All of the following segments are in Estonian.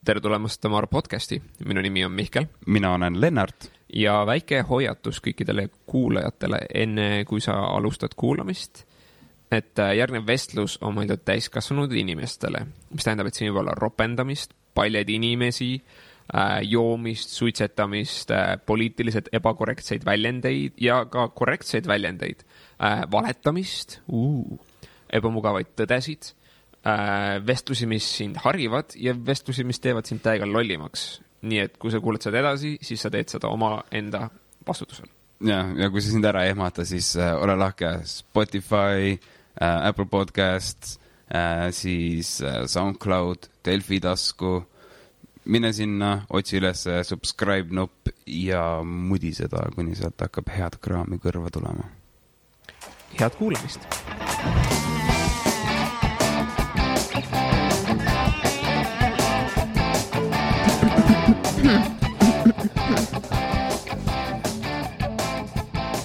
tere tulemast Tamar podcasti. Minu nimi on Mihkel. Mina olen Lennart. Ja väike hoiatus kõikidele kuulajatele enne, kui sa alustad kuulamist, et järgnev vestlus on mõeldud täiskasvanud inimestele, mis tähendab, et siin võib olla ropendamist, paljad inimesi, joomist, suitsetamist, poliitiliselt ebakorrektseid väljendeid ja ka korrektseid väljendeid, valetamist, ebamugavaid tõdesid, vestlusi, mis sind harivad ja vestlusi, mis teevad sind täiega lollimaks. Nii et kui sa kuuled seda edasi, siis sa teed seda oma enda vastutusel. Ja kui sa sind ära ehmata, siis ole lahke Spotify, Apple Podcasts, siis SoundCloud, Delfi tasku. Mine sinna, otsi üles subscribe nupp ja mudi seda, kuni sealt hakkab head kraami kõrva tulema. Head kuulamist!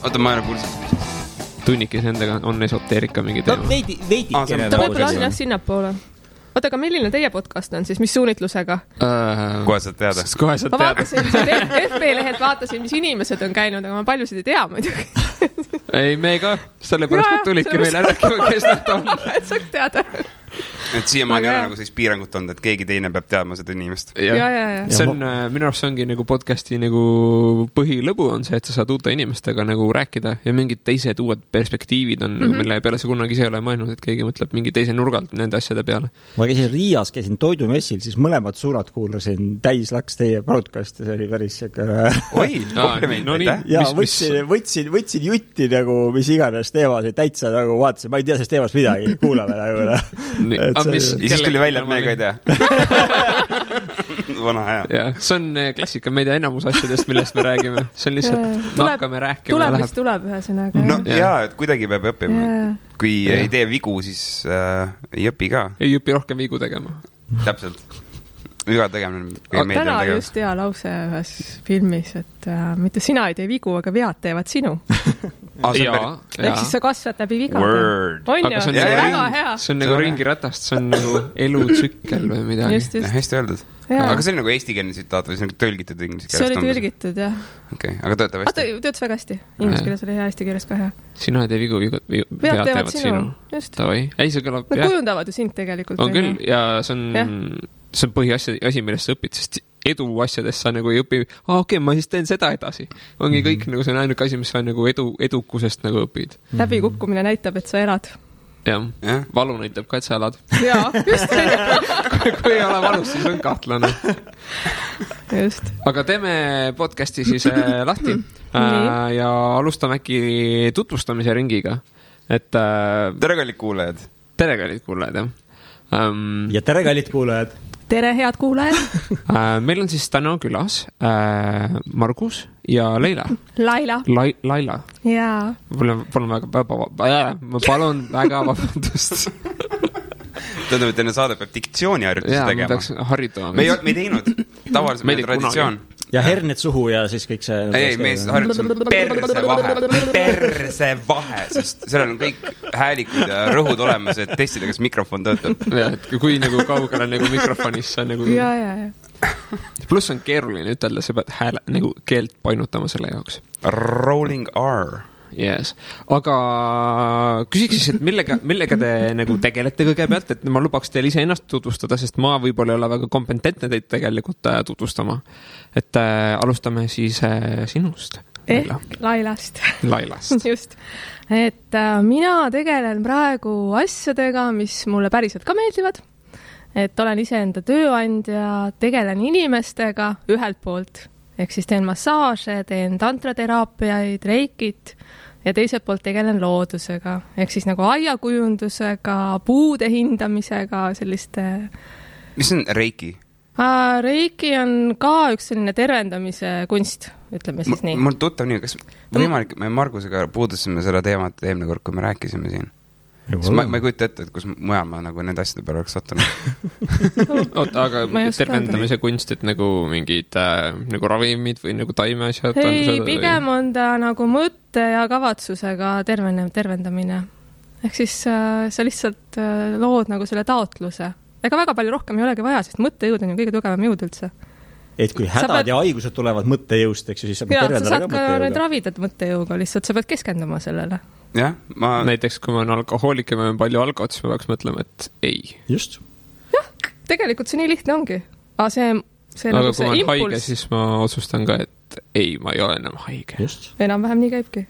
Oota, ma ei ole kuulnud. Tunnikis endaga on esoteerika mingi teema. No veidi ta võib-olla on jah sinnapoole. Oota, aga milline teie podcast on siis? Mis suunitlusega? Kohe saad teada. Ma vaatasin, FB-lehelt vaatasin, mis inimesed on käinud, aga ma paljusid ei tea muidugi. Ei, me ka. Sellepärast tulidki meile rääkima, kes nad on. Et saaks teada. Et siiamaani on nagu siis piirangut olnud, et keegi teine peab teadma seda inimest. Ja. See on, minu arust ongi nagu podcasti nagu põhilõbu on see, et sa saad uute inimestega nagu rääkida ja mingid teised uued perspektiivid on, mille peale sa kunagi ise ei ole mõelnud, et keegi mõtleb mingi teise nurgalt nende asjade peale. Ma käisin Riias, käisin toidumessil, siis mõlemad suunad kuulasin, täis laks teie podcast ja see oli päris Oi, kompliment, ja võtsin jutti nagu, mis iganes teemasid, täitsa nagu vaatasin, ma ei tea sellest teemast midagi, kuulame nagu. Ja siis tuli välja, et me ka ei tea. Vana hea. Ja, see on klassika, me ei tea enamus asjadest, millest me räägime. See on lihtsalt, hakkame rääkima. Tuleb, mis tuleb ühesõnaga. No et kuidagi peab õppima. Kui ei tee vigu, siis ei õpi ka. Ei õpi rohkem vigu tegema. Täpselt. Viga tegemine. Täna just hea lause ühes filmis, et mitte sina ei tee vigu, aga vead teevad sinu. Ehk siis sa kasvad läbi vigade. On ju, see on väga hea. See on nagu ringiratast, see on nagu elutsükkel või midagi. Hästi öeldud. Aga see on nagu eestikeelne tsitaat või see on tõlgitud inglise keelest? See oli tõlgitud, jah. Okei, aga töötab hästi? Töötas väga hästi. Inglise keeles oli hea, eesti keeles ka hea. Sina ei tee vigu, vead teevad sinu. Just. Ei, see kõlab, nad kujundavad ju sind tegelikult. On küll, ja see on põhiasi, millest sa õpid, sest edu asjadest sa nagu ei õpi, okei, ma siis teen seda edasi. Ongi kõik, nagu see on ainuke asi, mis sa nagu edukusest nagu õpid. Läbikukkumine näitab, et sa elad. Jah, valu näitab ka, et sa elad. Jaa, just. Kui ei ole valus, siis on kahtlane. Just. Aga teeme podcasti siis lahti ja alustame äkki tutvustamise ringiga. Tere kallid kuulajad. Tere kallid kuulajad, jah. Ja tere kallid kuulajad. Tere head kuulajad. Meil on siis täna külas Margus ja Leila. Laila. Jaa. Ma palun väga vabandust. Tähendab, et enne saade peab diktsiooniharjutusi tegema. Ma tahaks harjutama. Me ei teinud. Tavaliselt meil traditsioon. Ja herned suhu ja siis kõik see... Ei, me harjutus perse vahe, sest seal on kõik häälikud ja rõhud olemas, et testida, kas mikrofon töötab. Ja, et kui nagu kaugele nagu mikrofonis sa nagu... Ja. Plus on keeruline ütelda, sa pead hääle nagu keelt painutama selle jaoks. Rolling R. Yes. Aga küsiks siis, et millega te nagu tegelete kõigepealt, et ma lubaks teil ise ennast tutvustada, sest ma võib-olla ei ole väga kompetentne teid tegelikult tutvustama. Et alustame siis sinust. Ehk Lailast. Just. Et mina tegelen praegu asjadega, mis mulle päriselt ka meeldivad. Et olen ise enda tööandja, tegelen inimestega ühelt poolt. Ehk siis teen massaaže, teen tantrateraapiaid, reikit ja teiselt poolt tegelen loodusega. Ehk siis nagu aiakujundusega, puude hindamisega, selliste... Mis on reiki? Reiki on ka üks selline tervendamise kunst, ütleme siis nii. Mul tuttav nii, kas võimalik, me Margusega puudusime seda teemat eelmine kord, kui me rääkisime siin. Ma ei kujuta ette, et kus mujal ma nagu nende asjade peale oleks sattunud. Oota, aga tervendamise kunst, et nagu mingid nagu ravimid või nagu taimeasjad? Ei, pigem on ta nagu mõtte ja kavatsusega tervendamine. Ehk siis sa lihtsalt lood nagu selle taotluse, ega väga palju rohkem ei olegi vaja, sest mõttejõud on ju kõige tugevam jõud üldse. Et kui hädad ja haigused tulevad mõttejõust, eks ju, siis sa saad ka need ravida mõttejõuga, lihtsalt sa pead keskenduma sellele. Jah, näiteks kui ma olen alkohoolik ja ma olen palju alkohol, siis ma peaks mõtlema, et ei. Just. Jah, tegelikult see nii lihtne ongi. Aga see aga nagu kui ma olen haige, siis ma otsustan ka, et ei, ma ei ole enam haige. Just. Enam-vähem nii käibki.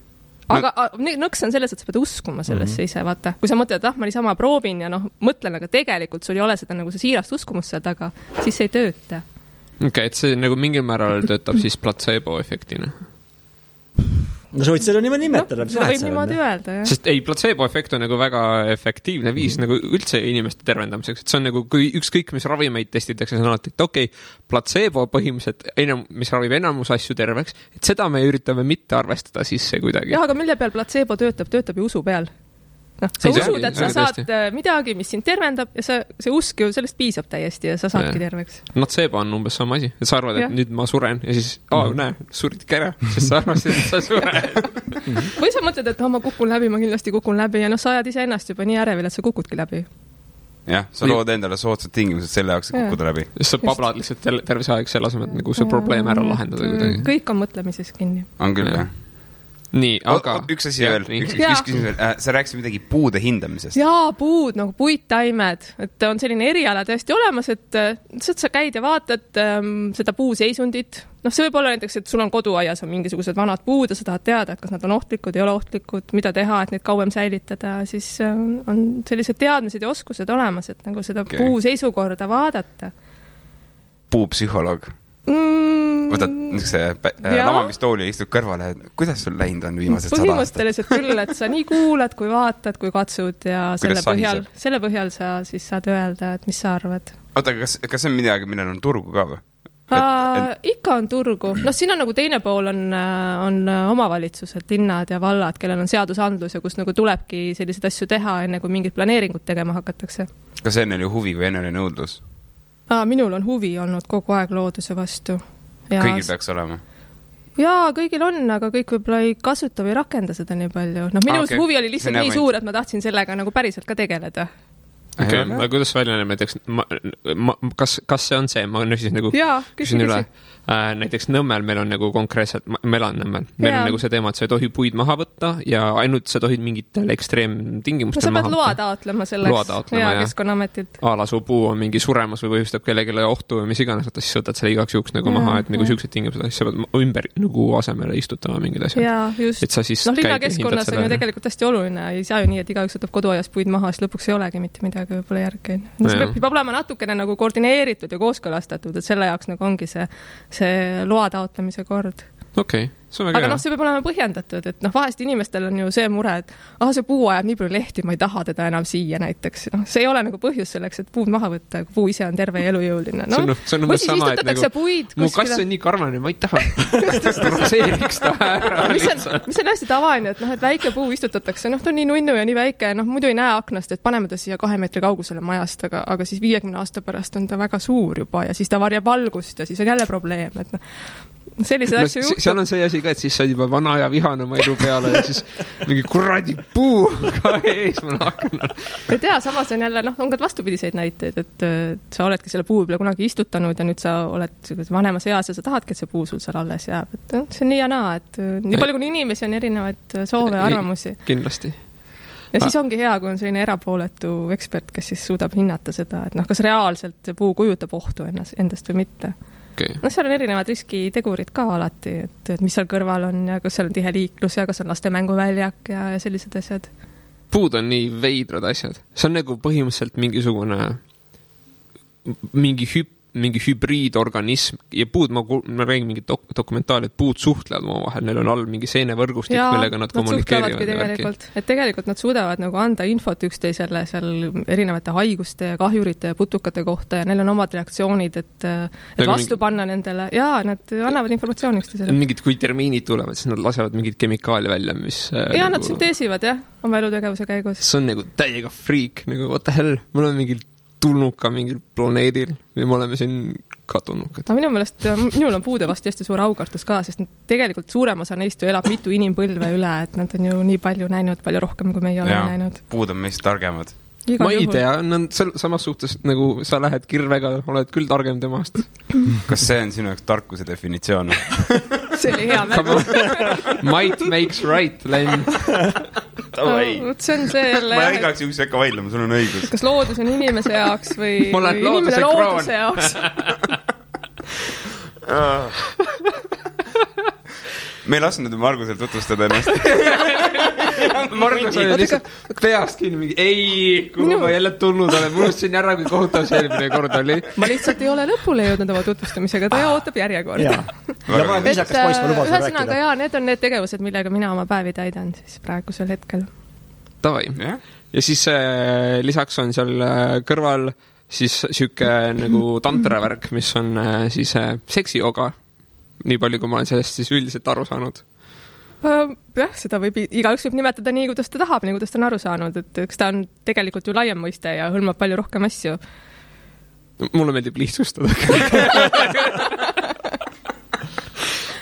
Aga nõks on selles, et sa pead uskuma sellesse ise, vaata. Kui sa mõtled, et ma niisama proovin ja mõtlen, aga tegelikult sul ei ole seda nagu see siirast uskumust seal taga, siis see ei tööta. Okei, et see nagu mingil määral töötab siis placebo-efektina. No sa võid seda niimoodi nimetada. Seda võib niimoodi öelda, jah. Sest ei, placebo-efekt on nagu väga efektiivne viis nagu üldse inimeste tervendamiseks. Et see on nagu, kui ükskõik, mis ravimeid testitakse, see on alati, et okei, placebo põhimõtteliselt, mis ravib enamus asju terveks, et seda me üritame mitte arvestada sisse kuidagi. Jah, aga mille peal placebo töötab ju usu peal. Sa usud, et sa saad midagi, mis sind tervendab ja see usk ju sellest piisab täiesti ja sa saadki terveks. Nocebo on umbes sama asi, et sa arvad, et nüüd ma suren ja siis, näe, suridki ära, sest sa arvasid, et sa suren. Või sa mõtled, et ma kukun läbi, ma kindlasti kukun läbi ja sa ajad ise ennast juba nii ärevil, et sa kukudki läbi. Jah, sa lood endale soodsad tingimused selle jaoks, et kukkuda läbi. Sa pablad lihtsalt terve aeg selle asemel, et nagu see probleem ära lahendada kuidagi. Kõik on mõtlemises kinni. On küll, jah. Nii, aga... Üks asi veel, üks küsimus veel. Sa rääkisid midagi puude hindamisest. Jaa, puud, nagu puittaimed. Et on selline eriala tõesti olemas, et sa käid ja vaatad seda puuseisundit. See võib olla näiteks, et sul on koduaias on mingisugused vanad puud ja sa tahad teada, et kas nad on ohtlikud, ei ole ohtlikud, mida teha, et neid kauem säilitada. Siis on sellised teadmised ja oskused olemas, et nagu seda puuseisukorda vaadata. Puupsühholoog. Võtad lamamistooli ja istud kõrvale, kuidas sul läinud on viimased 100 aastat? Põhimõtteliselt küll, et sa nii kuulad, kui vaatad, kui katsud ja selle põhjal sa siis saad öelda, et mis sa arvad. Oota, kas see on midagi, millel on turgu ka või? Ikka on turgu. Siin on nagu teine pool on omavalitsused, linnad ja vallad, kellel on seadusandlus ja kus nagu tulebki selliseid asju teha, enne kui mingid planeeringud tegema hakatakse. Kas enne oli huvi või enne oli nõudlus? Minul on huvi olnud kogu aeg looduse vastu. Kõigil peaks olema? Jaa, kõigil on, aga kõik võib-olla ei kasuta või rakenda seda nii palju. Minu huvi oli lihtsalt nii suur, et ma tahtsin sellega nagu päriselt ka tegeleda. Okay. Kuidas välja näeb näiteks, kas see on see, ma küsisin nagu, küsin üle, näiteks Nõmmel meil on nagu konkreetselt, ma elan Nõmmel, meil on nagu see teema, et sa ei tohi puid maha võtta ja ainult sa tohid mingitel ekstreemtingimustel maha võtta. Sa pead loa taotlema selleks Keskkonnametilt. Su puu on mingi suremas või põhjustab kellegile ohtu või mis iganes, siis võtad selle igaks juhuks nagu maha, et nagu siuksed tingimused, siis sa pead ümber nagu asemele istutama mingid asjad. Jaa, just. Linnakeskkonnas on ju tegelikult hästi oluline, ei saa ju nii, et igaüks võtab koduaias puid maha, siis lõpuks ei olegi mitte midagi võib-olla järgi. See peab olema natukene nagu koordineeritud ja kooskõlastatud, et selle jaoks nagu ongi see loa taotlemise kord. Okei, see on väga aga see peab olema põhjendatud, et vahest inimestel on ju see mure, et see puu ajab nii palju lehti, ma ei taha teda enam siia näiteks. See ei ole nagu põhjus selleks, et puud maha võtta, kui puu ise on terve ja elujõuline. See on umbes sama, et nagu mu kass on nii karvane, ma ei taha raseeriks ta ära. Mis on hästi tavaline, et väike puu istutatakse, ta on nii nunnu ja nii väike, muidu ei näe aknast, et paneme ta siia 2 meetri kaugusele majast, aga siis 50 aasta pärast on ta väga suur juba ja siis ta varjab valgust ja siis on jälle probleem, et sellised asju juhtub. Seal on see asi ka, et siis sa juba vana ja vihane oma elu peale ja siis mingi kuradi puu ka ees ma nakkan. Ei tea, samas on jälle, on ka vastupidiseid näiteid, et sa oledki selle puu peale kunagi istutanud ja nüüd sa oled vanemas eas ja sa tahadki, et see puu sul seal alles jääb. Et see on nii ja naa, et nii palju kui inimesi on erinevaid soove ja arvamusi. Kindlasti. Ja siis ongi hea, kui on selline erapooletu ekspert, kes siis suudab hinnata seda, et kas reaalselt puu kujutab ohtu endast või mitte. Okay. Seal on erinevad riskitegurid ka alati, et mis seal kõrval on ja kas seal on tihe liiklus ja kas on laste mänguväljak ja sellised asjad. Puud on nii veidrad asjad. See on nagu põhimõtteliselt mingi hübriidorganism ja puud, ma räägin mingi dokumentaali, et puud suhtlevad omavahel, neil on all mingi seenevõrgustik, millega nad kommunikeerivad. Tegelikult nad suudavad nagu anda infot üksteisele seal erinevate haiguste ja kahjurite ja putukate kohta ja neil on omad reaktsioonid, et vastu panna nendele. Jaa, nad annavad informatsiooni üksteisele. Kui termiinid tulevad, siis nad lasevad mingid kemikaali välja, mis... Jaa, nad synteesivad, oma elutegevuse käigus. See on nagu täiega freak, nagu what the hell, mul on mingil tulnuka mingil planeedil või me oleme siin ka tulnukad. Minu meelest, minul on puude vast hästi suur aukartus ka, sest tegelikult suurem osa neist ju elab mitu inimpõlve üle, et nad on ju nii palju näinud, palju rohkem, kui meie oleme näinud. Puud on meist targemad. Ma ei tea, on samas suhtes nagu sa lähed kirvega, oled küll targem temast. Kas see on sinu jaoks tarkuse definitsioon? See oli hea märgu. Might makes right, Len. See on see jälle... Ma igaks juhuks ei hakka vaidlema, sul on õigus. Kas loodus on inimese jaoks või inimene looduse jaoks? Me ei lasknud Margusel tutvustada ennast. Margus oli lihtsalt peast kinni mingi, kuhu ma jälle tulnud olen, unustasin ära, kui kohutav see eelmine kord oli. Ma lihtsalt ei ole lõpule jõudnud oma tutvustamisega, ta ootab järjekorda. Ja ma olen viisakas poiss, ma lubasin rääkida. Ühesõnaga, need on need tegevused, millega mina oma päevi täidan siis praegusel hetkel. Tavai. Ja siis lisaks on seal kõrval siis siuke nagu tantravärk, mis on siis seksijoga. Nii palju, kui ma olen sellest siis üldiselt aru saanud. Jah, seda igaüks võib nimetada nii, kuidas ta tahab, nii, kuidas ta on aru saanud. Et eks ta on tegelikult ju laiem mõiste ja hõlmab palju rohkem asju. Mulle meeldib lihtsustada.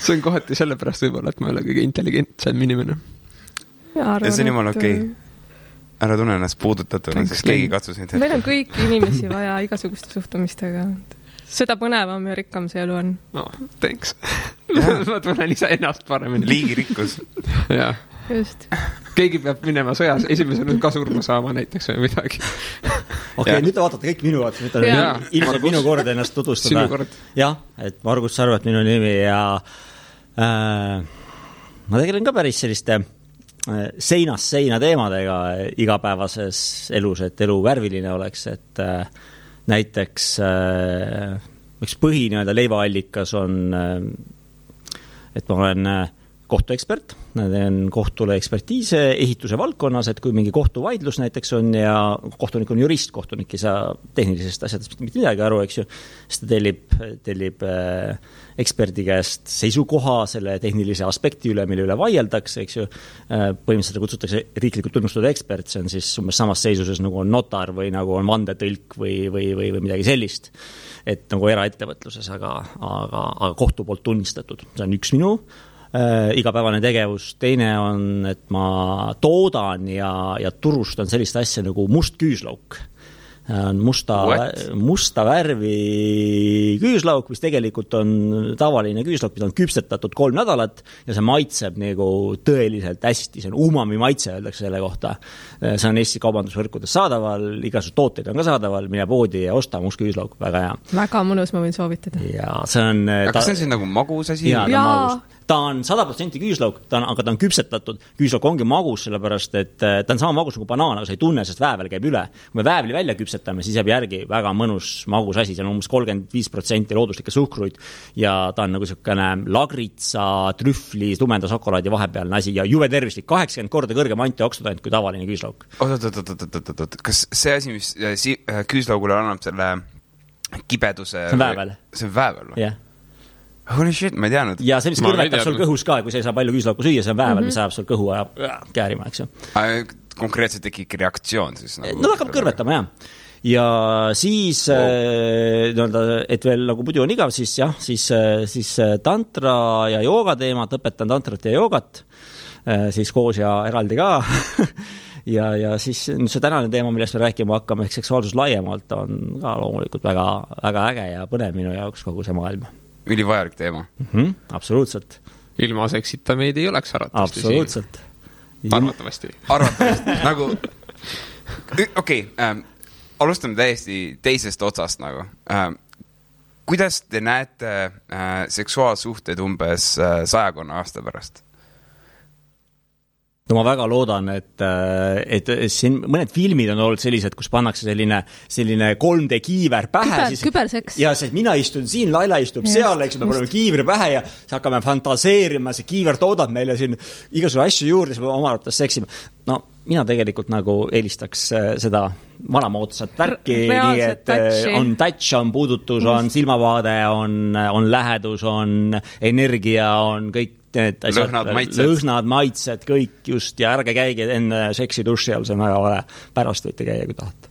See on kohati sellepärast võib-olla, et ma ei ole kõige intelligentsem inimene. Ja see on jumala okei. Ära tunne ennast puudutatuna, sest keegi katsus neid hetkel. Meil on kõiki inimesi vaja igasuguste suhtumistega. Seda põnevam ja rikkam see elu on. No, thanks. Ma tunnen ise ennast paremini. Liigirikkus. Jah. Just. Keegi peab minema sõjas, esimesena ka surma saama näiteks või midagi. Okei, nüüd te vaatate kõik minu vaates, nüüd on ilmselt minu kord ennast tutvustada. Sinu kord. Jah, et Margus Sarvet minu nimi ja ma tegelen ka päris selliste seinast seina teemadega igapäevases elus, et elu värviline oleks, et näiteks üks põhine leivaallikas on, et ma olen kohtuekspert, teen kohtule ekspertiise ehituse valdkonnas, et kui mingi kohtuvaidlus näiteks on ja kohtunik on jurist, kohtunik ei saa tehnilisest asjadest mitte midagi aru, eks ju, siis ta tellib eksperdi käest seisukoha selle tehnilise aspekti üle, mille üle vaieldakse, eks ju, põhimõtteliselt kutsutakse riiklikult tunnustatud ekspert, see on siis umbes samas seisuses nagu on notar või nagu on vandetõlk või midagi sellist, et nagu eraettevõtluses, aga kohtu poolt tunnistatud, see on üks minu igapäevane tegevus, teine on, et ma toodan ja turustan sellist asja nagu must küüslauk. Musta värvi küüslauk, mis tegelikult on tavaline küüslauk, mida on küpsetatud 3 nädalat ja see maitseb nagu tõeliselt hästi, see on umami maitse, öeldakse selle kohta. See on Eesti kaubandusvõrkudes saadaval, igasugused tooteid on ka saadaval, mine poodi ja osta must küüslauk, väga hea. Väga mõnus, ma võin soovitada. Ja see on... Kas see on siis nagu magus asi? Jaa, ta on 100% küüslauk, aga ta on küpsetatud. Küüslauk ongi magus, sellepärast, et ta on sama magus nagu banaan, aga sa ei tunne, sest väävel käib üle. Kui me väävli välja küpsetame, siis jääb järgi väga mõnus magus asi, see on umbes 35% looduslikke suhkruid ja ta on nagu selline lagritsa, trühvli, tumenda šokolaadi vahepealne asi ja juve tervislik, 80 korda kõrgem antioksidant kui tavaline küüslauk. Oot. Kas see asi, mis küüslaugule annab selle kibeduse... See on väävel. See on väävel või? Jah. Holy shit, ma ei teadnud. Ja see, mis kõrvetab sul kõhus ka, kui sa ei saa palju küüslauku süüa, see on väävel, mis ajab sul kõhu ja käärima, eks ju. Konkreetselt tekib reaktsioon siis? No hakkab kõrvetama, jah. Ja siis, et veel nagu muidu on igav, siis tantra ja jooga teemad, õpetan tantrat ja joogat, siis koos ja eraldi ka. ja siis see tänane teema, millest me rääkima hakkame, ehk seksuaalsus laiemalt on ka loomulikult väga, väga äge ja põnev minu jaoks kogu see maailm. Ülivajalik teema. Absoluutselt. Ilma seksita meid ei oleks arvatavasti. Absoluutselt. Arvatavasti. Nagu, okei, alustame täiesti teisest otsast nagu. Kuidas te näete seksuaalsuhted umbes 100 aasta pärast? No ma väga loodan, et siin mõned filmid on olnud sellised, kus pannakse selline 3D kiiver pähe. Küberseks. Ja see, mina istun siin, Laila istub seal, eks me paneme kiivri pähe ja siis hakkame fantaseerima, see kiiver toodab meile siin igasugune asju juurde, siis me oma arvates seksime. No, mina tegelikult nagu eelistaks seda vanamoodsat värki, nii et on touch, on puudutus, on silmavaade, on lähedus, on energia, on kõik lõhnad, maitsed, kõik just, ja ärge käige enne seksi duši all, see on väga vale. Pärast võite käia, kui tahate.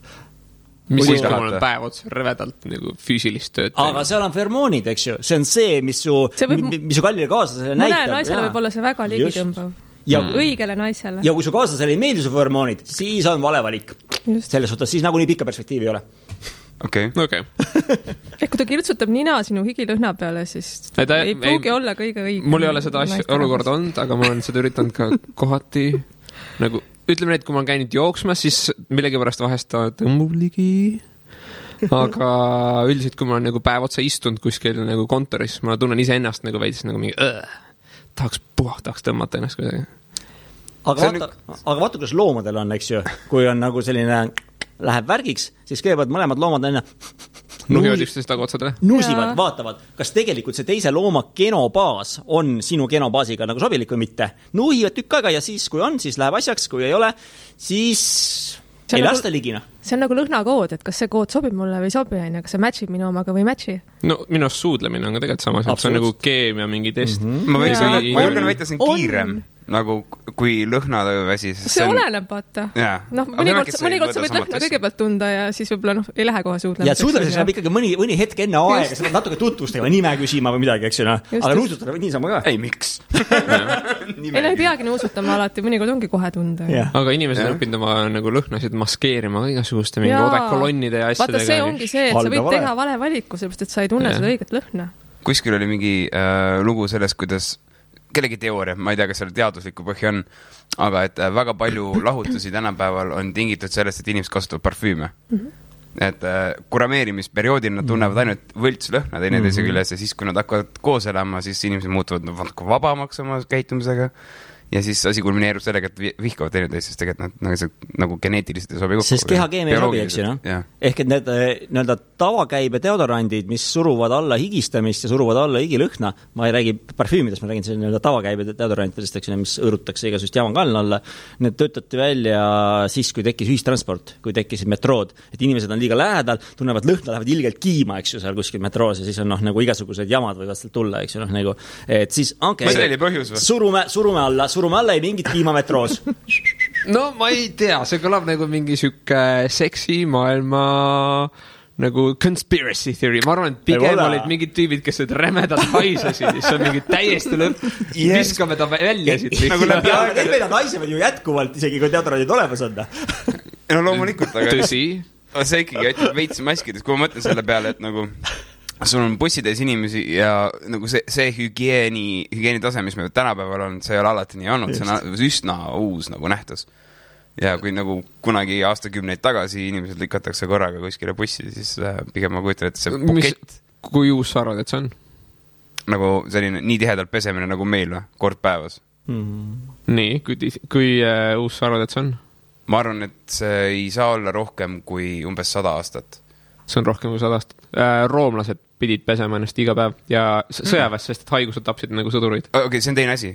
Mis siis, kui mul on päev otsa rõvedalt nagu füüsilist tööd? Aga seal on feromoonid, eks ju. See on see, mis su kallile kaaslasele näitab. Mõne naisele võib olla see väga ligitõmbav. Õigele naisele. Ja kui su kaaslasele ei meeldi su feromoonid, siis on vale valik. selles suhtes siis nagunii pikka perspektiivi ei ole. Okei. Kui ta kirtsutab nina sinu higilõhna peale, siis ei pruugi olla kõige õigem. Mul ei ole seda olukorda olnud, aga ma olen seda üritanud ka kohati. Nagu, ütleme need, kui ma olen käinud jooksmas, siis millegipärast vahest ta tõmbub ligi. Aga üldiselt, kui ma olen nagu päev otsa istunud kuskil nagu kontoris, ma tunnen ise ennast nagu veidis nagu mingi tahaks tõmmata ennast kuidagi. Aga vaata, kuidas loomadel on, eks ju, kui on nagu selline läheb värgiks, siis kõigepealt mõlemad loomad enne nusivad, vaatavad, kas tegelikult see teise looma genobaas on sinu genobaasiga nagu sobilik või mitte. Nuhivad tükk aega ja siis, kui on, siis läheb asjaks, kui ei ole, siis ei lasta ligina. See on nagu lõhnakood, et kas see kood sobib mulle või sobi, kas see matchib minu omaga või matchi? No minu suudlemine on ka tegelikult sama, see on nagu keemia mingi test. Ma julgen väita, see on kiirem. Nagu kui lõhnaväsi. See oleneb, vaata. Mõnikord sa võid lõhna kõigepealt tunda ja siis võib-olla ei lähe kohe suudlemiseks. Ja suudlemiseks läheb ikkagi mõni hetk enne aega, sa pead natuke tutvustama, nime küsima või midagi, eks ju. Aga nuusutada võid niisama ka. Ei, miks? Ei peagi nuusutama alati, mõnikord ongi kohe tunda. Aga inimesed on õppinud oma nagu lõhnasid maskeerima igasuguste mingi odekolonnide ja asjadega. Vaata, see ongi see, et sa võid teha vale valiku, sellepärast, et sa ei tunne seda õiget lõhna. Kuskil oli mingi lugu sellest, kuidas kellegi teooria, ma ei tea, kas seal teaduslikku põhja on, aga et väga palju lahutusi tänapäeval on tingitud sellest, et inimesed kasutavad parfüüme. Et kurameerimisperioodil nad tunnevad ainult võltslõhna teineteise küljes ja siis, kui nad hakkavad koos elama, siis inimesed muutuvad vabamaks oma käitumisega. Ja siis asi kulmineerub sellega, et vihkavad teineteist, sest tegelikult nad nagu geneetiliselt ei sobi kokku. Sest kehakeemia ei sobi, eks ju, no? Ehk et need nii-öelda tavakäibe deodorandid, mis suruvad alla higistamist ja suruvad alla higilõhna, ma ei räägi parfüümidest, ma räägin selle nii-öelda tavakäibe deodorantidest, eks ju, mis õõrutakse igasugust jamankalna alla. Need töötati välja siis, kui tekkis ühistransport, kui tekkisid metrood, et inimesed on liiga lähedal, tunnevad lõhna, lähevad ilgelt kiima, eks ju, seal kuskil metroos ja siis on nagu igasugused jamad võivad sealt tulla, eks ju, nagu, et siis surume alla ei mingit kiimametroos. No ma ei tea, see kõlab nagu mingi sükke seksi maailma nagu conspiracy theory. Ma arvan, et pigem olid mingid tüübid, kes need rämedad haisesid, siis on mingi täiesti lõpp. Viskame ta välja siit. Need haisevad ju jätkuvalt, isegi kui teatrandid olemas on. No loomulikult, aga tõsi. See ikkagi aitab veits maskides, kui ma mõtlen selle peale, et nagu sul on bussides inimesi ja nagu see hügieeni tase, mis me tänapäeval on, see ei ole alati nii olnud, see on üsna uus nagu nähtus. Ja kui nagu kunagi aastakümneid tagasi inimesed lükatakse korraga kuskile bussi, siis pigem ma kujutan, et see bukett. Kui uus sa arvad, et see on? Nagu selline nii tihedalt pesemine nagu meil või, kord päevas. Nii, kui uus sa arvad, et see on? Ma arvan, et see ei saa olla rohkem kui umbes 100 aastat. See on rohkem kui 100 aastat. Roomlased pidid pesema ennast iga päev ja sõjaväes, sest et haigused tapsid nagu sõdurid. Okei, see on teine asi.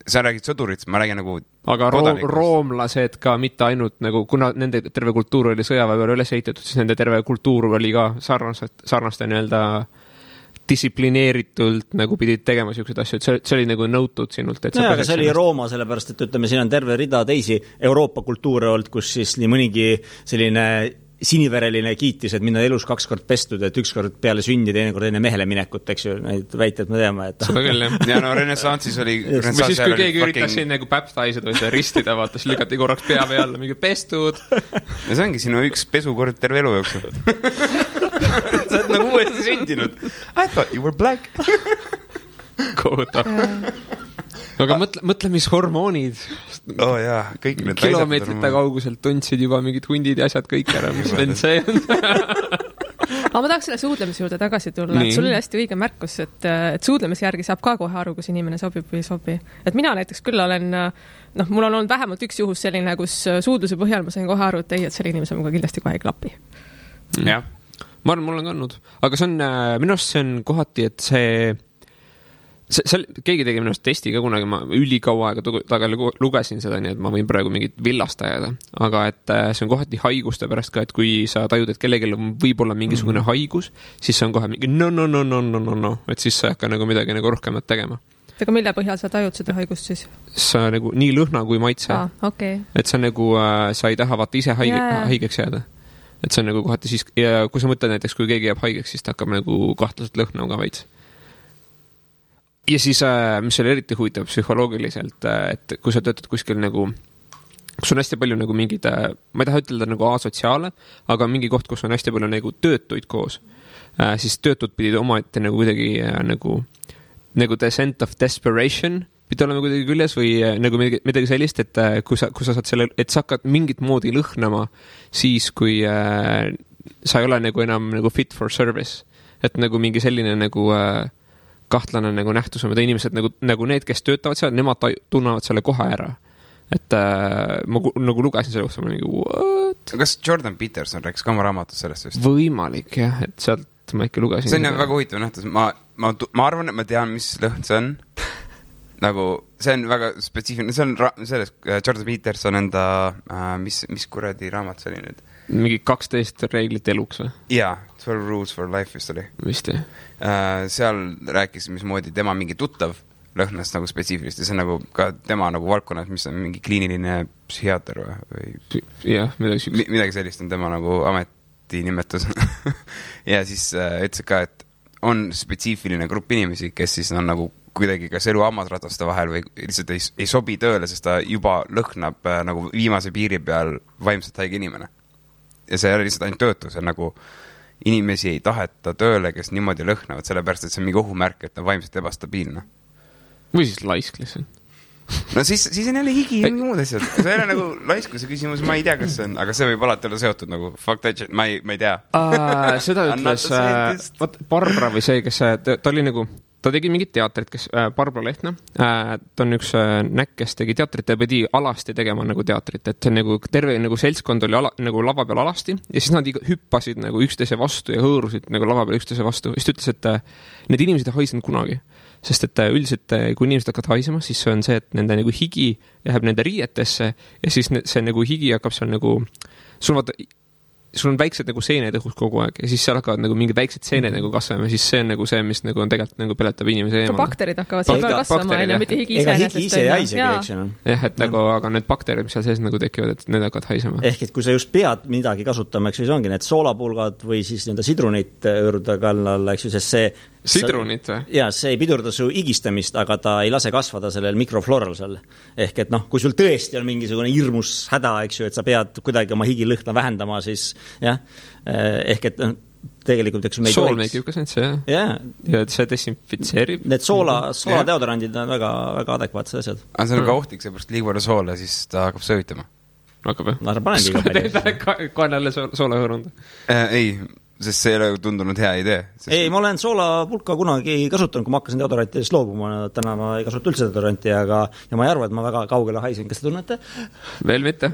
Sa räägid sõdurit, ma räägin nagu aga roomlased ka mitte ainult nagu, kuna nende terve kultuur oli sõjaväe peale üles ehitatud, siis nende terve kultuur oli ka sarnaste nii-öelda distsiplineeritult nagu pidid tegema sellised asju, et see oli nagu nõutud sinult. Et aga see oli Rooma, sellepärast, et ütleme, siin on terve rida teisi Euroopa kultuure olnud, kus siis nii mõnigi selline sinivereline kiitis, et minna elus 2 kord pestud, et 1 kord peale sündi, teine kord enne mehele minekut, eks ju, neid väiteid me teame, et seda küll, jah. Ja no renessansis oli või siis, kui keegi üritas siin nagu baptized või seda ristida, vaata, siis lükati korraks pea peale, mingi pestud. Ja see ongi sinu üks pesukord terve elu jooksul. Sa oled nagu uuesti sündinud. I thought you were black. Kohutav. Aga mõtle, mis hormoonid. Jaa, kõik need kilomeetrite kauguselt tundsid juba mingid hundid ja asjad kõik ära, mis vend see on. Aga ma tahaks selle suudlemise juurde tagasi tulla. Sul oli hästi õige märkus, et suudlemise järgi saab ka kohe aru, kus inimene sobib või ei sobi. Et mina näiteks küll olen, mul on olnud vähemalt üks juhus selline, kus suudluse põhjal ma sain kohe aru, et ei, et selle inimese muga kindlasti kohe ei klapi. Jah. Ma arvan, mul on kandnud. Aga see on, minu arust see on kohati, et keegi tegi minust testi ka kunagi, ma ülikaua aega tagal lugesin seda, nii et ma võin praegu mingit villast ajada, aga et see on kohati haiguste pärast ka, et kui sa tajud, et kellelgi on võib-olla mingisugune haigus, siis see on kohe mingi no, et siis sa ei hakka nagu midagi nagu rohkemat tegema. Aga mille põhjal sa tajud seda haigust siis? Sa nagu nii lõhna kui maitse. Okay. Et see on nagu, sa ei taha vaata ise haigeks jääda. Et see on nagu kohati siis, ja kui sa mõtled näiteks, kui keegi jääb haigeks, siis ta hakkab nagu kahtlaselt lõhna ka veits. Ja siis, mis oli eriti huvitav psühholoogiliselt, et kui sa töötad kuskil nagu kus on hästi palju nagu mingid, ma ei taha ütelda nagu asotsiaale, aga mingi koht, kus on hästi palju nagu töötuid koos, siis töötud pidid omaette nagu kuidagi nagu descent of desperation pidi olema kuidagi küljes või nagu midagi sellist, et kui sa saad selle, et sa hakkad mingit moodi lõhnama siis, kui sa ei ole nagu enam nagu fit for service. Et nagu mingi selline nagu kahtlane nagu nähtus on, mida inimesed nagu need, kes töötavad seal, nemad tunnevad selle kohe ära. Et ma nagu lugesin selle kohta, ma mingi what? Kas Jordan Peterson rääkis ka oma raamatus sellest vist? Võimalik jah, et sealt ma ikka lugesin. See on väga huvitav nähtus. Ma arvan, et ma tean, mis lõhn see on. Nagu, see on väga spetsiifiline. See on selles Jordan Peterson enda, mis kuradi raamat see oli nüüd? Mingi 12 reeglit eluks või? Jaa, 12 rules for life vist oli. Vist jah. Seal rääkis, mismoodi tema mingi tuttav lõhnast nagu spetsiifilist ja see on nagu ka tema nagu valdkonnas, mis on mingi kliiniline psühhiaater või jah, midagi sellist on tema nagu ametinimetus. Ja siis ütles ka, et on spetsiifiline grupp inimesi, kes siis on nagu kuidagi kas elu hammasrataste vahel või lihtsalt ei sobi tööle, sest ta juba lõhnab nagu viimase piiri peal vaimselt haige inimene. Ja see ei ole lihtsalt ainult töötu, see on nagu inimesi ei taheta tööle, kes niimoodi lõhnavad, sellepärast, et see on mingi ohumärk, et ta on vaimselt ebastabiilne. Või siis laisk lihtsalt. No siis on jälle higi ja mingi muud asjad. See ei ole nagu laiskuse küsimus, ma ei tea, kas see on, aga see võib alati olla seotud nagu fuck that shit, ma ei tea. Seda ütles Barbara või see, kes ta oli nagu, ta tegi mingit teatrit, kes Barbara Lehtna, ta on üks näkk, kes tegi teatrit ja pidi alasti tegema nagu teatrit, et see nagu terve nagu seltskond oli nagu lava peal alasti ja siis nad hüppasid nagu üksteise vastu ja hõõrusid nagu lava peal üksteise vastu. Siis ta ütles, et need inimesed ei haisnud kunagi, sest et üldiselt kui inimesed hakkavad haisema, siis see on see, et nende nagu higi läheb nende riietesse ja siis see nagu higi hakkab seal nagu, sul on väiksed nagu seened õhus kogu aeg ja siis seal hakkavad nagu mingid väiksed seened nagu kasvama ja siis see on nagu see, mis nagu on tegelikult nagu peletab inimese eemale. Bakterid hakkavad seal peal kasvama, mitte higi ega higi ise ei haisegi, eks ju. Jah, et nagu, aga need bakterid, mis seal sees nagu tekivad, et need hakkavad haisema. Ehk et kui sa just pead midagi kasutama, eks ju, see ongi need soolapulgad või siis nende sidrunit õõruda kallal, eks ju, sest see sidrunit või? Jaa, see ei pidurda su igistamist, aga ta ei lase kasvada sellel mikrofloral seal. Ehk et kui sul tõesti on mingisugune hirmus häda, eks ju, et sa pead kuidagi oma higilõhna vähendama, siis jah, ehk et tegelikult, eks ju, sool meid jukas nüüd see, jah. Ja see desinfitseerib. Need sooladeodorandid on väga, väga adekvaatsed asjad. Aga see on ka ohtlik, seepärast liiga palju soola, siis ta hakkab söötama. Hakkab jah? No sa panengi ka palju. Koen jälle soola hõõrunda? Ei, sest see ei ole tundunud hea idee. Ei, ma olen soolapulka kunagi kasutanud, kui ma hakkasin deodorantidest loobuma. Täna ma ei kasuta üldse deodoranti, ja ma ei arva, et ma väga kaugele haisen. Kas te tunnete? Veel mitte.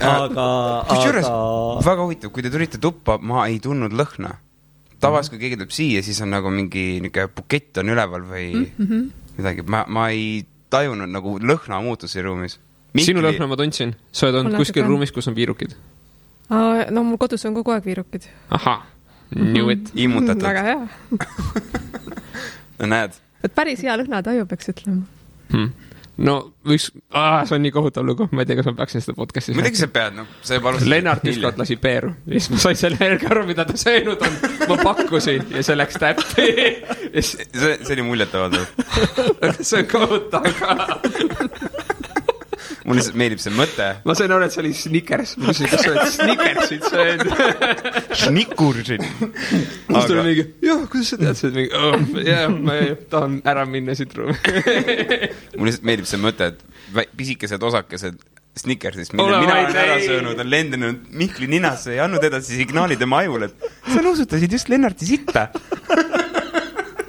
Aga väga huvitav, kui te tulite tuppa, ma ei tundnud lõhna. Tavas, kui keegi tuleb siia, siis on nagu mingi bukett on üleval või midagi. Ma ei tajunud nagu lõhna muutusi ruumis. Sinu lõhna ma tundsin. Sa oled olnud kuskil ruumis, kus on viirukid. No mul kodus on kogu aeg viirukid. Aha, knew it. Immutatud. Väga hea. No näed. Et päris hea lõhna taju peaks ütlema. No, see on nii kohutav lugu. Ma ei tea, kas ma peaksin seda podcastis. Midagi sa pead, Lennart ükskord lasi peeru. Ja siis ma sain selle helge aru, mida ta söönud on. Ma pakkusin ja see läks täppi. See oli muljetavaldav. See on kohutav ka. Mul lihtsalt meeldib see mõte. Ma sain aru, et see oli Snickers. Ma küsin, kas sa oled Snickersit söönud? Snickursid. Siis tuli mingi, jah, kuidas sa tead seda? Jah, ma tahan ära minna siit ruumi. Mul lihtsalt meeldib see mõte, et pisikesed osakesed Snickersist, mille mina olen ära söönud, on lendinud Mihkli ninasse ja andnud edasi signaali tema ajul, et sa nosutasid just Lennarti sitta.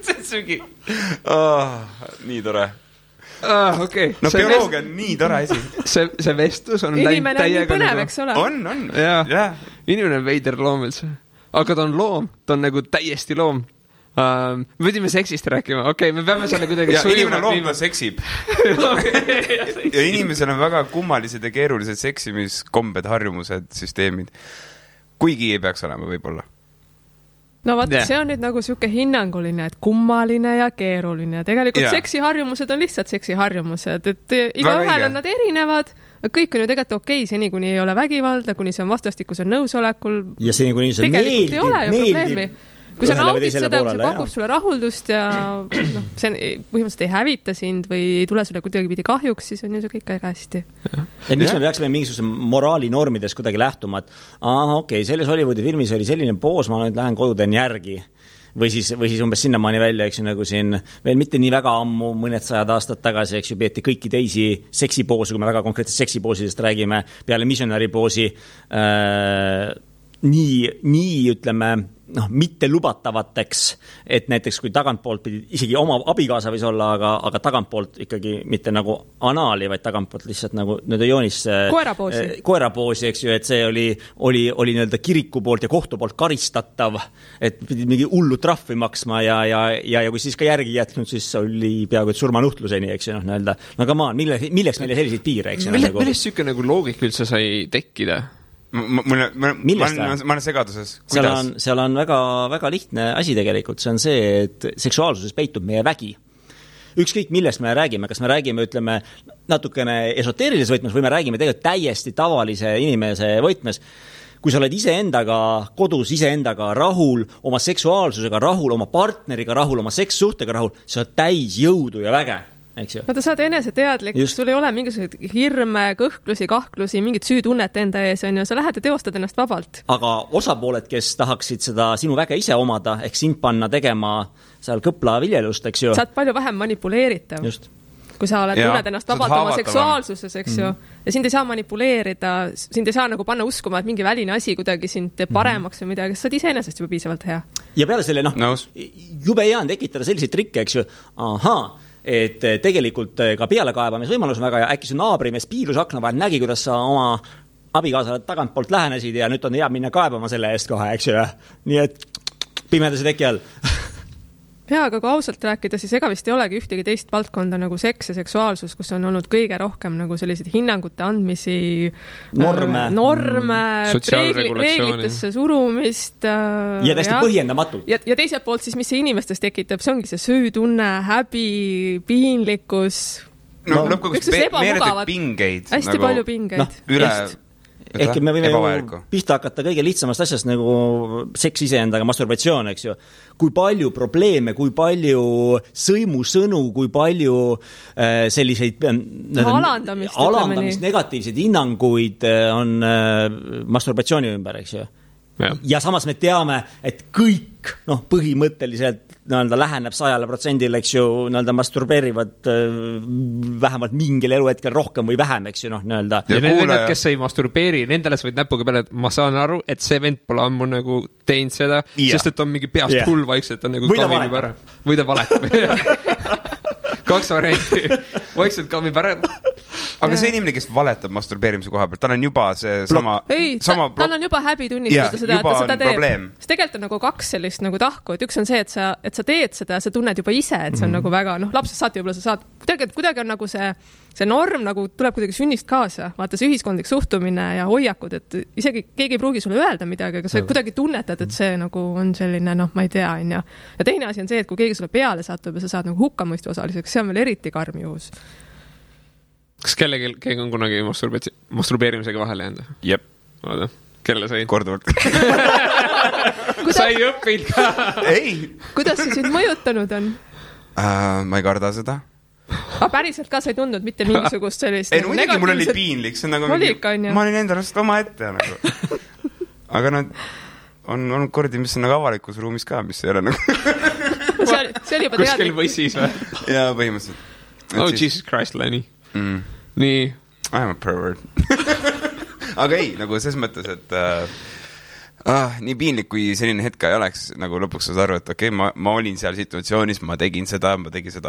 See on sugi. Nii tore. Okay. No bioloogia on nii tore asi. See vestlus on inimene on nii põnev, eks ole? On. Ja. Inimene on veider loom üldse. Aga ta on loom, ta on nagu täiesti loom. Me võidime seksist rääkima. Okei, me peame selle kuidagi inimene loom, ta seksib. Ja inimesel on väga kummalised ja keerulised seksimiskombed, harjumused, süsteemid. Kuigi ei peaks olema võib-olla. No vaat, see on nüüd nagu siuke hinnanguline, et kummaline ja keeruline. Tegelikult seksiharjumused on lihtsalt seksiharjumused, et iga ühel on nad erinevad, kõik on ju tegelikult okei, seni kuni ei ole vägivalda, kuni see on vastastikuse nõusolekul. Ja seni kuni see meeldib. kui sa naudid seda, kui see pakub sulle rahuldust ja noh, see põhimõtteliselt ei hävita sind või ei tule sulle kuidagi kahjuks, siis on ju see kõik väga hästi. Et miks me peaksime mingisuguse moraalinormides kuidagi lähtuma, et okei, selles Hollywoodi filmis oli selline poos, ma nüüd lähen kodu teen järgi. Või siis umbes sinnamaani välja, eks ju, nagu siin veel mitte nii väga ammu, mõned 100 aastat tagasi, eks ju, peeti kõiki teisi seksipoosi, kui me väga konkreetselt seksipoosidest räägime, peale missionary poosi, nii ütleme, mitte lubatavateks, et näiteks kui tagantpoolt pidi, isegi oma abikaasa võis olla, aga tagantpoolt ikkagi mitte nagu anaali, vaid tagantpoolt lihtsalt nagu joonis koerapoosi, eks ju, et see oli nii-öelda kiriku poolt ja kohtu poolt karistatav, et pidi mingi hullu trahvi maksma ja kui siis ka järgi jätnud, siis oli peaaegu et surmanuhtluseni, eks ju, nii-öelda. No come on, milleks meile selliseid piire, eks ju? Millest siuke nagu loogika üldse sai tekkida? Ma olen segaduses. Seal on väga, väga lihtne asi tegelikult. See on see, et seksuaalsuses peitub meie vägi. Ükskõik millest me räägime, kas me räägime, ütleme, natukene esoteerilises võtmes või me räägime tegelikult täiesti tavalise inimese võtmes. Kui sa oled iseendaga kodus, iseendaga rahul, oma seksuaalsusega rahul, oma partneriga rahul, oma sekssuhtega rahul, sa oled täis jõudu ja väge. Vaata, sa oled eneseteadlik, sul ei ole mingisuguseid hirme, kõhklusi, kahklusi, mingit süütunnet enda ees, on ju, sa lähed ja teostad ennast vabalt. Aga osapooled, kes tahaksid seda sinu väge ise omada, ehk sind panna tegema seal kõpla viljelust, eks ju. Sa oled palju vähem manipuleeritav. Just. Kui sa oled tunned ennast vabalt oma seksuaalsuses, eks ju, ja sind ei saa manipuleerida, sind ei saa nagu panna uskuma, et mingi väline asi kuidagi sind teeb paremaks või midagi, sa oled iseenesest juba piisavalt hea. Ja peale selle, jube hea on tekitada selliseid trikke, eks ju, et tegelikult ka pealekaebamisvõimalus on väga ja äkki su naabrimees piilus akna vahel nägi, kuidas sa oma abikaasale tagantpoolt lähenesid ja nüüd on hea minna kaebama selle eest kohe, eks ju. Nii et pimedase teki all. Jaa, aga kui ausalt rääkida, siis ega vist ei olegi ühtegi teist valdkonda nagu seks ja seksuaalsus, kus on olnud kõige rohkem nagu selliseid hinnangute andmisi, norme reeglitesse surumist. Ja täiesti põhjendamatult. Ja teiselt poolt siis, mis see inimestes tekitab, see ongi see süütunne, häbi, piinlikkus. Lõpuks meeletid pingeid. Hästi palju pingeid. Ehk me võime pihta hakata kõige lihtsamast asjast nagu seks iseendaga, masturbatsioon, eks ju. Kui palju probleeme, kui palju sõimusõnu, kui palju selliseid alandamist, negatiivseid hinnanguid on masturbatsiooni ümber, eks ju. Ja samas me teame, et kõik põhimõtteliselt läheneb 100%, eks ju, masturbeerivad vähemalt mingil eluhetkel rohkem või vähem, eks ju, Ja need, kes ei masturbeeri, nendele sa võid näpuga peale, et ma saan aru, et see vend pole ammu nagu teinud seda, sest et on mingi peast hull vaikselt, on nagu kamib ära. Või ta valetab. 2 varianti. Vaikselt kamib ära. Aga see inimene, kes valetab masturbeerimise koha pealt, tal on juba see sama... tal on juba häbi tunnistada seda, et ta seda teeb. Sest tegelikult on nagu 2 sellist nagu tahku, et üks on see, et sa teed seda, sa tunned juba ise, et see on nagu väga, lapsest saati võib-olla sa saad, kuidagi on nagu see norm nagu tuleb kuidagi sünnist kaasa, vaata see ühiskondlik suhtumine ja hoiakud, et isegi keegi ei pruugi sulle öelda midagi, aga sa kuidagi tunnetad, et see nagu on selline, ma ei tea, on ja teine asi on see, et kui keegi sulle peale satub ja sa saad nagu hukkamõistu osaliseks, see on veel eriti karm juhus. Kas keegi on kunagi masturbeerimisega vahele jäänud? Jep. Vaata, kelle sai? Korduvalt. Sai õppinud ka? Ei. Kuidas see sind mõjutanud on? Ma ei karda seda. Aga päriselt ka sa ei tundnud mitte mingisugust sellist ei, muidugi mul oli piinlik, see on nagu ma olin endalast oma ette nagu. Aga on olnud kordi, mis on nagu avalikus ruumis ka, mis ei ole nagu see oli juba kuskil võssis või? Jaa, põhimõtteliselt. Jesus Christ, Lenny. Nii. I'm a pervert. Aga ei, nagu ses mõttes, et nii piinlik, kui selline hetk ei oleks, nagu lõpuks saad aru, et okei, ma olin seal situatsioonis, ma tegin seda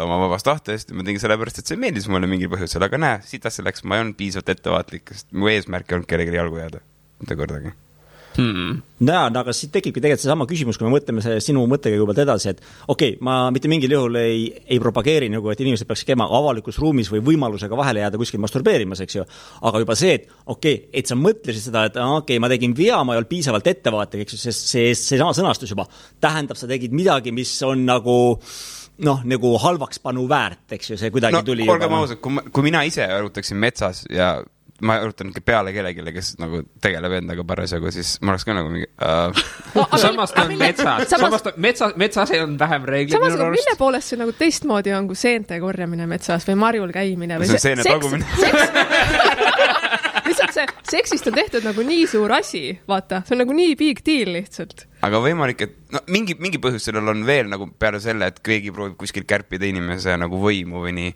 oma vabast tahtest, ma tegin sellepärast, et see meeldis mulle mingil põhjusel, aga näe, sitas selleks, ma ei olnud piisavalt ettevaatlik, sest mu eesmärk ei olnud kellelegi jalgu jääda. Mitte kordagi. Aga siit tekibki tegelikult see sama küsimus, kui me mõtleme sinu mõttega juba edasi, et okei, ma mitte mingil juhul ei propageeri nagu, et inimesed peaks käima avalikus ruumis või võimalusega vahele jääda kuskil masturbeerimas, eks ju. Aga juba see, et et sa mõtlesid seda, et ma tegin vea, ma ei olnud piisavalt ettevaatlik, eks ju, see sama sõnastus juba tähendab, sa tegid midagi, mis on nagu nagu halvaks panu väärt, eks ju, see kuidagi tuli. Olgem ausad, kui mina ise arutaksin metsas ja ma arutan peale kellegile, kes nagu tegeleb endaga parasjagu, siis ma oleks ka nagu mingi Samas ta on metsas ei on vähem reeglid. Samas, mille poolest see nagu teistmoodi on kui seente korjamine metsas või marjul käimine või see on seene tagumine. Lihtsalt see seksist on tehtud nagu nii suur asi, vaata, see on nagu nii big deal lihtsalt. Aga võimalik, et no, mingi põhjus sellel on veel nagu peale selle, et keegi proovib kuskil kärpida inimese nagu võimu või nii.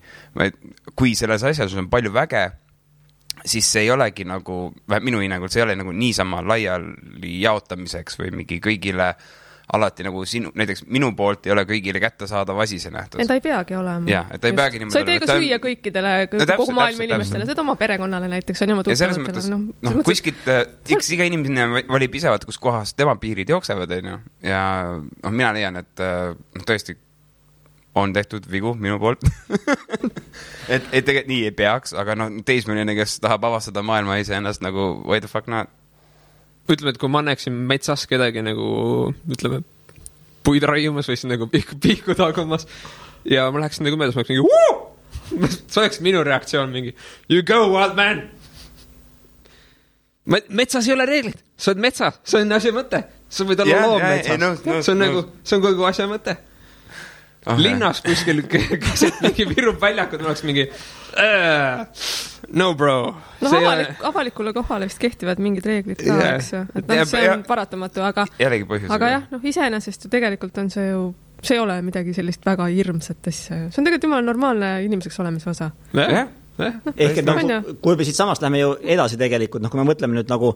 Kui selles asjas on palju väge, siis see ei olegi nagu, minu hinnangul see ei ole nagu niisama laiali jaotamiseks või mingi kõigile alati nagu näiteks minu poolt ei ole kõigile kättesaadav asi see nähtus. Ta ei peagi olema. Jah, et ta ei peagi niimoodi. Sa ei tee ka süüa kõikidele, kogu maailma inimestele, seda oma perekonnale näiteks on oma tuttavatele. Kuskilt, iga inimene valib ise, kus kohas tema piirid jooksevad, ja mina leian, et tõesti on tehtud vigu minu poolt. et tegelikult nii ei peaks, aga teismeline, kes tahab avastada maailma ise ennast nagu why the fuck not? Ütleme, et kui ma näeksin metsas kedagi nagu, ütleme, puid raiumas või siis nagu pihku tagumas ja ma läheksin nagu möödas, ma oleks mingi see oleks minu reaktsioon mingi you go wild man! Metsas ei ole reeglid, sa oled metsas, see on asja mõte, sa võid olla loom metsas, see on kogu asja mõte. Linnas kuskil keset mingi virub väljakud, ma oleks mingi no bro. Avalikule kohale vist kehtivad mingid reeglid ka, eks ju. Et see on paratamatu, aga jah, iseenesest ju tegelikult on see ju, see ei ole midagi sellist väga hirmsat asja. See on tegelikult jumala normaalne inimeseks olemise osa. Ehk et kui me siit samast läheme ju edasi tegelikult, kui me mõtleme nüüd nagu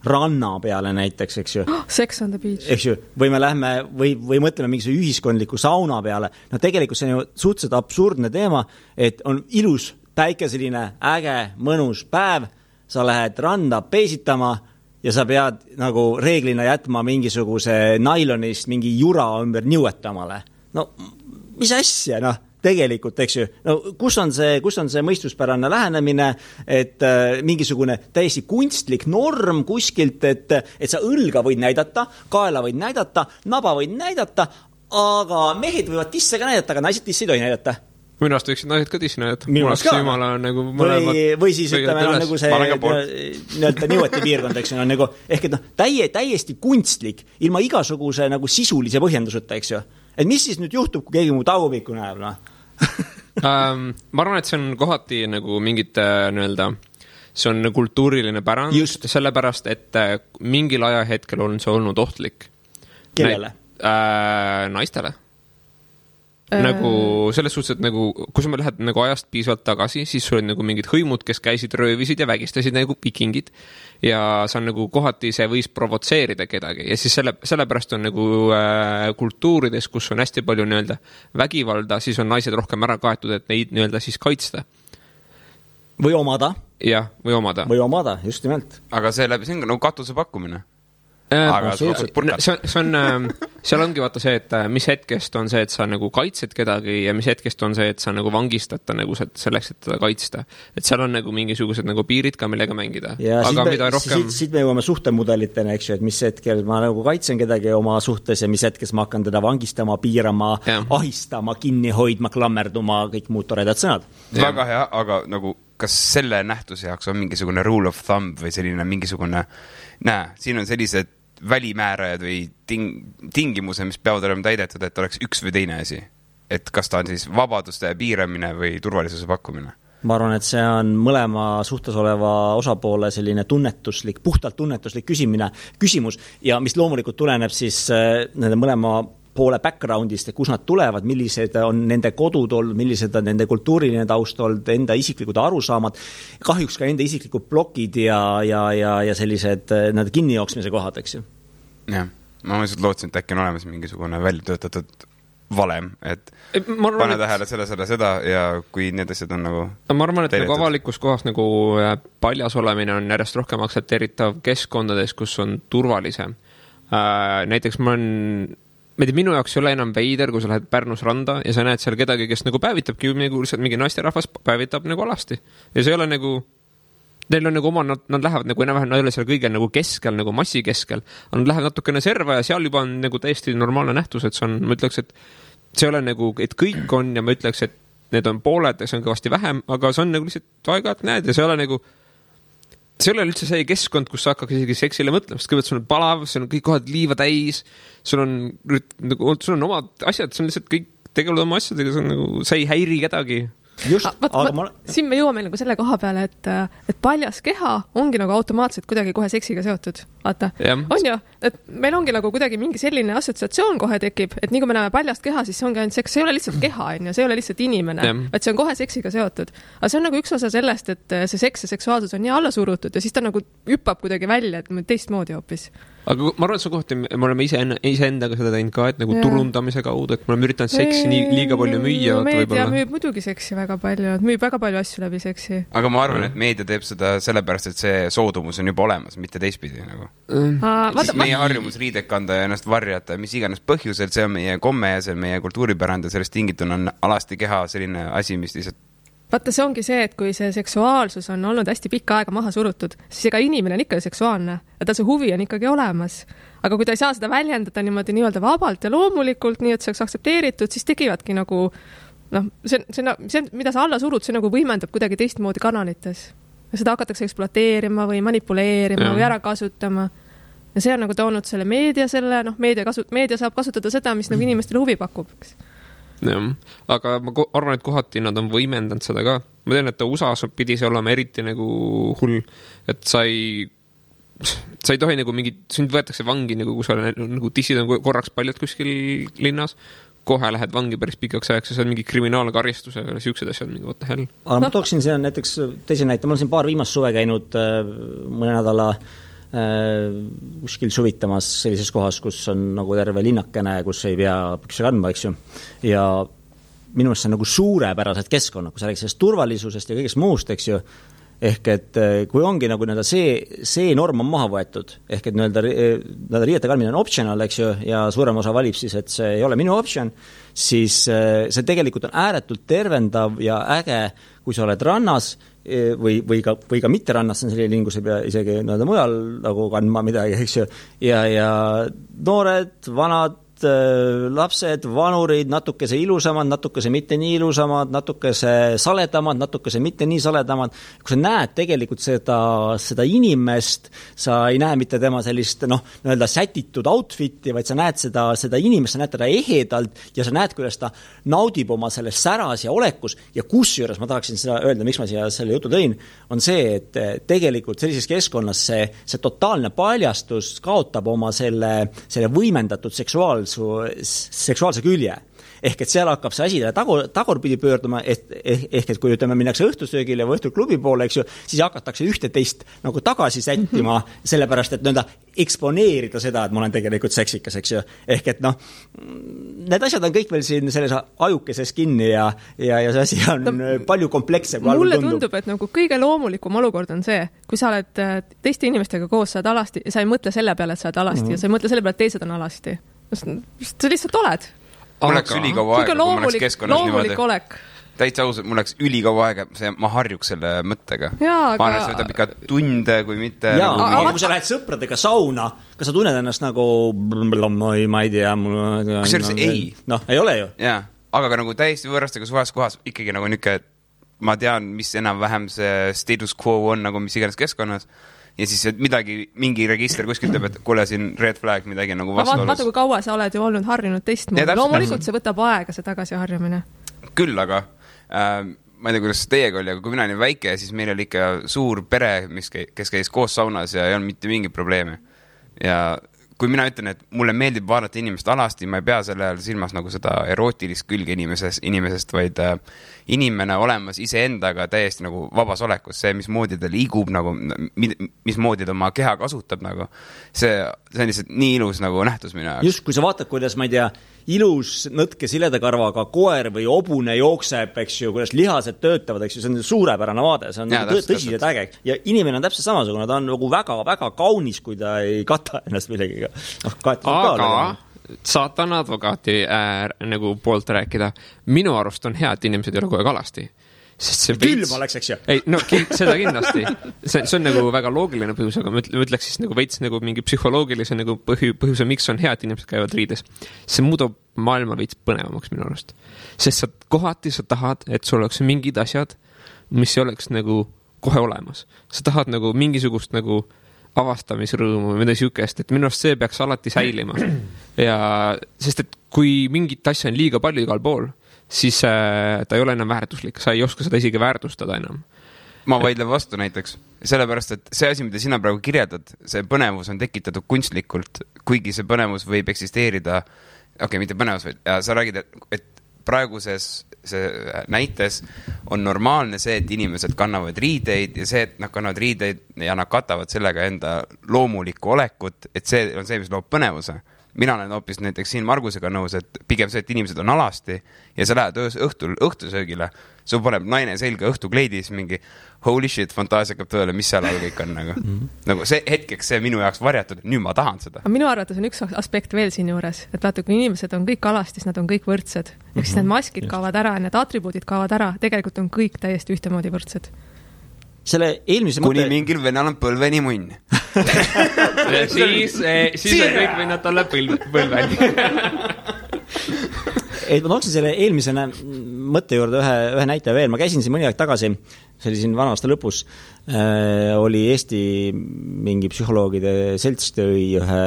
ranna peale näiteks, eks ju. Sex on the beach. Eks ju, või me lähme, või mõtleme mingisuguse ühiskondliku sauna peale. Tegelikult see on ju suhteliselt absurdne teema, et on ilus päikeseline, äge, mõnus päev, sa lähed randa peesitama ja sa pead nagu reeglina jätma mingisuguse nailonist mingi jura ümber niuetamale. No, mis asja, tegelikult, eks ju, kus on see mõistuspärane lähenemine, et mingisugune täiesti kunstlik norm kuskilt, et sa õlga võid näidata, kaela võid näidata, naba võid näidata, aga mehed võivad tisse ka näidata, aga naised tisse ei tohi näidata. Minu arust võiksid naised ka tisse näidata. Või siis ütleme, nagu see niueti piirkond, eks ju, nagu, ehk et täiesti kunstlik, ilma igasuguse nagu sisulise põhjenduseta, eks ju. Et mis siis nüüd juhtub, kui keegi mu tagumikku näeb, ma arvan, et see on kohati nagu mingit see on kultuuriline pärand. Just. Sellepärast, et mingil ajahetkel on see olnud ohtlik. Kellele? Naistele. Nagu selles suhtes, et nagu, kui sa lähed nagu ajast piisavalt tagasi, siis sul on nagu mingid hõimud, kes käisid röövisid ja vägistasid nagu vikingid ja see on nagu kohati see võis provotseerida kedagi ja siis sellepärast on nagu kultuurides, kus on hästi palju vägivalda, siis on naised rohkem ära kaetud, et neid siis kaitsta. Või omada. Jah, või omada. Või omada, just nimelt. Aga see on nagu katuse pakkumine. Seal ongi vaata see, et mis hetkest on see, et sa nagu kaitsed kedagi ja mis hetkest on see, et sa nagu vangistata nagu selleks, et teda kaitsta. Et seal on nagu mingisugused nagu piirid ka, millega mängida. Ja siit me jõuame suhtemudelitena, eks ju, et mis hetkel ma nagu kaitsen kedagi oma suhtes ja mis hetkes ma hakkan teda vangistama, piirama, ahistama, kinni hoidma, klammerduma, kõik muud toredad sõnad. Väga hea, aga nagu kas selle nähtuse jaoks on mingisugune rule of thumb või selline mingisugune siin on sellised välimäärajad või tingimuse, mis peavad olema täidetud, et oleks üks või teine asi. Et kas ta on siis vabaduste piiramine või turvalisuse pakkumine? Ma arvan, et see on mõlema suhtes oleva osapoole selline puhtalt tunnetuslik küsimus ja mis loomulikult tuleneb siis nende mõlema poole backgroundist, et kus nad tulevad, millised on nende kodud olnud, millised on nende kultuuriline taust olnud, enda isiklikud arusaamad, kahjuks ka enda isiklikud blokid ja sellised kinnijooksmise kohad, eks ju. Jah, ma mõistud lootsin, et äkki on olemas mingisugune väljatöötatud valem, et pane tähele seda ja kui need asjad on nagu ma arvan, et nagu avalikus kohas nagu paljas olemine on järjest rohkem aktsepteeritav keskkondades, kus on turvalisem. Näiteks minu jaoks ei ole enam veider, kui sa lähed Pärnus randa ja sa näed seal kedagi, kes nagu päevitabki mingi naisterahvas päevitab nagu alasti. Ja see ei ole nagu, neil on nagu oma, nad lähevad nagu enam-vähem, nad ei ole seal kõige nagu keskel, nagu massi keskel. Nad lähevad natukene serva ja seal juba on nagu täiesti normaalne nähtus, et see on, ma ütleks, et see ei ole nagu, et kõik on ja ma ütleks, et need on pooled ja see on kõvasti vähem, aga see on nagu lihtsalt aega, et näed ja see ei ole nagu see ei ole üldse see keskkond, kus sa hakkaks isegi seksile mõtlema, sest kõigepealt sul on palav, sul on kõik kohad liiva täis, sul on omad asjad, see on lihtsalt kõik tegelevad oma asjadega, see on nagu, sa ei häiri kedagi. Siin me jõuame nagu selle koha peale, et paljas keha ongi nagu automaatselt kuidagi kohe seksiga seotud. Vaata, on ju, et meil ongi nagu kuidagi mingi selline assotsiatsioon kohe tekib, et nii kui me näeme paljast keha, siis see ongi ainult seks, see ei ole lihtsalt keha, on ju, see ei ole lihtsalt inimene, et see on kohe seksiga seotud. Aga see on nagu üks osa sellest, et see seks ja seksuaalsus on nii alla surutud ja siis ta nagu hüppab kuidagi välja, et teistmoodi hoopis. Aga ma arvan, et see kohti, me oleme iseendaga seda teinud ka, et nagu turundamise kaudu, et me oleme üritanud seksi liiga palju müüa. Meedia müüb muidugi seksi väga palju, et müüb väga palju asju läbi seksi. Aga ma arvan, et meedia teeb seda sellepärast, et see soodumus on juba olemas, mitte teistpidi nagu. Meie harjumus riidek kanda ja ennast varjata, mis iganes põhjusel, see on meie komme ja see on meie kultuuripärand ja sellest tingituna on alasti keha selline asi, mis lihtsalt vaata, see ongi see, et kui see seksuaalsus on olnud hästi pikka aega maha surutud, siis ega inimene on ikka seksuaalne ja tal see huvi on ikkagi olemas. Aga kui ta ei saa seda väljendada niimoodi nii-öelda vabalt ja loomulikult, nii et see oleks aktsepteeritud, siis tekivadki nagu, see, mida sa alla surud, see nagu võimendab kuidagi teistmoodi kanalites. Ja seda hakatakse ekspluateerima või manipuleerima või ära kasutama. Ja see on nagu toonud selle meedia, meedia saab kasutada seda, mis nagu inimestele huvi pakub. Jah, aga ma arvan, et kohati nad on võimendanud seda ka. Ma tean, et USA-s pidi see olema eriti nagu hull, et sa ei tohi nagu sind võetakse vangi, nagu kui sa nagu tissid on korraks paljad kuskil linnas, kohe lähed vangi päris pikaks ajaks ja see on mingi kriminaalne karistus ja siuksed asjad, mingi what the hell. Aga ma tooksin siin näiteks teise näite, ma olen siin paar viimast suve käinud mõne nädala kuskil suvitamas sellises kohas, kus on nagu terve linnakene, kus ei pea pükse kandma, eks ju. Ja minu meelest see on nagu suurepärased keskkonnad, kui sa räägid sellest turvalisusest ja kõigest muust, eks ju. Ehk et kui ongi nagu see norm on maha võetud, ehk et riiete kandmine on optional, eks ju, ja suurem osa valib siis, et see ei ole minu option, siis see tegelikult on ääretult tervendav ja äge, kui sa oled rannas või ka mitte rannas, see on selline lingus, ei pea isegi mujal nagu kandma midagi, eks ju, ja noored, vanad, lapsed, vanurid, natukese ilusamad, natukese mitte nii ilusamad, natukese saledamad, natukese mitte nii saledamad. Kui sa näed tegelikult seda inimest, sa ei näe mitte tema sellist sätitud outfiti, vaid sa näed seda inimest, sa näed teda ehedalt ja sa näed, kuidas ta naudib oma selles säras ja olekus ja kusjuures ma tahaksin seda öelda, miks ma siia selle jutu tõin, on see, et tegelikult sellises keskkonnas see totaalne paljastus kaotab oma selle võimendatud seksuaalse külje. Ehk et seal hakkab see asi tagurpidi pöörduma, ehk et kui ütleme, minnakse õhtusöögile või õhtuklubi poole, eks ju, siis hakatakse ühte teist nagu tagasi sättima, sellepärast, et eksponeerida seda, et ma olen tegelikult seksikas, eks ju. Ehk et need asjad on kõik veel siin selles ajukeses kinni ja see asi on palju kompleksse. Mulle tundub, et nagu kõige loomulikum olukord on see, kui sa oled teiste inimestega koos, sa oled alasti ja sa ei mõtle selle peale, et sa oled alasti ja sa ei mõtle selle peale, et teised on alasti. Sa lihtsalt oled. Mul läks ülikaua aega, kui ma läks keskkonnas niimoodi. Täitsa ausalt, mul läks ülikaua aega, ma harjuks selle mõttega. Ma arvan, see võtab ikka tunde, kui mitte... Aga kui sa lähed sõpradega sauna, kas sa tunned ennast nagu... ma ei tea... Kusjuures ei. Ei ole ju. Jaa, aga ka nagu täiesti võõrastega suvas kohas ikkagi nagu niuke, ma tean, mis enam-vähem see status quo on, nagu mis iganes keskkonnas. Ja siis mingi register kuskil teeb, et kuule siin red flag midagi nagu vastuolus. Vaata, kui kaua sa oled ju olnud harjunud teistmoodi. Loomulikult see võtab aega, see tagasi harjumine. Küll, aga ma ei tea, kuidas teiega oli, aga kui mina olin väike, siis meil oli ikka suur pere, kes käis koos saunas ja ei olnud mitte mingi probleemi. Ja kui mina ütlen, et mulle meeldib vaadata inimest alasti, ma ei pea selle ajal silmas nagu seda erootilist külge inimesest, vaid inimene olemas iseendaga täiesti nagu vabas olekus, see, mismoodi ta liigub, nagu, mismoodi ta oma keha kasutab, nagu. See on lihtsalt nii ilus nagu nähtus minu jaoks. Just, kui sa vaatad, kuidas, ma ei tea, ilus nõtke siledakarvaga koer või obune jookseb, eks ju, kuidas lihased töötavad, eks ju, see on suurepärane vaade, see on tõsiselt äge. Ja inimene on täpselt samasugune, ta on nagu väga-väga kaunis, kui ta ei kata ennast millegiga. Aga saatan advokaati nagu poolt rääkida. Minu arust on hea, et inimesed ei ole kogu aeg alasti. Külm oleks, eks ju. Ei, seda kindlasti. See on nagu väga loogiline põhjus, aga ma ütleks siis nagu veits nagu mingi psühholoogilise nagu põhjuse, miks on hea, et inimesed käivad riides. See muudab maailma veits põnevamaks minu arust. Sest kohati sa tahad, et sul oleks mingid asjad, mis oleks nagu kohe olemas. Sa tahad nagu mingisugust nagu avastamisrõõmu või midagi siukest, et minu arust see peaks alati säilima. Ja sest, et kui mingit asja on liiga palju igal pool, siis ta ei ole enam väärtuslik, sa ei oska seda isegi väärtustada enam. Ma vaidlen vastu näiteks, sellepärast, et see asi, mida sina praegu kirjeldad, see põnevus on tekitatud kunstlikult, kuigi see põnevus võib eksisteerida, mitte põnevus, vaid sa räägid, et praeguses see näites on normaalne see, et inimesed kannavad riideid ja see, et nad kannavad riideid ja nad katavad sellega enda loomulikku olekut, et see on see, mis loob põnevuse. Mina olen hoopis näiteks siin Margusega nõus, et pigem see, et inimesed on alasti ja sa lähed õhtusöögile, su paneb naine selga õhtukleidis mingi holy shit, fantaasia hakkab tõele, mis seal all kõik on nagu see hetkeks see minu jaoks varjatud, nüüd ma tahan seda. Minu arvates on üks aspekt veel siin juures, et vaata, kui inimesed on kõik alastis, nad on kõik võrdsed. Ehk siis need maskid kaovad ära, need atribuudid kaovad ära, tegelikult on kõik täiesti ühtemoodi võrdsed. Selle eelmise kuni mingil venal on põlveni munn. siis on kõik vennad talle põlveni. Ma tooksin selle eelmise mõtte juurde ühe näite veel. Ma käisin siin mõni aeg tagasi, see oli siin vana aasta lõpus, oli Eesti mingi psühholoogide selts tõi ühe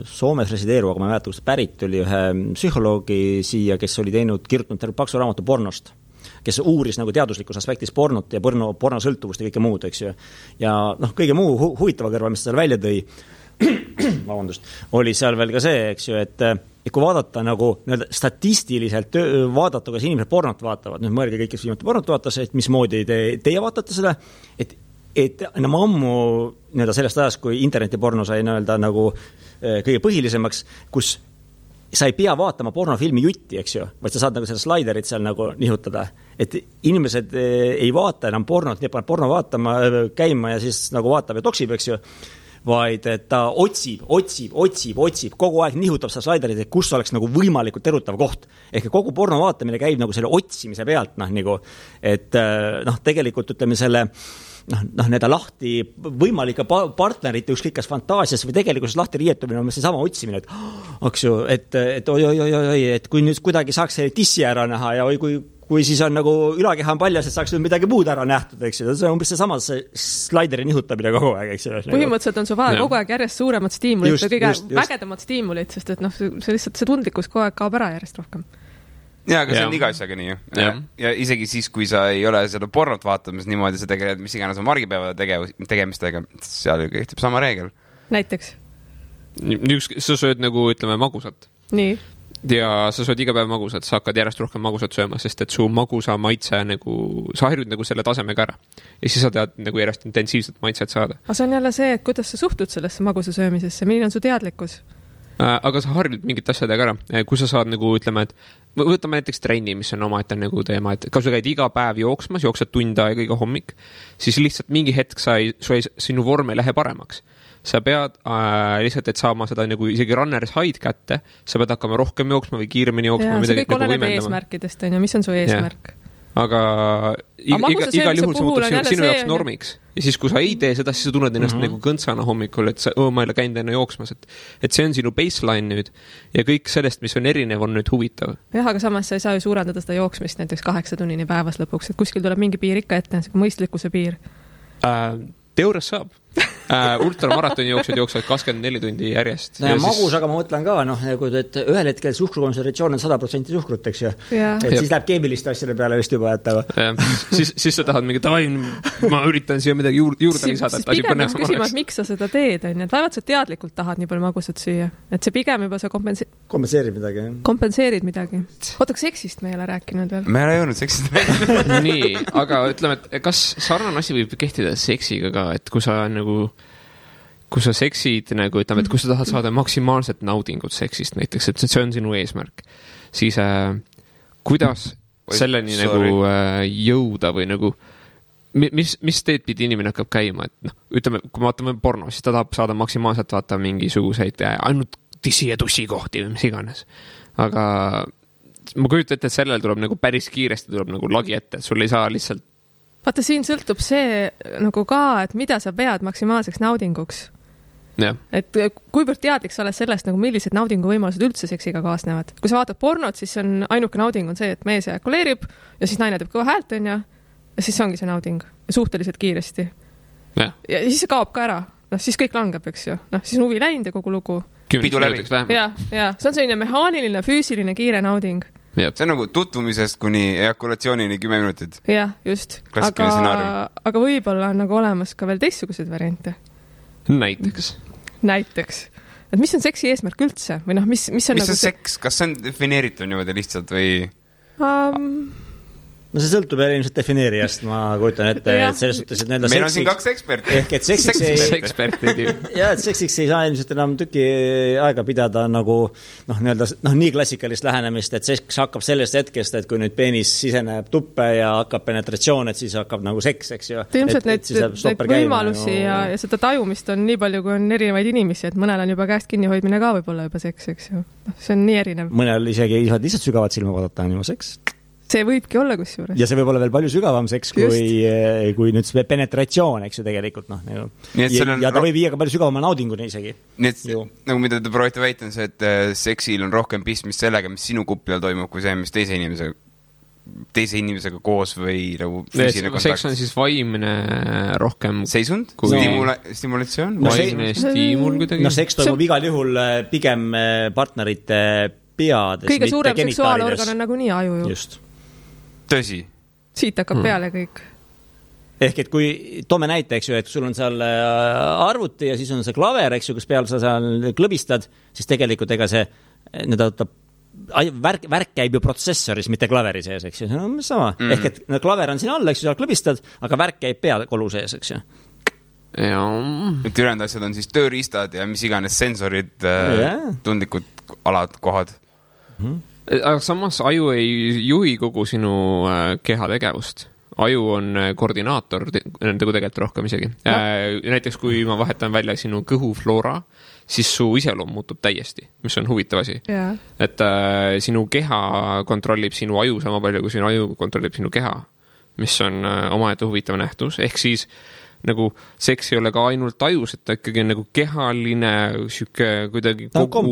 Soomes resideeruva, aga ma ei mäleta, kust pärit oli ühe psühholoogi siia, kes oli kirjutanud terve paksu raamatu pornost, kes uuris nagu teaduslikus aspektis pornot ja pornosõltuvust ja kõike muud, eks ju. Ja kõige muu huvitava kõrval, mis seal välja tõi, oli seal veel ka see, eks ju, et kui vaadata nagu statistiliselt vaadata, kas inimesed pornot vaatavad, nüüd mõelge kõik, kes viimati pornot vaatas, et mismoodi teie vaatate seda, et enam ammu sellest ajast, kui internetiporno sai nagu kõige põhilisemaks, kus sa ei pea vaatama pornofilmi jutti, eks ju, vaid sa saad nagu seda slaiderit seal nagu nihutada. Et inimesed ei vaata enam pornot, nii paneb porno vaatama, käima ja siis nagu vaatab ja toksib, eks ju, vaid et ta otsib, kogu aeg nihutab seda slaiderit, et kus oleks nagu võimalikult erutav koht. Ehk kogu porno vaatamine käib nagu selle otsimise pealt, nagu, et tegelikult ütleme selle need lahti võimalike partnerite ükskõik kas fantaasias või tegelikult lahti riietumine on see sama otsimine, et oi, et kui nüüd kuidagi saaks selle tissi ära näha ja kui siis on nagu ülakeha on paljas, et saaks nüüd midagi muud ära nähtud, eks ju. See on umbes see sama slaideri nihutamine kogu aeg, eks ju. Põhimõtteliselt on su vaja kogu aeg järjest suuremad stiimulit ja kõige vägedamad stiimulit, sest et see lihtsalt see tundlikkus kogu aeg kaob ära järjest rohkem. Jaa, aga see on iga asjaga nii. Ja isegi siis, kui sa ei ole seda pornot vaatamas niimoodi, sa tegeled mis iganes on margipäeva tegemistega, seal kehtib sama reegel. Näiteks? Sa sööd nagu, ütleme, magusat. Nii. Ja sa sööd iga päev magusat, sa hakkad järjest rohkem magusat sööma, sest et su magusa maitse nagu, sa harjud nagu selle tasemega ära. Ja siis sa tead nagu järjest intensiivset maitset saada. Aga see on jälle see, et kuidas sa suhtud sellesse magusa söömisesse, milline on su teadlikkus? Aga sa harjud mingit asjadega ära. Kui sa saad nagu, ütleme, et võtame näiteks trenni, mis on omaette nagu teema, et kui sa käid iga päev jooksmas, jooksed tund aega iga hommik, siis lihtsalt mingi hetk sinu vorm ei lähe paremaks. Sa pead lihtsalt, et saama seda nagu isegi runner's hide kätte, sa pead hakkama rohkem jooksma või kiiremini jooksma. See kõik oleneb eesmärkidest, on ju, mis on su eesmärk? Aga igal juhul see muutub sinu jaoks normiks. Ja siis, kui sa ei tee seda, siis sa tunned ennast nagu kõntsana hommikul, et ma ei ole käinud enne jooksmas. Et see on sinu baseline nüüd ja kõik sellest, mis on erinev, on nüüd huvitav. Jah, aga samas sa ei saa ju suurendada seda jooksmist näiteks 8 tunnini päevas lõpuks, et kuskil tuleb mingi piir ikka ette, mõistlikkuse piir. Teoorias saab. Ultramaratoni jooksevad 24 tundi järjest. Ja magus, aga ma mõtlen ka, et ühel hetkel suhkrukontsentratsioon on 100% suhkrut, eks ju. Et siis läheb keemiliste asjade peale vist juba, et siis sa tahad mingi, ma üritan siia midagi juurde lisada. Siis pigem peaks küsima, et miks sa seda teed, on, et vaevalt sa teadlikult tahad nii palju magusat süüa. Et see pigem juba sa kompenseerid midagi. Kompenseerid midagi. Oota, seksist me ei ole rääkinud veel. Me ei ole jõudnud seksist veel. Nii, aga ütleme, et kas sarnane asi võib kehtida seksiga ka, et kui sa seksid, nagu ütleme, et kui sa tahad saada maksimaalset naudingut seksist näiteks, et see on sinu eesmärk, siis kuidas selleni nagu jõuda või nagu mis teed pidi inimene hakkab käima, et ütleme, kui me vaatame porno, siis ta tahab saada maksimaalselt vaata mingisuguseid ainult tissi ja tussi kohti või mis iganes, aga ma kujutan ette, et sellel tuleb nagu päris kiiresti tuleb nagu lagi ette, et sul ei saa lihtsalt vaata, siin sõltub see nagu ka, et mida sa pead maksimaalseks naudinguks. Ja. Et kuivõrd teadlik sa oled sellest, nagu millised naudinguvõimalused üldse seksiga kaasnevad. Kui sa vaatad pornot, siis on ainuke nauding on see, et mees ejakuleerib ja siis naine teeb kõva häält, on ja siis ongi see nauding. Suhteliselt kiiresti. Ja siis see kaob ka ära. Siis kõik langeb, eks ju. Siis on huvi läinud ja kogu lugu. Pidu läbi. Ja. See on selline mehaaniline, füüsiline, kiire nauding. See on nagu tutvumisest kuni ejakulatsioonini 10 minutit. Jah, just. Aga võib-olla on nagu olemas ka veel teistsugused variante. Näiteks. Et mis on seksi eesmärk üldse? Või mis on nagu seks? Kas see on defineeritud niimoodi lihtsalt või... No see sõltub ilmselt defineerijast, ma kujutan ette, et selles suhtes, et meil on siin 2 eksperti. Ehk et seksiks ei saa ilmselt enam tüki aega pidada nagu nii klassikalist lähenemist, et seks hakkab sellest hetkest, et kui nüüd peenis siseneb tuppe ja hakkab penetratsioon, et siis hakkab nagu seks, eks ju. Ilmselt neid võimalusi ja seda tajumist on nii palju, kui on erinevaid inimesi, et mõnel on juba käest kinnihoidmine ka võib-olla juba seks, eks ju. See on nii erinev. Mõnel isegi ei saa lihtsalt sügavat silma vaadata, on juba seks. See võibki olla kusjuures. Ja see võib olla veel palju sügavam seks, kui nüüd see penetratsioon, eks ju tegelikult. Ja ta võib viia ka palju sügavama naudinguni isegi. Nii et nagu mida te proovite väita on see, et seksil on rohkem pistmist sellega, mis sinu kupi all toimub, kui see, mis teise inimesega koos või nagu füüsiline kontakt. Seks on siis vaimne rohkem seisund? Stimulatsioon? Vaimne stiimul kuidagi? Seks toimub igal juhul pigem partnerite peades. Kõige suurem seksuaalorgan on nagu nii aju ju. Just. Tõsi. Siit hakkab peale kõik. Ehk et kui toome näite, eks ju, et sul on seal arvuti ja siis on see klaver, eks ju, kus peal sa seal klõbistad, siis tegelikult ega see värk käib ju protsessoris, mitte klaveri sees, eks ju. See on sama. Ehk et klaver on siin all, eks ju, seal klõbistad, aga värk käib peakolu sees, eks ju. Et ülejäänud asjad on siis tööriistad ja mis iganes sensorid, tundlikud alad, kohad. Aga samas aju ei juhi kogu sinu keha tegevust. Aju on koordinaator, nagu tegelikult rohkem isegi. Näiteks kui ma vahetan välja sinu kõhufloora, siis su iseloom muutub täiesti, mis on huvitav asi. Et sinu keha kontrollib sinu aju sama palju, kui sinu aju kontrollib sinu keha, mis on omaette huvitav nähtus. Ehk siis nagu seks ei ole ka ainult ajus, et ta ikkagi on nagu kehaline süke kuidagi kogu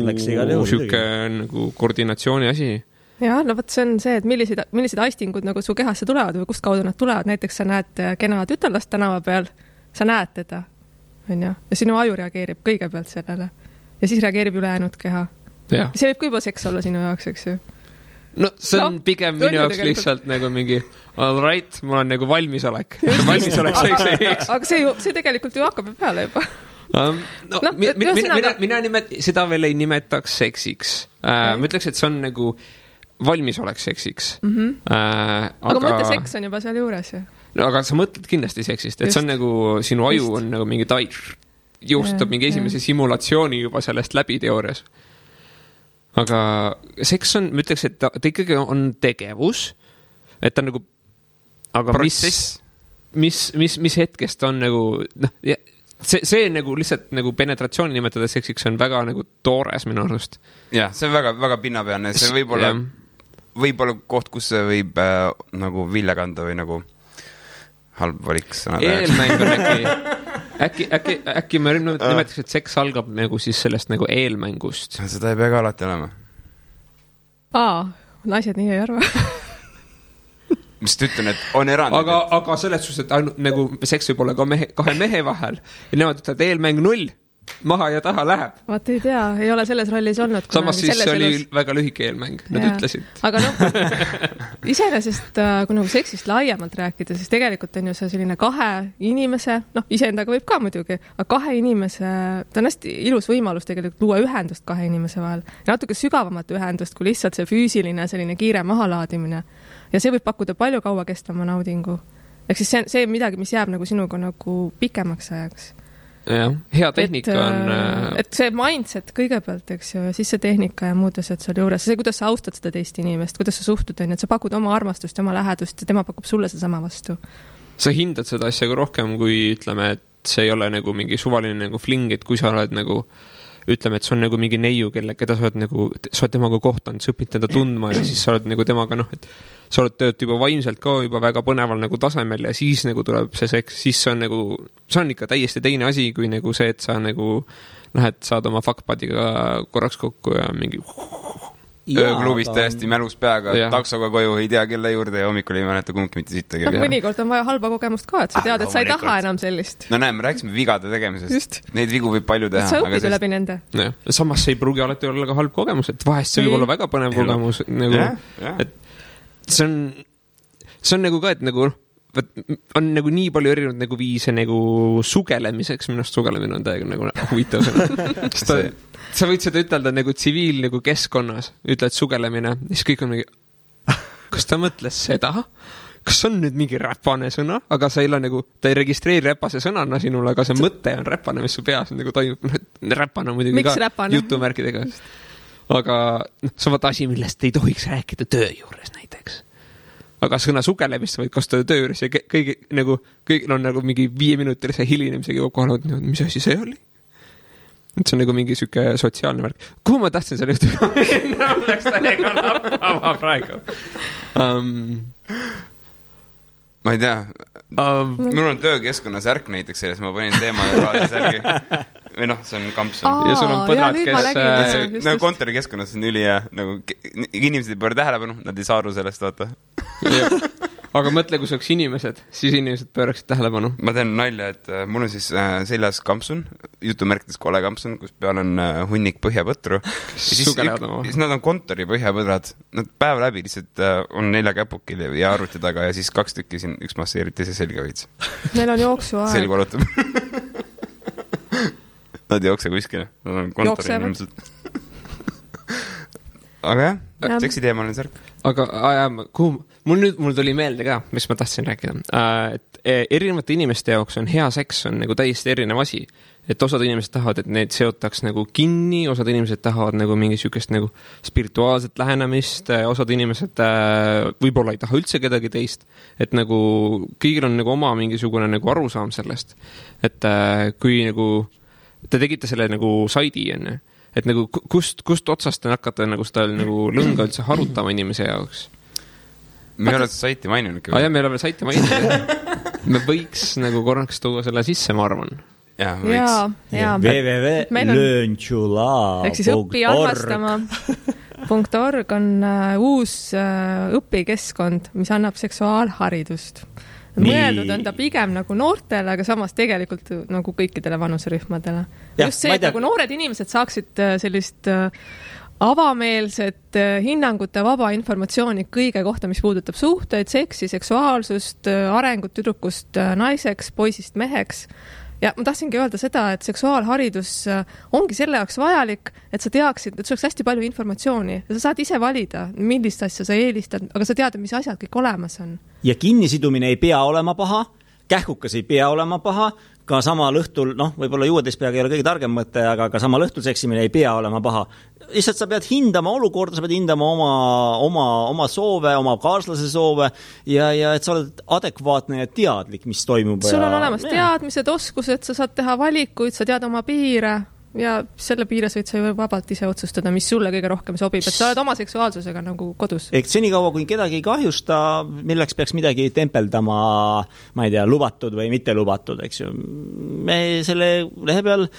süke nagu koordinatsiooni asi. Ja, võt see on see, et millised aistingud nagu su kehasse tulevad või kust kaudu nad tulevad. Näiteks sa näed kena tütarlast tänava peal, sa näed teda, ja sinu aju reageerib kõigepealt sellele ja siis reageerib ülejäänud keha. Ja. See võib ka juba seks olla sinu jaoks, eks ju. No see on pigem minu jaoks lihtsalt nagu mingi all right, mul on nagu valmisolek. Aga see tegelikult ju hakkab peale juba. Mina seda veel ei nimetaks seksiks. Ma ütleks, et see on nagu valmisolek seksiks. Aga mõtle, seks on juba seal juures ju. No, aga sa mõtled kindlasti seksist, et see on nagu sinu aju on nagu mingi jõustab mingi esimese simulatsiooni juba sellest läbi teoorias. Aga seks on, ma ütleks, et ta ikkagi on tegevus, et ta nagu, aga mis hetkest on nagu, see nagu lihtsalt nagu penetratsiooni nimetada seksiks on väga nagu toores minu arust. Jah, see on väga, väga pinnapealne, see võib-olla koht, kus see võib nagu vilja kanda või nagu halb valik sõnada. Eelmäng on äkki me nimetaks, et seks algab nagu siis sellest nagu eelmängust. Seda ei pea ka alati olema. Naised nii ei arva. Mis ta ütlen, et on erand. Aga selles suhtes, et ainult nagu seks võib olla ka kahe mehe vahel ja nemad ütlevad eelmäng 0. Maha ja taha läheb. Vaat ei tea, ei ole selles rollis olnud. Samas siis see oli väga lühike eelmäng, nad ütlesid. Aga iseenesest, kui nagu seksist laiemalt rääkida, siis tegelikult on ju see selline kahe inimese, iseendaga võib ka muidugi, aga kahe inimese, ta on hästi ilus võimalus tegelikult luua ühendust kahe inimese vahel. Natuke sügavamat ühendust, kui lihtsalt see füüsiline selline kiire mahalaadimine. Ja see võib pakkuda palju kaua kestama naudingu. Ehk siis see midagi, mis jääb nagu sinuga nagu pikemaks ajaks. Ja, hea tehnika on... Et see mindset kõigepealt, eks ju, ja siis see tehnika ja muud asjad seal juures. See, kuidas sa austad seda teist inimest, kuidas sa suhtud, et sa pakud oma armastust ja oma lähedust ja tema pakub sulle sedasama vastu. Sa hindad seda asja ka rohkem, kui ütleme, et see ei ole nagu mingi suvaline nagu fling, et kui sa oled nagu ütleme, et see on nagu mingi neiu, keda sa oled temaga kohtanud, sa õpid teda tundma ja siis sa oled nagu temaga, et sa oled tööd juba vaimselt ka juba väga põneval nagu tasemel ja siis nagu tuleb see seks, siis see on ikka täiesti teine asi, kui nagu see, et sa nagu lähed, saad oma fuckpadiga korraks kokku ja mingi ööklubis täiesti mälus peaga, taksoga koju, ei tea kelle juurde ja hommikul ei mäleta kumbki mitte sittagi. Mõnikord on vaja halba kogemust ka, et sa tead, et sa ei taha enam sellist. No näe, me rääkisime vigade tegemisest. Neid vigu võib palju teha. Sa õpid läbi nende. Samas see ei pruugi alati olla ka halb kogemus, et vahest see võib olla väga põnev kogemus. Et see on nagu ka, et nagu on nagu nii palju erinevad nagu viise nagu sugelemiseks, minust sugelemine on täiega nagu huvitav sõna. Sa võid seda ütelda nagu tsiviil nagu keskkonnas, ütled sugelemine, siis kõik on mingi, kas ta mõtles seda? Kas on nüüd mingi räpane sõna? Aga sa ei ole nagu, ta ei registreeri räpase sõnana sinule, aga see mõte on räpane, mis su peas nagu toimub. Räpane on muidugi ka jutumärkidega. Aga see on asi, millest ei tohiks rääkida töö juures näiteks. Aga sõna sugelemist võid kasutada töö juures ja kõigil on nagu mingi 5-minutilise hilinemisega juba kohal, mis asi see oli? Et see on nagu mingi süke sotsiaalne värk. Kuhu ma tahtsin selle ühtega minna? Läks täiega lappama praegu. Ma ei tea. Mul on töökeskkonna särk näiteks selles, ma panin teema ja raadi särgi. Või see on kampsun. Ja sul on põdrad, kes... Nagu kontorikeskkonnas on üli ja nagu inimesed ei pööra tähelepanu, nad ei saa aru sellest, vaata. Aga mõtle, kui see oleks inimesed, siis inimesed pööraksid tähelepanu. Ma teen nalja, et mul on siis seljas kampsun, jutumärkides kole kampsun, kus peal on hunnik põhjapõtru. Siis nad on kontori põhjapõdrad. Nad päev läbi lihtsalt on 4 käpukil ja arvuti taga ja siis 2 tükki siin, üks masseeriti see selga veits. Neil on jooksuaeg. Selg valutab. Nad ei jookse kuskile. Nad on kontori inimesed. Aga jah, seksi teemaline särk. Aga mul tuli meelde ka, mis ma tahtsin rääkida. Et erinevate inimeste jaoks on hea seks on nagu täiesti erinev asi. Et osad inimesed tahavad, et need seotaks nagu kinni, osad inimesed tahavad nagu mingi sükest nagu spirituaalset lähenemist, osad inimesed võib-olla ei taha üldse kedagi teist. Et nagu kõigil on nagu oma mingisugune nagu arusaam sellest. Et kui nagu te tegite selle nagu saidi enne, et nagu kust otsast te hakkate nagu seda nagu lõnga üldse harutama inimese jaoks? Me ei ole saiti maininud. Jah, me ei ole saiti maininud. Me võiks nagu korraks tuua selle sisse, ma arvan. Jah, võiks. www.learntulaa.org ehk siis õpiarmastama.org on uus õpikeskkond, mis annab seksuaalharidust. Mõeldud on ta pigem nagu noortele, aga samas tegelikult nagu kõikidele vanuserühmadele. Just see, et nagu noored inimesed saaksid sellist avameelset hinnangute vaba informatsiooni kõige kohta, mis puudutab suhteid, seksi, seksuaalsust, arengut tüdrukust naiseks, poisist meheks. Ja ma tahtsingi öelda seda, et seksuaalharidus ongi selle jaoks vajalik, et sa teaksid, et sul oleks hästi palju informatsiooni ja sa saad ise valida, millist asja sa eelistad, aga sa tead, mis asjad kõik olemas on. Ja kinnisidumine ei pea olema paha, kähkukas ei pea olema paha, ka samal õhtul, võib-olla juuedes peaga ei ole kõige targem mõte, aga ka samal õhtul seksimine ei pea olema paha. Lihtsalt sa pead hindama olukorda, sa pead hindama oma soove, oma kaaslase soove ja et sa oled adekvaatne ja teadlik, mis toimub. Sul on olemas teadmised, oskused, sa saad teha valikuid, sa tead oma piire ja selle piires võid sa ju vabalt ise otsustada, mis sulle kõige rohkem sobib, et sa oled oma seksuaalsusega nagu kodus. Ehk senikaua, kui kedagi ei kahjusta, milleks peaks midagi tempeldama, ma ei tea, lubatud või mitte lubatud, eks ju. Me selle lehe peal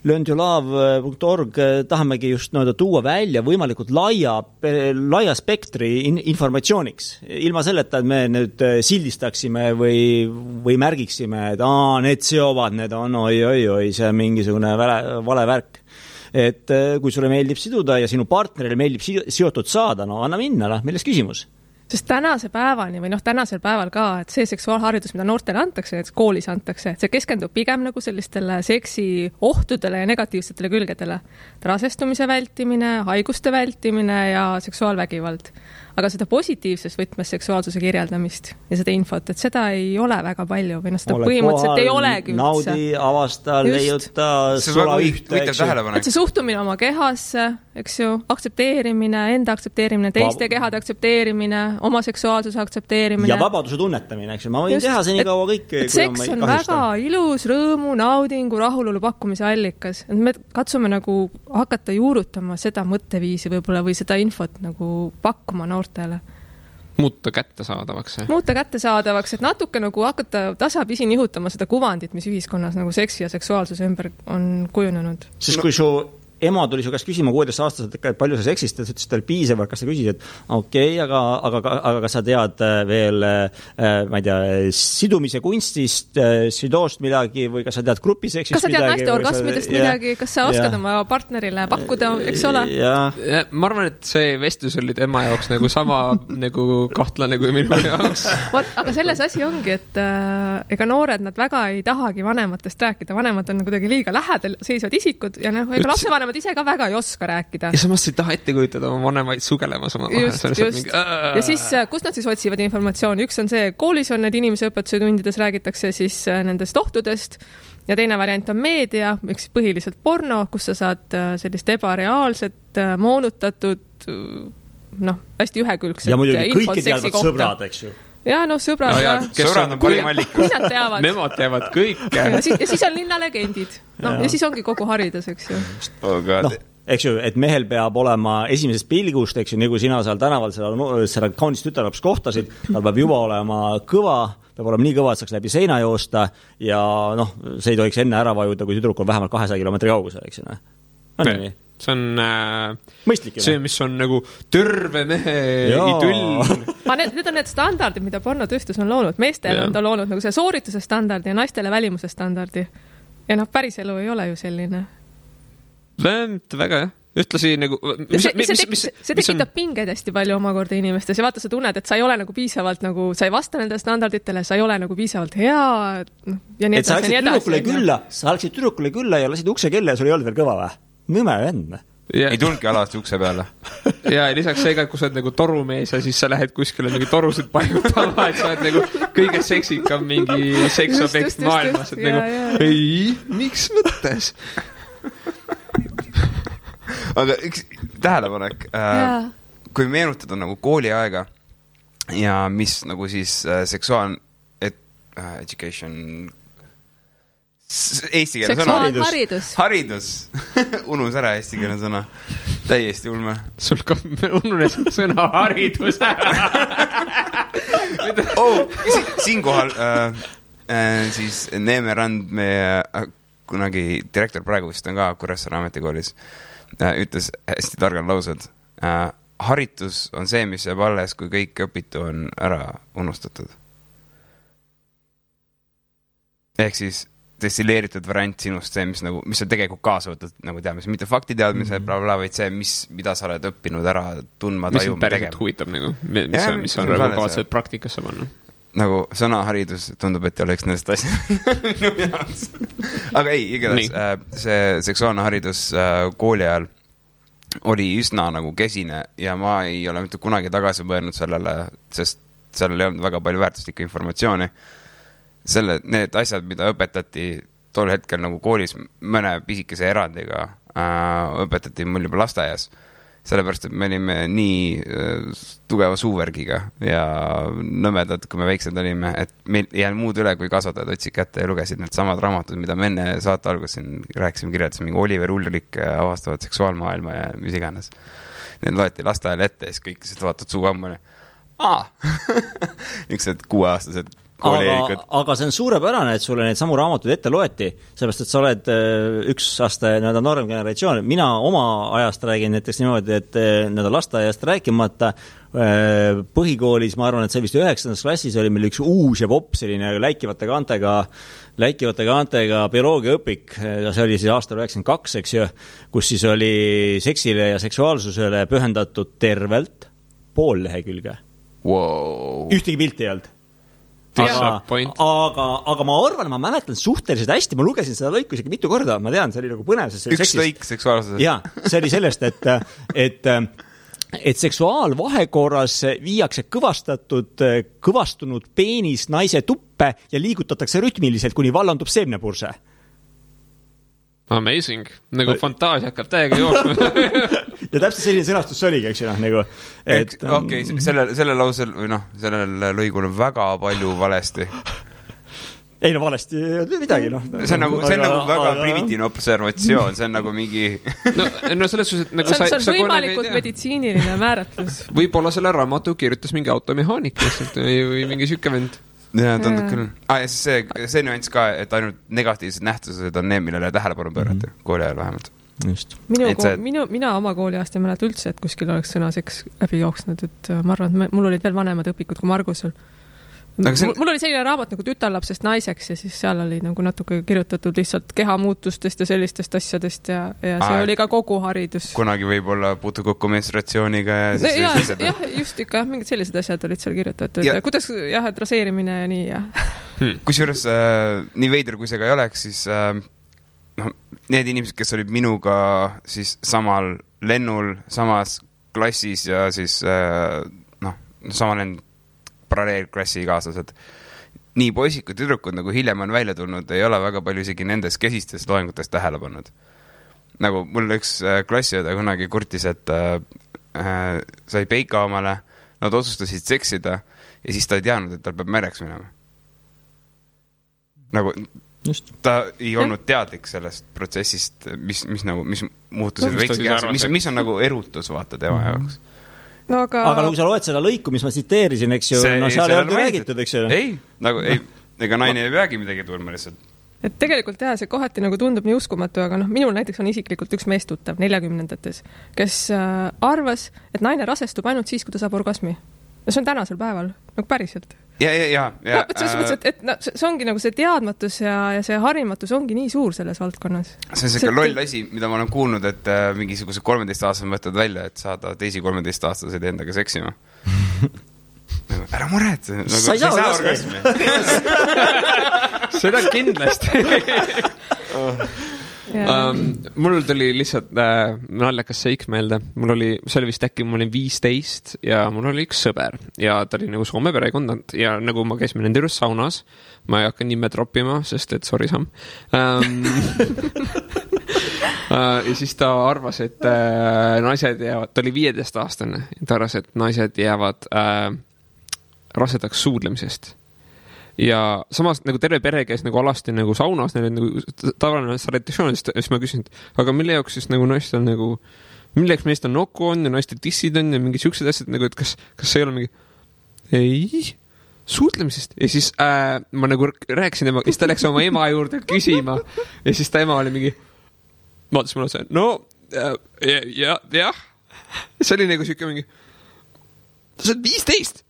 learntulaa.org tahamegi just tuua välja võimalikult laia spektri informatsiooniks. Ilma selleta, et me nüüd sildistaksime või märgiksime, et need seovad, need on oi, see on mingisugune vale värk. Et kui sulle meeldib siduda ja sinu partnerile meeldib seotud saada, anna minna, milles küsimus? Sest tänasel päeval ka, et see seksuaalharidus, mida noortele antakse, et koolis antakse, see keskendub pigem nagu sellistele seksi ohtudele ja negatiivsetele külgedele. Rasestumise vältimine, haiguste vältimine ja seksuaalvägivald. Aga seda positiivses võtmes seksuaalsuse kirjeldamist ja seda infot, et seda ei ole väga palju või seda põhimõtteliselt ei olegi üldse. Naudi, avasta, leiuta, sola ühte. Et see suhtumine oma kehasse, eks ju, aktsepteerimine, enda aktsepteerimine, teiste kehade aktsepteerimine, oma seksuaalsuse aktsepteerimine. Ja vabaduse tunnetamine, eks ju. Ma võin teha seni kaua kõike. Seks on väga ilus, rõõmu, naudingu, rahulolu pakkumise allikas. Et me katsume nagu hakata juurutama seda mõtteviisi võib-olla või seda infot nagu pakkuma noortele. Muuta kättesaadavaks, et natuke nagu hakata tasapisi nihutama seda kuvandit, mis ühiskonnas nagu seksi ja seksuaalsuse ümber on kujunenud. Sest kui su ema tuli su käest küsima 16-aastaselt, et palju sa seksist, et ütles, et piisav, kas sa küsisid, et okei, aga kas sa tead veel, ma ei tea, sidumise kunstist, südoost midagi või kas sa tead grupiseksist midagi? Kas sa tead naiste orgasmidest midagi? Kas sa oskad oma partnerile pakkuda, eks ole? Ma arvan, et see vestlus oli tema jaoks nagu sama nagu kahtlane kui minu jaoks. Aga selles asi ongi, et ega noored nad väga ei tahagi vanematest rääkida. Vanemad on kuidagi liiga lähedal seisvad isikud ja ega lapsevanemad ise ka väga ei oska rääkida. Ja samas ei taha ette kujutada oma vanemaid sugelemas oma just. Ja siis, kus nad siis otsivad informatsiooni? Üks on see, koolis on need inimese õpetuse tundides räägitakse siis nendest ohtudest ja teine variant on meedia, üks põhiliselt porno, kus sa saad sellist ebareaalset, moonutatud, hästi ühekülgset ja muidugi kõike teadvad sõbrad, eks ju. Ja sõbrad. Sõbrad on parim allikas. Nemad teavad kõike. Ja siis on linnalegendid. Ja siis ongi kogu haridus, eks ju. Eks ju, et mehel peab olema esimesest pilgust, eks ju, nagu sina seal tänaval selle kaunist tütarlaps kohtasid, tal peab juba olema kõva, peab olema nii kõva, et saaks läbi seina joosta ja see ei tohiks enne ära vajuda, kui tüdruk on vähemalt 200 kilomeetri kaugusel, eks ju. On nii? See on mõistlik, see, mis on nagu terve mehe idüll. Need on need standardid, mida pornotööstus on loonud. Meestele on ta loonud nagu see soorituse standardi ja naistele välimuse standardi. Ja päris elu ei ole ju selline. Väga, jah. Ühtlasi nagu... See tekitab pingeid hästi palju omakorda inimestes ja vaata, sa tunned, et sa ei ole nagu piisavalt nagu, sa ei vasta nendele standarditele, sa ei ole nagu piisavalt hea ja nii edasi. Sa läksid tüdrukule külla ja lasid ukse kella ja sul ei olnud veel kõva või? Nõme vend. Ei tulnudki alati ukse peale. Ja lisaks see ka, kui sa oled nagu torumees ja siis sa lähed kuskile nagu torusid paiutama, et sa oled nagu kõige seksikam mingi seksobjekt maailmas. Et nagu, ei, miks mõttes? Aga üks tähelepanek, kui meenutada nagu kooliaega ja mis nagu siis education eesti keele sõna. Haridus. Unus ära eesti keele sõna. Täiesti ulme. Sul ka ununes sõna haridus ära. Siinkohal siis Neeme Rand, meie kunagi direktor praegu vist on ka Kuressaare ametikoolis, ütles hästi targad laused. Haritus on see, mis jääb alles, kui kõik õpitu on ära unustatud. Ehk siis destilleeritud variant sinust see, mis sa tegelikult kaasa võtad, nagu teadmise, mitte faktiteadmise, vaid see, mida sa oled õppinud ära tundma, tajuma, tegema. Mis päriselt huvitab, nagu, mis on kavatseid praktikasse panna. Nagu sõnaharidus tundub, et ei oleks nendest asjad. Aga ei, igatahes see seksuaalne haridus kooli ajal oli üsna nagu kesine ja ma ei ole mitte kunagi tagasi mõelnud sellele, sest sellel ei olnud väga palju väärtuslikku informatsiooni. Need asjad, mida õpetati tol hetkel nagu koolis mõne pisikese erandiga, õpetati mul juba lasteaias, sellepärast, et me olime nii tugeva suuvärgiga ja nõmedad, kui me väiksed olime, et meil ei jäänud muud üle, kui kasvatajad otsid kätte ja lugesid need samad raamatud, mida me enne saate alguses rääkisime, kirjeldasime, mingi Oliver Ulrik avastavad seksuaalmaailma ja mis iganes. Need loeti lasteajal ette ja siis kõik vaatad suu ammune. Niisugused 6-aastased aga see on suurepärane, et sulle neid samu raamatud ette loeti, sellepärast, et sa oled üks aasta noorem generatsioon. Mina oma ajast räägin näiteks niimoodi, et lasteaiast rääkimata põhikoolis, ma arvan, et see vist 9. klassis oli meil üks uus ja popp selline läikivate kaantega bioloogiaõpik, ja see oli siis aastal 92, eks ju, kus siis oli seksile ja seksuaalsusele pühendatud tervelt pool lehekülge. Wow. Ühtegi pilti ei olnud. Aga ma arvan, ma mäletan suhteliselt hästi, ma lugesin seda lõiku isegi mitu korda, ma tean, see oli nagu põnev. Üks lõik seksuaalsusest. Jaa, see oli sellest, et seksuaalvahekorras viiakse kõvastunud peenis naise tuppe ja liigutatakse rütmiliselt, kuni vallandub seemnepurse. Amazing. Nagu fantaasia hakkab täiega jooksma. Ja täpselt selline sõnastus see oligi, eks ju, nagu. Okei, selle lausel, või sellel lõigul on väga palju valesti. Ei no valesti midagi, See on nagu väga primitiivne observatsioon, see on nagu mingi... No selles suhtes, et nagu see on võimalikult meditsiiniline määratlus. Võib-olla selle raamatu kirjutas mingi automehaanik või mingi süke vend. Ja, tundub küll. Ja see nüanss ka, et ainult negatiivsed nähtused on need, millele tähelepanu pöörata, kooli ajal vähemalt. Mina oma kooliaasta ei mäleta üldse, et kuskil oleks sõna seks läbi jooksnud, et ma arvan, et mul olid veel vanemad õpikud kui Margusel. Mul oli selline raamat nagu Tütarlapsest naiseks ja siis seal oli nagu natuke kirjutatud lihtsalt kehamuutustest ja sellistest asjadest ja see oli ka kogu haridus. Kunagi võib-olla puutu kokku menstratsiooniga ja siis jah, just ikka, mingid sellised asjad olid seal kirjutatud. Ja kuidas, et raseerimine ja nii ja. Kusjuures nii veider, kui see ka ei oleks, siis need inimesed, kes olid minuga siis samal lennul, samas klassis ja siis sama lend paralleelklassi kaaslased. Nii poisid kui tüdrukud, nagu hiljem on välja tulnud, ei ole väga palju isegi nendes kesistes loengutes tähele pannud. Nagu mul üks klassiõde kunagi kurtis, et sai peika omale, nad otsustasid seksida ja siis ta ei teadnud, et tal peab mereks minema. Nagu ta ei olnud teadlik sellest protsessist, mis muutusid mis on nagu erutus vaata tema jaoks. No, aga kui sa loed seda lõiku, mis ma tsiteerisin, eks ju, seal ei olnud räägitud, eks ju. Ega naine ei peagi midagi tulma lihtsalt. Et tegelikult jah, see kohati nagu tundub nii uskumatu, aga minul näiteks on isiklikult üks meestuttav 40-ndates, kes arvas, et naine rasestub ainult siis, kui ta saab orgasmi. Ja see on tänasel päeval, nagu päriselt. Ja. See ongi nagu see teadmatus ja see harimatus ongi nii suur selles valdkonnas. See on selline loll asi, mida ma olen kuulnud, et mingisuguse 13-aastased võtad välja, et saada teisi 13-aastaseid endaga seksima. Ära mured. Sa ei saa orgasmi. Seda kindlasti. Mul tuli lihtsalt naljakas seik meelde. See oli vist äkki, ma olin 15 ja mul oli üks sõber ja ta oli nagu Soome perekond ja nagu ma käisime nende juures saunas, ma ei hakka nime troppima, sest et sorry Sam. Ja siis ta arvas, et naised jäävad, ta oli 15-aastane, ta arvas, et naised jäävad rasedaks suudlemisest. Ja samas nagu terve pere käis nagu alasti nagu saunas, neil nagu tavaline sanitatsioon, siis ma küsin, aga mille jaoks siis nagu naistel nagu, milleks meist on nokku on ja naistel tissid on ja mingi siuksed asjad nagu, et kas see ei ole mingi ei, suudlemisest ja siis ma nagu rääkisin temaga, siis ta läks oma ema juurde küsima ja siis ta ema oli mingi vaatas mulle see, jah see oli nagu siuke mingi sa oled 15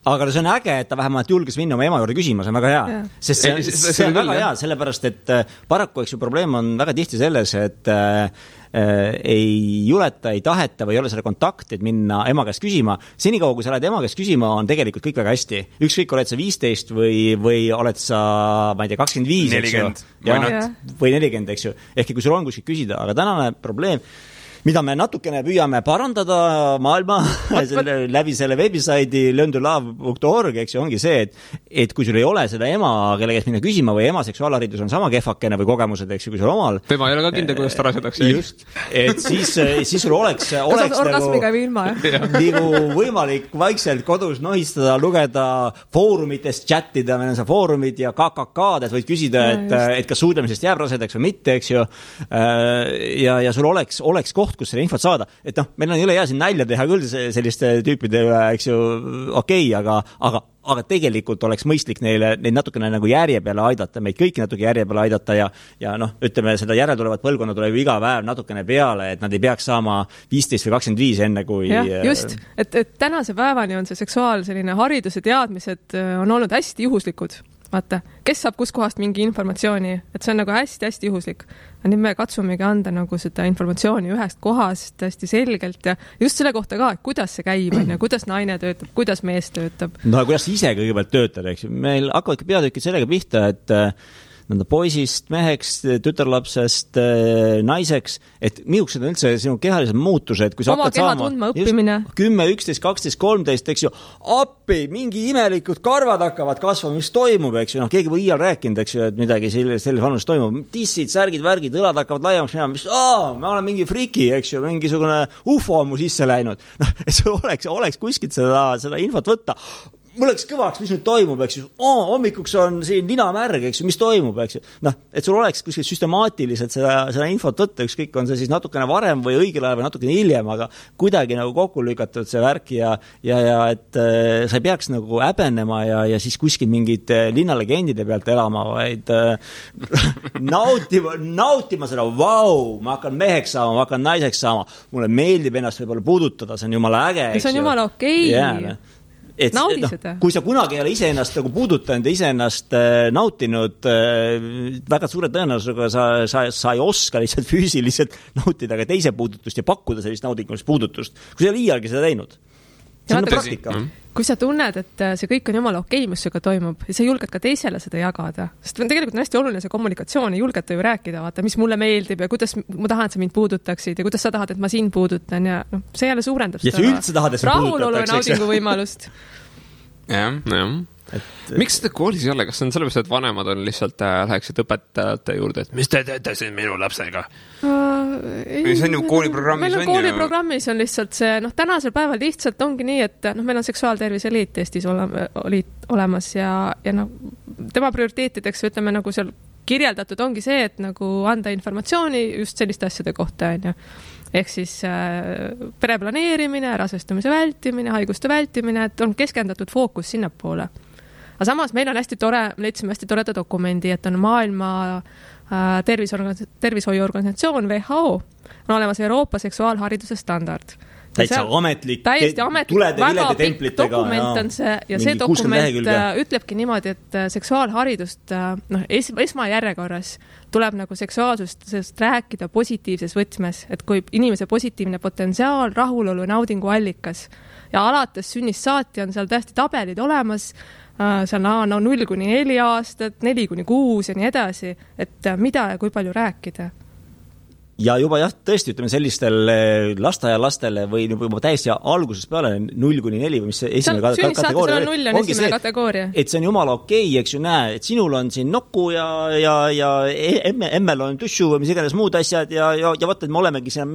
aga see on äge, et ta vähemalt julges minna oma ema juurde küsima, see on väga hea. Sest see on väga hea, sellepärast, et paraku, eks ju, probleem on väga tihti selles, et ei juleta, ei taheta või ei ole selle kontakti, et minna ema käest küsima. Senikaua, kui sa lähed ema käest küsima, on tegelikult kõik väga hästi. Ükskõik, oled sa 15 või oled sa, ma ei tea, 25, 40, või 40, eks ju. Ehk kui sul on kuskil küsida, aga tänane probleem, mida me natukene püüame parandada maailma läbi selle veebisaidi learntolove.org, eks ju, ongi see, et kui sul ei ole seda ema, kelle käest minna küsima või ema seksuaalharidus on sama kehvakene või kogemused, eks ju, kui sul omal. Tema ei ole ka kindel, kuidas ta rasetakse. Just, et siis sul oleks nagu võimalik vaikselt kodus nohistada, lugeda foorumitest, chattida, meil on see foorumid ja KKK-d, et võid küsida, et kas suudlemisest jääb rasedaks või mitte, eks ju. Ja sul oleks koht, kus selle infot saada, et meil on üle hea siin nälja teha küll selliste tüüpide üle, eks ju, okei, aga tegelikult oleks mõistlik neid natukene nagu järje peale aidata, meid kõiki natuke järje peale aidata ja ütleme, seda järeltulevat põlvkonna tuleb iga päev natukene peale, et nad ei peaks saama 15 või 25 enne kui... Ja, just, et tänase päevani on see seksuaal selline haridus ja teadmised on olnud hästi juhuslikud. Vaata, kes saab kus kohast mingi informatsiooni, et see on nagu hästi juhuslik. Nüüd me katsumegi anda nagu seda informatsiooni ühest kohast hästi selgelt ja just selle kohta ka, et kuidas see käib, kuidas naine töötab, kuidas mees töötab. No kuidas ise kõigepealt töötab, eks ju. Meil hakkavad peatükid sellega pihta, et poisist, meheks, tütarlapsest, naiseks, et miuksed on üldse sinu kehalised muutused, kui sa hakkad saama... Oma keha tundma õppimine. 10, 11, 12, 13, eks ju, appi, mingi imelikud karvad hakkavad kasvama, mis toimub, eks ju, keegi või iial rääkinud, eks ju, et midagi selles vanus toimub, tissid, särgid, värgid, õlad hakkavad laiemaks minema, mis, ma olen mingi friki, eks ju, mingisugune ufo on mu sisse läinud. Et sul oleks kuskilt seda infot võtta. mul läks kõvaks, mis nüüd toimub, eks ju, hommikuks on siin ninamärg, eks ju, mis toimub, eks ju. Noh, et sul oleks kuskil süstemaatiliselt seda infot võtta, ükskõik on see siis natukene varem või õigel ajal või natukene hiljem, aga kuidagi nagu kokku lükatud see värk ja et sa ei peaks nagu häbenema ja siis kuskil mingid linnalegendide pealt elama, vaid nautima seda, ma hakkan meheks saama, ma hakkan naiseks saama, mulle meeldib ennast võib-olla puudutada, see on jumala äge. See on jumala okei. Naudi seda. Kui sa kunagi ei ole iseennast nagu puudutanud ja iseennast nautinud, väga suure tõenäosusega sa ei oska lihtsalt füüsiliselt nautida ka teise puudutust ja pakkuda sellist naudingulist puudutust, kui sa ei ole iialgi seda teinud. See on praktika. Kui sa tunned, et see kõik on jumala okei, mis sinuga toimub, ja sa julged ka teisele seda jagada, sest tegelikult on hästi oluline see kommunikatsioon, ei julgeta ju rääkida, vaata, mis mulle meeldib ja kuidas ma tahan, et sa mind puudutaksid ja kuidas sa tahad, et ma sind puudutan ja see jälle suurendab seda rahulolu ja naudingu võimalust. Jah. Miks seda koolis ei ole? Kas on sellepärast, et vanemad on lihtsalt läheksid õpetajate juurde, et mis te teete siin minu lapsega? See on ju kooliprogrammis. Meil on kooliprogrammis on lihtsalt see, tänasel päeval lihtsalt ongi nii, et meil on seksuaaltervise liit Eestis olemas ja tema prioriteetideks, ütleme nagu seal kirjeldatud ongi see, et nagu anda informatsiooni just selliste asjade kohta, ehk siis pereplaneerimine, rasestumise vältimine, haiguste vältimine, et on keskendatud fookus sinnapoole. Aga samas meil on hästi tore, leidsime hästi toreda dokumendi, et on maailma tervishoiuorganisatsioon WHO, on olemas Euroopa seksuaalhariduse standard. Täitsa ametlik, tulede vilede templitega. Dokument on see ja see dokument ütlebki niimoodi, et seksuaalharidust esmajärjekorras tuleb nagu seksuaalsusest rääkida positiivses võtmes, et kui inimese positiivne potentsiaal, rahulolu ja naudingu allikas ja alates sünnist saati on seal täiesti tabelid olemas, seal on 0-4 aastat, 4-6 ja nii edasi, et mida ja kui palju rääkida. Ja juba tõesti, ütleme sellistel lasteaialastele või juba täiesti algusest peale 0-4 või mis see esimene kategooria ongi see, et see on jumala okei, eks ju näe, et sinul on siin nokku ja emmel on tussu või mis iganes muud asjad ja vaata, et me olemegi siin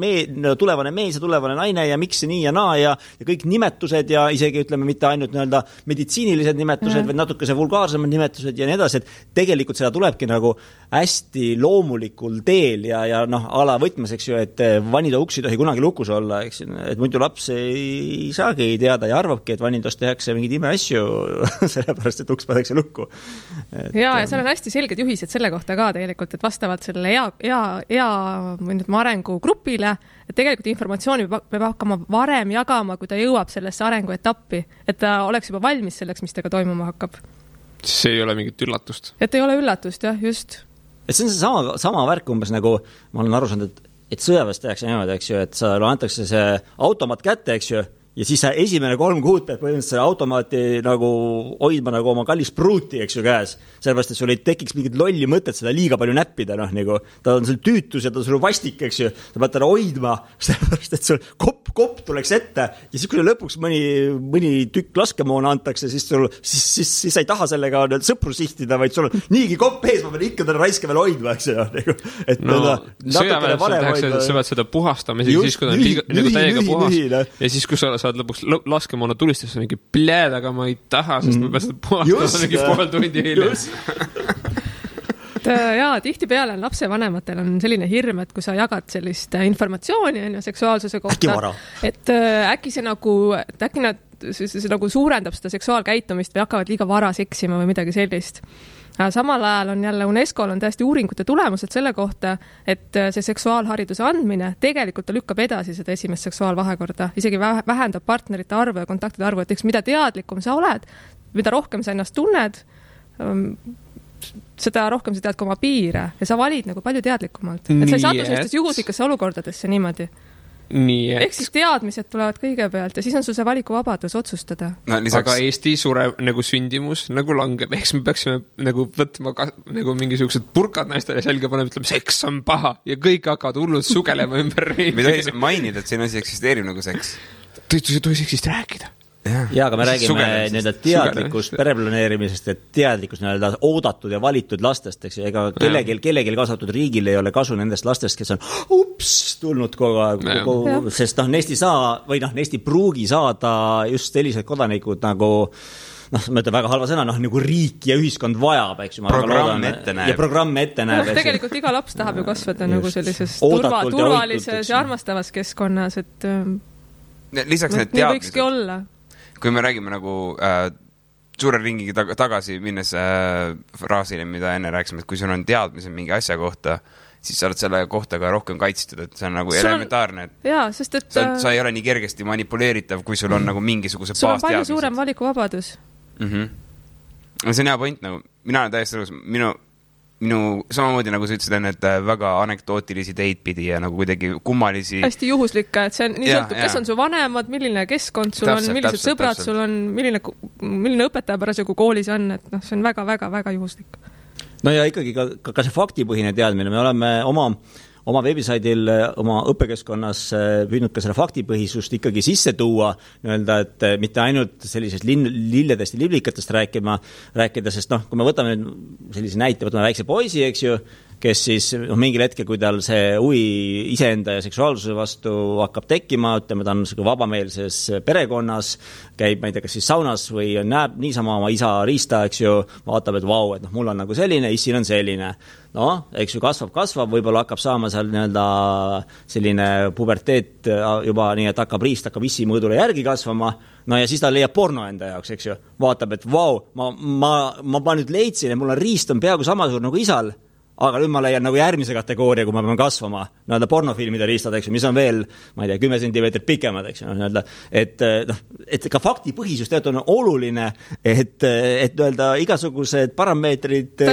tulevane mees ja tulevane naine ja miks nii ja naa ja kõik nimetused ja isegi ütleme mitte ainult meditsiinilised nimetused, vaid natuke see vulgaarsemad nimetused ja nii edasi, et tegelikult seda tulebki nagu hästi loomulikul teel ja ala võtmes, eks ju, et vanida uks ei tohi kunagi lukus olla, eks ju, et muidu laps ei saagi teada ja arvabki, et vanindas tehakse mingid imeasju, sellepärast, et uks patakse lukku. Ja seal on hästi selged juhised selle kohta ka tegelikult, et vastavalt selle ea arengugrupile, et tegelikult informatsiooni peab hakkama varem jagama, kui ta jõuab sellesse arenguetappi, et ta oleks juba valmis selleks, mis tega toimuma hakkab. See ei ole mingit üllatust. Et ei ole üllatust, jah, just. Et see on see sama värk umbes nagu, ma olen aru saanud, et sõjaväes tehakse niimoodi, eks ju, et sa antakse see automaat kätte, eks ju, ja siis sa esimene 3 kuud pead põhimõtteliselt selle automaati nagu hoidma nagu oma kallis pruuti, eks ju, käes. Sellepärast, et sul ei tekiks mingit lolli mõtet seda liiga palju näppida, nagu ta on sul tüütus ja ta on sul vastik, eks ju. Ta pead teda hoidma, sellepärast, et sul kopp tuleks ette ja siis, kui lõpuks mõni tükk laskemoona antakse, siis sa ei taha sellega sõpru sihtida, vaid sul on niigi kopp ees, ma pean ikka teda raiske veel hoidma, eks ju. Sõjaväes sa pead seda puhastama siis, kui ta on nagu täiega puhas ja siis, kui sa saad lõpuks laskemoona tulistus, on mingi pläed, aga ma ei taha, sest ma pean seda puhastama mingi pool tundi hiljem. Jaa, tihtipeale lapsevanematel on selline hirm, et kui sa jagad sellist informatsiooni seksuaalsuse kohta, et äkki see nagu suurendab seda seksuaalkäitumist või hakkavad liiga vara seksima või midagi sellist. Samal ajal on jälle UNESCO-l on täiesti uuringute tulemused selle kohta, et see seksuaalhariduse andmine tegelikult lükkab edasi seda esimest seksuaalvahekorda, isegi vähendab partnerite arvu ja kontaktide arvu, et eks mida teadlikum sa oled, mida rohkem sa ennast tunned, seda rohkem sa tead ka oma piire ja sa valid nagu palju teadlikumalt. Et sa ei satu sellistesse juhuslikesse olukordadesse niimoodi. Ehk siis teadmised tulevad kõigepealt ja siis on sul see valikuvabadus otsustada. Aga Eesti sureb nagu sündimus, nagu langeb. Eks me peaksime nagu võtma nagu mingisugused purkad naistele selga panema, ütleme, seks on paha ja kõik hakkavad hullud sugelema ümber riigi. Me tohi mainida, et siin asi eksisteerib nagu seks. Tohi seksist rääkida. Ja, aga me räägime teadlikust pereplaneerimisest ja teadlikust oodatud ja valitud lastest, eks, ega kellelgi kaasatud riigil ei ole kasu nendest lastest, kes on tulnud kogu aeg, sest Neist ei saa või Neist ei pruugi saada just sellised kodanikud nagu ma ütlen väga halva sõna, nagu riik ja ühiskond vajab, eks ju. Programm ette näeb. Ja programm ette näeb. Tegelikult iga laps tahab ju kasvada nagu sellises turvalises ja armastavas keskkonnas, et lisaks need teadmised. Kui me räägime nagu suure ringiga tagasi minnes fraasile, mida enne rääkisime, et kui sul on teadmised mingi asja kohta, siis sa oled selle kohta ka rohkem kaitstud, et see on nagu elementaarne. Jaa, sest et sa ei ole nii kergesti manipuleeritav, kui sul on nagu mingisuguse baasteadmised. Sul on palju suurem valikuvabadus. See on hea point, nagu mina olen täiesti õlus, minu samamoodi nagu sa ütlesid enne, et väga anekdootilisi teid pidi ja nagu kuidagi kummalisi. Hästi juhuslikka, et see on nii sõltub, kes on su vanemad, milline keskkond sul on, millised sõbrad sul on, milline õpetaja parasjagu koolis on, et see on väga juhuslik. No ja ikkagi ka see faktipõhine teadmine, me oleme oma veebisaidil, oma õppekeskkonnas püüdnud ka selle faktipõhisust ikkagi sisse tuua, öelda, et mitte ainult sellisest lilledest ja liblikatest rääkida, sest kui me võtame sellise näite, võtame väikse poisi, eks ju, kes siis mingil hetkel, kui tal see huvi iseenda ja seksuaalsuse vastu hakkab tekkima, ütleme, ta on vabameelses perekonnas, käib, ma ei tea, kas siis saunas või näeb niisama oma isa riista, eks ju, vaatab, et vau, et mul on nagu selline, issil on selline. Eks ju, kasvab, võib-olla hakkab saama seal selline puberteet juba nii, et hakkab issi mõõdule järgi kasvama, ja siis ta leiab porno enda jaoks, eks ju, vaatab, et vau, ma nüüd leidsin, et mul on riist on peaaegu samasugune nagu isal, aga nüüd ma leian nagu järgmise kategooria, kui ma pean kasvama, pornofilmide riistad, eks ju, mis on veel, ma ei tea, 10 sentimeetrit pikemad, eks ju, et ka faktipõhisus tegelikult on oluline, et igasugused parameetrid,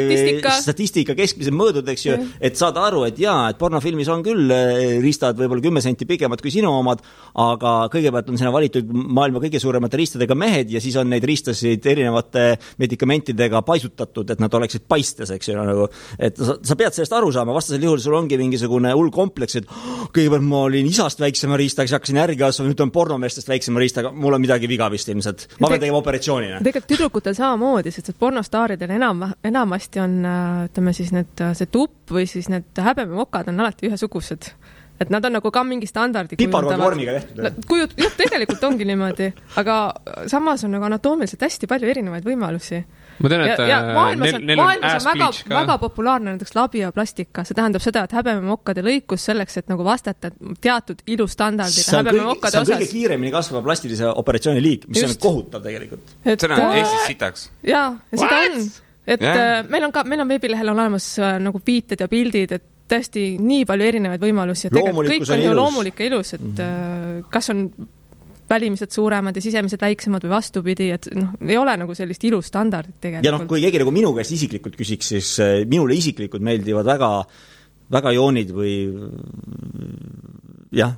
statistika keskmised mõõdud, eks ju, et saada aru, et jaa, et pornofilmis on küll riistad võib-olla 10 senti pikemad kui sinu omad, aga kõigepealt on sinna valitud maailma kõige suuremate riistadega mehed ja siis on neid riistasid erinevate medikamentidega paisutatud, et nad oleksid paistes, eks ju, nagu, et sa pead sellest aru saama, vastasel juhul sul ongi mingisugune hull kompleks, et kõigepealt ma olin isast väiksema riistaga, siis hakkasin järgi kasvama, nüüd on pornomeestest väiksema riistaga, mul on midagi viga vist ilmselt. Ma pean tegema operatsioonina. Tegelikult tüdrukutel samamoodi, sest pornostaaridel enamasti on, ütleme siis see tupp või siis need häbememokad on alati ühesugused. Et nad on nagu ka mingi standardi piparvormiga tehtud. Tegelikult ongi niimoodi, aga samas on nagu anatoomiliselt hästi palju erinevaid võimalusi. Ma tean, et maailmas on väga populaarne näiteks labioplastika. See tähendab seda, et häbememokkade lõikus selleks, et nagu vastata teatud ilustandardile häbememokkade osas. See on kõige kiiremini kasvava plastilise operatsiooni liik, mis on kohutav tegelikult. See on Eestis sitaks. Jaa, ja seda on. Et meil on veebilehel olemas nagu viited ja pildid, et tõesti nii palju erinevaid võimalusi, et kõik on ju loomulik ja ilus, et kas on välimised suuremad ja sisemised väiksemad või vastupidi, et ei ole nagu sellist ilustandardit tegelikult. Ja kui keegi nagu minu käest isiklikult küsiks, siis minule isiklikult meeldivad väga joonid või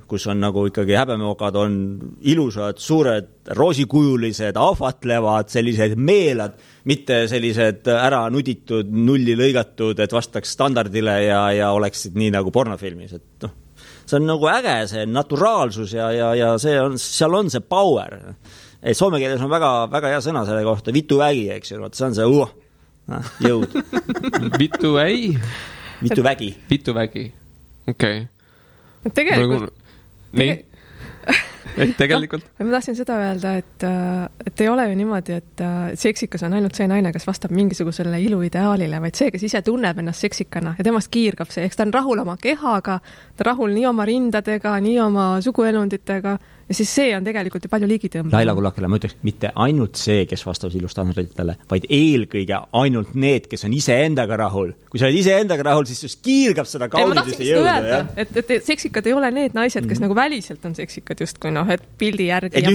kus on nagu ikkagi häbememokad on ilusad, suured, roosikujulised, ahvatlevad, sellised meelad, mitte sellised ära nuditud, nulli lõigatud, et vastaks standardile ja oleksid nii nagu pornofilmis, et see on nagu äge, see naturaalsus ja seal on see power. Soome keeles on väga hea sõna selle kohta, vituvägi, eks ju, see on see jõud. Vituvägi. Vituvägi, okei. Tegelikult. Tegelikult. Ma tahtsin seda öelda, et ei ole ju niimoodi, et seksikas on ainult see naine, kes vastab mingisugusele iluideaalile, vaid see, kes ise tunneb ennast seksikana ja temast kiirgab see. Eks ta on rahul oma kehaga, ta rahul nii oma rindadega, nii oma suguelunditega ja siis see on tegelikult ju palju liigitõmba. Laila Kullakele, ma ütleks, mitte ainult see, kes vastavad ilustandarditele, vaid eelkõige ainult need, kes on iseendaga rahul. Kui sa oled iseendaga rahul, siis kiirgab seda kaunidust ja jõuda. Et seksikad ei ole need naised, kes nagu väliselt on seksikad justkui, et pildi järgi ja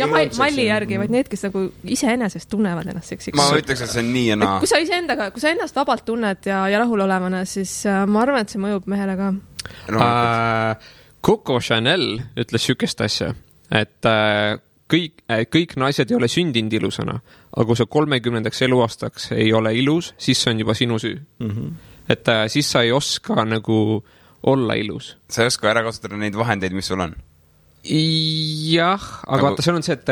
malli järgi, vaid need, kes nagu iseenesest tunnevad ennast seksikad. Ma ütleks, et see on nii ja naa. Kui sa ennast vabalt tunned ja rahul olevana, siis ma arvan, et see mõjub mehele ka. Coco Chanel ütles sükest asja, et kõik naised ei ole sündinud ilusana, aga kui sa 30. eluaastaks ei ole ilus, siis see on juba sinu süü. Et siis sa ei oska nagu olla ilus. Sa ei oska ära kasutada neid vahendeid, mis sul on? Jah, aga vaata, see on see, et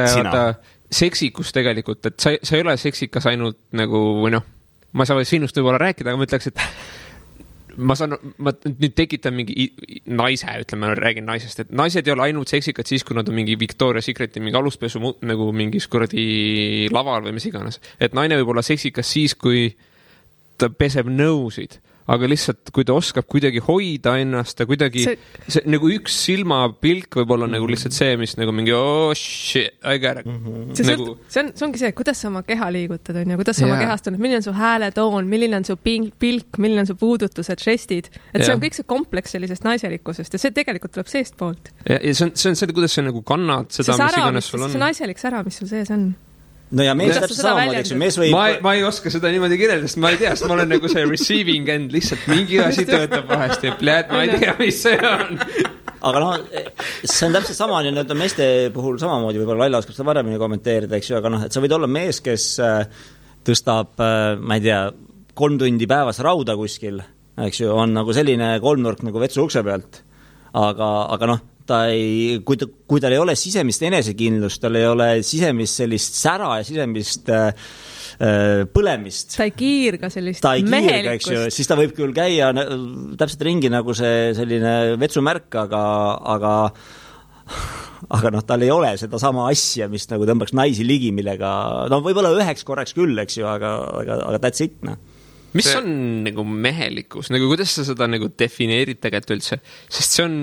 seksikus tegelikult, et sa ei ole seksikas ainult nagu, või ma ei saa sinust võib-olla rääkida, aga ma ütleks, et ma nüüd tekitan mingi naise, ütleme, räägin naisest, et naised ei ole ainult seksikad siis, kui nad on mingi Victoria's Secreti mingi aluspesu nagu mingis kuradi laval või mis iganes. Et naine võib olla seksikas siis, kui ta peseb nõusid, aga lihtsalt, kui ta oskab kuidagi hoida ennast ja kuidagi see nagu üks silmapilk võib olla nagu lihtsalt see, mis nagu mingi oh shit, I got it. Nagu... See ongi see, kuidas sa oma keha liigutad on ja kuidas sa oma kehast tunned, milline on su hääletoon, milline on su pilk, milline on su puudutused, žestid. Et see on kõik see kompleks sellisest naiselikkusest ja see tegelikult tuleb seest poolt. Ja see on see, kuidas sa nagu kannad seda, mis iganes sul on. See naiselik sära, mis sul sees on. No ja mees täpselt samamoodi, eks ju, mees võib... Ma ei oska seda niimoodi kirjeldada, sest ma ei tea, sest ma olen nagu see receiving end, lihtsalt mingi asi töötab vahest ja pljääd, ma ei tea, mis see on. Aga see on täpselt sama, nüüd meeste puhul samamoodi, võib-olla Laila oskab seda varemini kommenteerida, eks ju, aga et sa võid olla mees, kes tõstab, ma ei tea, 3 tundi päevas rauda kuskil, eks ju, on nagu selline kolmnurk nagu vetsu ukse pealt, aga ta ei, kui tal ei ole sisemist enesekindlust, tal ei ole sisemist sellist sära ja sisemist põlemist. Ta ei kiirga sellist mehelikkust. Siis ta võib küll käia täpselt ringi nagu see selline vetsumärk, aga tal ei ole seda sama asja, mis nagu tõmbaks naisi ligi, millega, võib-olla üheks korraks küll, eks ju, aga that's it, Mis on nagu mehelikkus? Nagu kuidas sa seda nagu defineerid tegelikult üldse? Sest see on...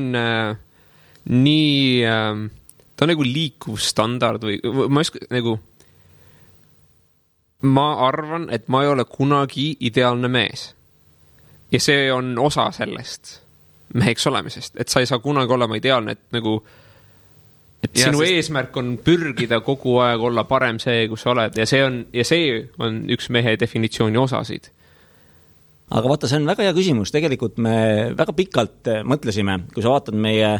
nii, ta on nagu liikuv standard või ma arvan, et ma ei ole kunagi ideaalne mees. Ja see on osa sellest meheks olemisest, et sa ei saa kunagi olema ideaalne, et nagu, et sinu eesmärk on pürgida kogu aeg olla parem see, kus sa oled ja see on üks mehe definitsiooni osasid. Aga vaata, see on väga hea küsimus, tegelikult me väga pikalt mõtlesime, kui sa vaatad meie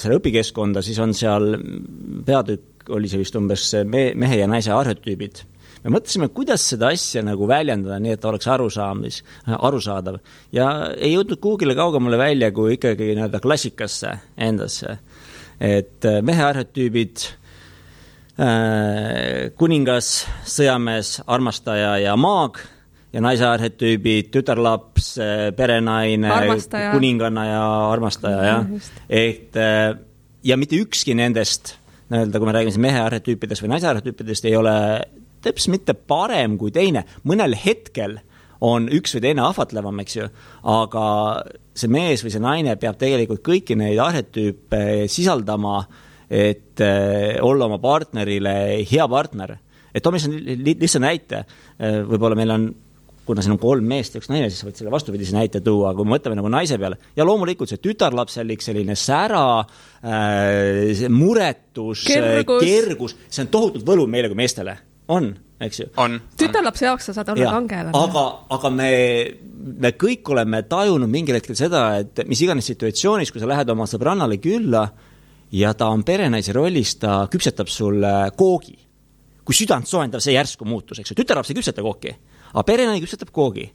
selle õpikeskkonda, siis on seal peatükk, oli see vist umbes mehe ja naise arhetüübid. Me mõtlesime, kuidas seda asja nagu väljendada, nii et ta oleks arusaadav. Ja ei jõudnud kuhugile kaugemale välja, kui ikkagi klassikasse endasse. Et mehe arhetüübid, kuningas, sõjamees, armastaja ja maag, ja naise arhetüübid, tütarlaps, perenaine, armastaja. Kuninganna ja armastaja. Ja mitte ükski nendest, kui me räägime mehe arhetüüpidest või naise arhetüüpidest, ei ole täpselt mitte parem kui teine. Mõnel hetkel on üks või teine ahvatlevam, eks ju, aga see mees või see naine peab tegelikult kõiki neid arhetüüpe sisaldama, et olla oma partnerile hea partner. Et Tomis on lihtsalt näite, võib-olla meil on kuna siin on 3 meest ja 1 naine, siis võid selle vastupidise näite tuua, kui me mõtleme nagu naise peale. Ja loomulikult see tütarlapselik selline sära, muretus, kergus, see on tohutult võlu meile kui meestele. On, eks ju? On. Tütarlapse jaoks sa saad olla kangelane. Aga me kõik oleme tajunud mingil hetkel seda, et mis iganes situatsioonis, kui sa lähed oma sõbrannale külla ja ta on perenaise rollis, ta küpsetab sulle koogi. Kui südant soendav see järsku muutus, eks ju? Tütarlaps ei küpseta kooki. Aga perenaine küpsetab koogi.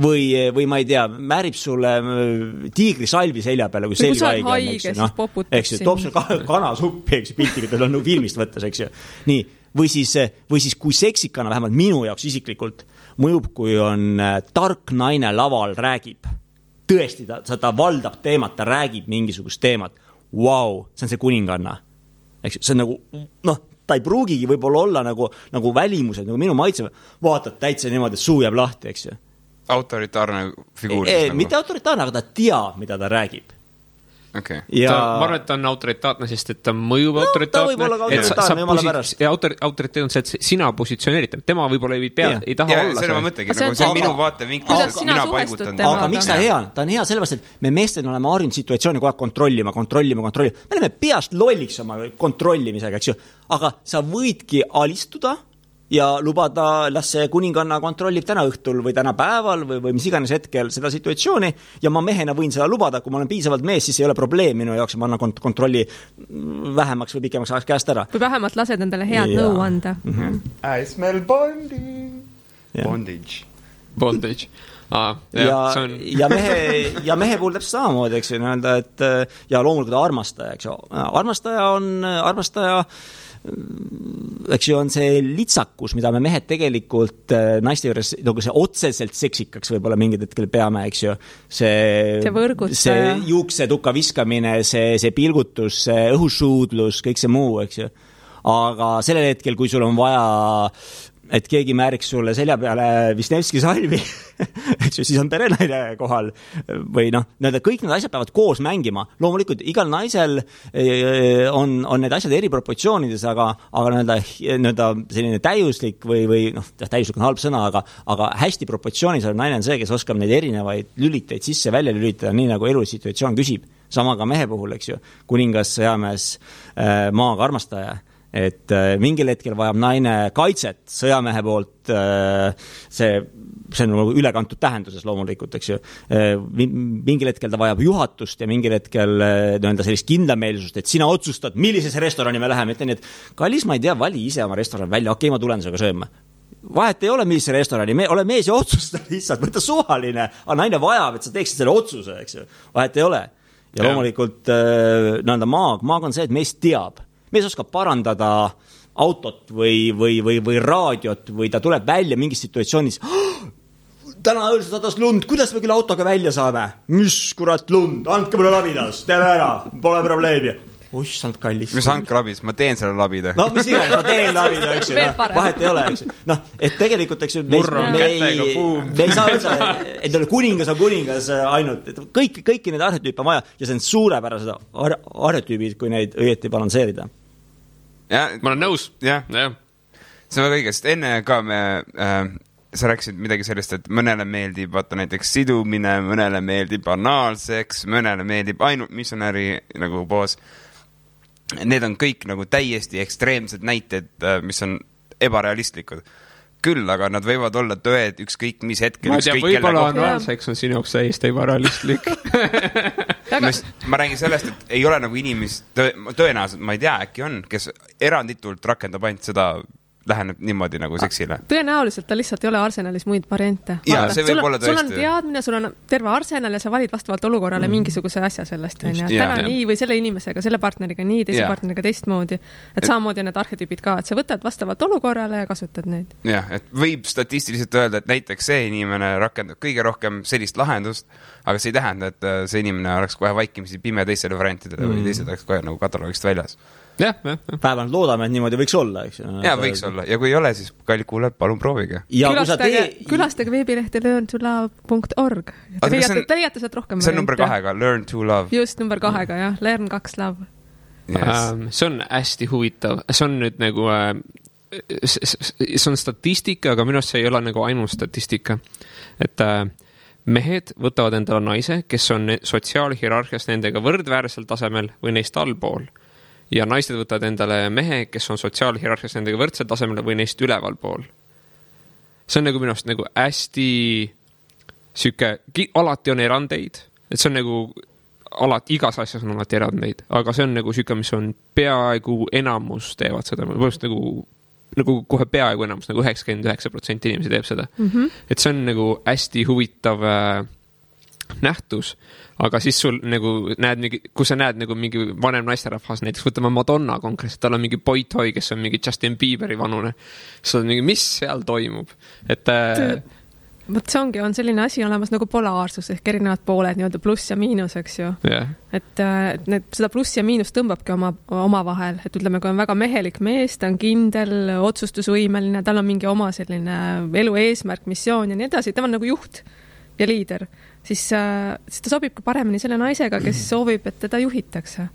Või ma ei tea, määrib sulle tiigri salvi selja peale, kui selg haige on. Eks ju, toob sulle kanasuppi, eks ju, piltiga, tal on filmist võttes, eks ju. Nii, või siis kui seksikana, vähemalt minu jaoks isiklikult, mõjub, kui on tark naine laval räägib. Tõesti, ta valdab teemat, ta räägib mingisugust teemat. Wow, see on see kuninganna. Eks ju, see on nagu, ta ei pruugigi võib-olla olla nagu välimused, nagu minu maitse, vaatad täitsa niimoodi, et suu jääb lahti, eks ju. Autoritaarne figuur. Mitte autoritaarne, aga ta teab, mida ta räägib. Okay. Ja... ma arvan, et ta on autoritaatne, sest et ta mõjub autoritaatne. Ta võib olla ka autoritaarne, jumala pärast. Autoriteet on see, et sina positsioneerid. Tema võib-olla ei taha olla. See on mõttegi, nagu see on minu vaatevinklus, mina paigutan. Aga miks ta hea? Ta on hea sellepärast, et me meestel oleme harjunud situatsiooni kogu aeg kontrollima. Me oleme peast lolliks oma kontrollimisega, eks ju. Aga sa võidki alistuda ja lubada, las see kuninganna kontrollib täna õhtul või täna päeval või mis iganes hetkel seda situatsiooni ja ma mehena võin seda lubada, kui ma olen piisavalt mees, siis ei ole probleem minu jaoks, ma annan kontrolli vähemaks või pikemaks ajaks käest ära. Või vähemalt lased endale head nõu anda. I smell bondage. Ja mehe puhul täpselt samamoodi, eks ju, et ja loomulikult armastaja, eks ju. Armastaja eks ju, on see litsakus, mida me mehed tegelikult naiste juures nagu see otseselt seksikaks võib-olla mingid hetkel peame, eks ju. See juuksetuka viskamine, see pilgutus, see õhusuudlus, kõik see muu, eks ju. Aga sellel hetkel, kui sul on vaja, et keegi määriks sulle selja peale Wisniewski salvi, eks ju, siis on perenaine kohal või kõik need asjad peavad koos mängima. Loomulikult igal naisel on need asjad eri proportsioonides, aga selline täiuslik või täiuslik on halb sõna, aga hästi proportsioonis on naine see, kes oskab neid erinevaid lüliteid sisse välja lülitada, nii nagu elusituatsioon küsib. Sama ka mehe puhul, eks ju, kuningas, sõjamees, maaga armastaja. Et mingil hetkel vajab naine kaitset sõjamehe poolt, see on nagu ülekantud tähenduses loomulikult, eks ju. Mingil hetkel ta vajab juhatust ja mingil hetkel sellist kindlameelsust, et sina otsustad, millisesse restorani me läheme. Ütlen, et kallis, ma ei tea, vali ise oma restoran välja, okei, ma tulen sellega sööma. Vahet ei ole, millise restorani, ole mees ja otsusta lihtsalt, võtta suvaline, aga naine vajab, et sa teeksid selle otsuse, eks ju. Vahet ei ole. Ja loomulikult maag on see, et mees teab. Mees oskab parandada autot või raadiot või ta tuleb välja mingis situatsioonis. Täna õõl sadas lund, kuidas me küll autoga välja saame? Mis kurat lund? Andke mulle labidas, teeme ära, pole probleemi. Oissand kallis. Mis andke labis? Ma teen selle labida. No, mis iganes, ma teen labida, eks ju. Vahet ei ole, eks ju. Et tegelikult, eks ju, me ei saa öelda, et kuningas on kuningas ainult. Kõiki need arhetüüpe on vaja ja see on suurepärased arhetüübid, kui neid õieti balanseerida. Ja, ma olen nõus. Jah. See on väga õige, sest enne ka sa rääkisid midagi sellest, et mõnele meeldib vaata näiteks sidumine, mõnele meeldib banaalseks, mõnele meeldib ainult missionäri nagu poos. Need on kõik nagu täiesti ekstreemsed näited, mis on ebarealistlikud. Küll, aga nad võivad olla tõed ükskõik mis hetkel. Ma ei tea, võib-olla anaalseks on sinu jaoks täiesti ebarealistlik. Ma räägin sellest, et ei ole nagu inimest, tõenäoliselt, ma ei tea, äkki on, kes eranditult rakendab ainult seda, läheneb niimoodi nagu seksile. Tõenäoliselt ta lihtsalt ei ole arsenalis muid variante. Ja, see võib olla tõesti. Sul on teadmine, sul on terve arsenal ja sa valid vastavalt olukorrale mingisuguse asja sellest. Täna nii või selle inimesega, selle partneriga nii, teise partneriga teistmoodi. Et samamoodi need arhetüübid ka, et sa võtad vastavalt olukorrale ja kasutad neid. Jah, et võib statistiliselt öelda, et näiteks see inimene rakendab kõige rohkem sellist lahendust, aga see ei tähenda, et see inimene oleks kohe vaikimisi pime teistele variantidele või teised oleks kohe nagu kataloogist väljas. Päevalt loodame, et niimoodi võiks olla, eks ju. Ja võiks olla. Ja kui ei ole, siis kallid kuulajad, palun proovige. Külastage veebilehti learntolove.org. Te leiate sealt rohkem. See on number 2, Learn to Love. Just, number 2, jah. Learn 2 Love. See on hästi huvitav. See on nüüd nagu see on statistika, aga minu arust see ei ole nagu ainult statistika. Et mehed võtavad endale naise, kes on sotsiaalhierarhias nendega võrdväärsel tasemel või neist allpool. Ja naised võtavad endale mehe, kes on sotsiaalhierarhias nendega võrdsel tasemel või neist üleval pool. See on nagu minu arust nagu hästi alati on erandeid, et see on nagu igas asjas on alati erandeid, aga see on nagu süke, mis on peaaegu enamus teevad seda, nagu kohe peaaegu enamus, nagu 99% inimesi teeb seda. Et see on nagu hästi huvitav nähtus, aga siis sul nagu kui sa näed nagu mingi vanem naisterahvas, näiteks võtame Madonna konkreetselt, tal on mingi boy-toy, kes on mingi Justin Bieberi vanune, siis on mingi, mis seal toimub? Võt see on selline asi olemas nagu polaarsus ehk erinevad pooled, nii-öelda pluss ja miinus, eks ju. Et seda pluss ja miinus tõmbabki oma vahel, et ütleme, kui on väga mehelik mees, ta on kindel, otsustusvõimeline, tal on mingi oma selline elu eesmärk, missioon ja nii edasi, tema on nagu juht ja liider, siis ta sobib ka paremini selle naisega, kes soovib, et teda juhitakse.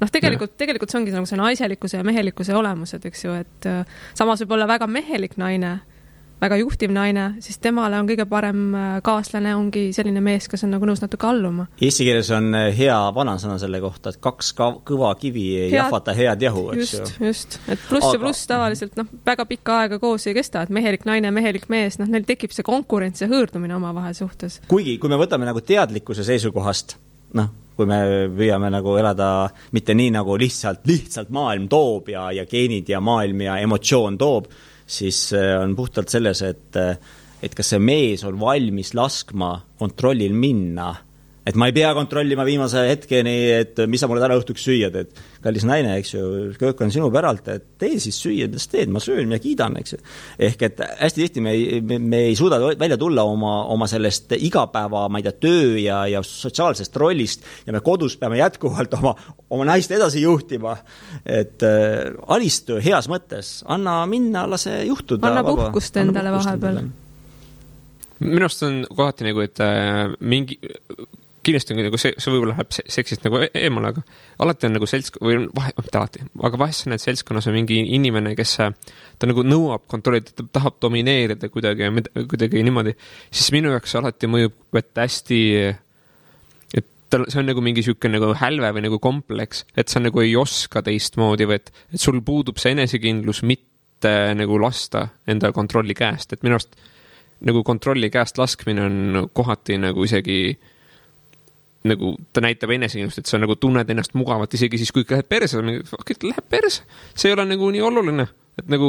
Tegelikult see ongi nagu see naiselikkuse ja mehelikkuse olemused, eks ju, et samas võib olla väga mehelik naine, väga juhtiv naine, siis temale on kõige parem kaaslane ongi selline mees, kes on nagu nõus natuke alluma. Eesti keeles on hea vanasõna selle kohta, et 2 kõva kivi ei jahvata head jahu, eks ju. Just, et pluss ja pluss tavaliselt väga pikka aega koos ei kesta, et mehelik naine, mehelik mees, neil tekib see konkurents ja hõõrdumine oma vahel suhtes. Kuigi, kui me võtame nagu teadlikkuse seisukohast, kui me püüame nagu elada mitte nii nagu lihtsalt maailm toob ja geenid ja maailm ja emotsioon toob, siis on puhtalt selles, et kas see mees on valmis laskma kontrollil minna et ma ei pea kontrollima viimase hetkeni, et mis sa mulle täna õhtuks süüad, et kallis naine, eks ju, köök on sinu päralt, et tee siis süüa, mis teed, ma söön ja kiidan, eks ju. Ehk et hästi tihti me ei suuda välja tulla oma sellest igapäeva, ma ei tea, töö ja sotsiaalsest rollist ja me kodus peame jätkuvalt oma naist edasi juhtima, et alistu heas mõttes, anna minna, lase juhtuda. Anna puhkust endale vahepeal. Minu arust on kohati nagu, et mingi kindlasti on nagu see võib-olla läheb seksist nagu eemale, aga alati on nagu aga vahest sa näed seltskonnas on mingi inimene, kes ta nagu nõuab kontrollida, ta tahab domineerida kuidagi niimoodi, siis minu jaoks alati mõjub, et hästi, et see on nagu mingi siuke nagu hälve või nagu kompleks, et sa nagu ei oska teistmoodi või et sul puudub see enesekindlus mitte nagu lasta enda kontrolli käest, et minu arust nagu kontrolli käest laskmine on kohati nagu isegi nagu ta näitab enesekindlust, et sa nagu tunned ennast mugavalt isegi siis, kui läheb perse, läheb perse, see ei ole nagu nii oluline, et nagu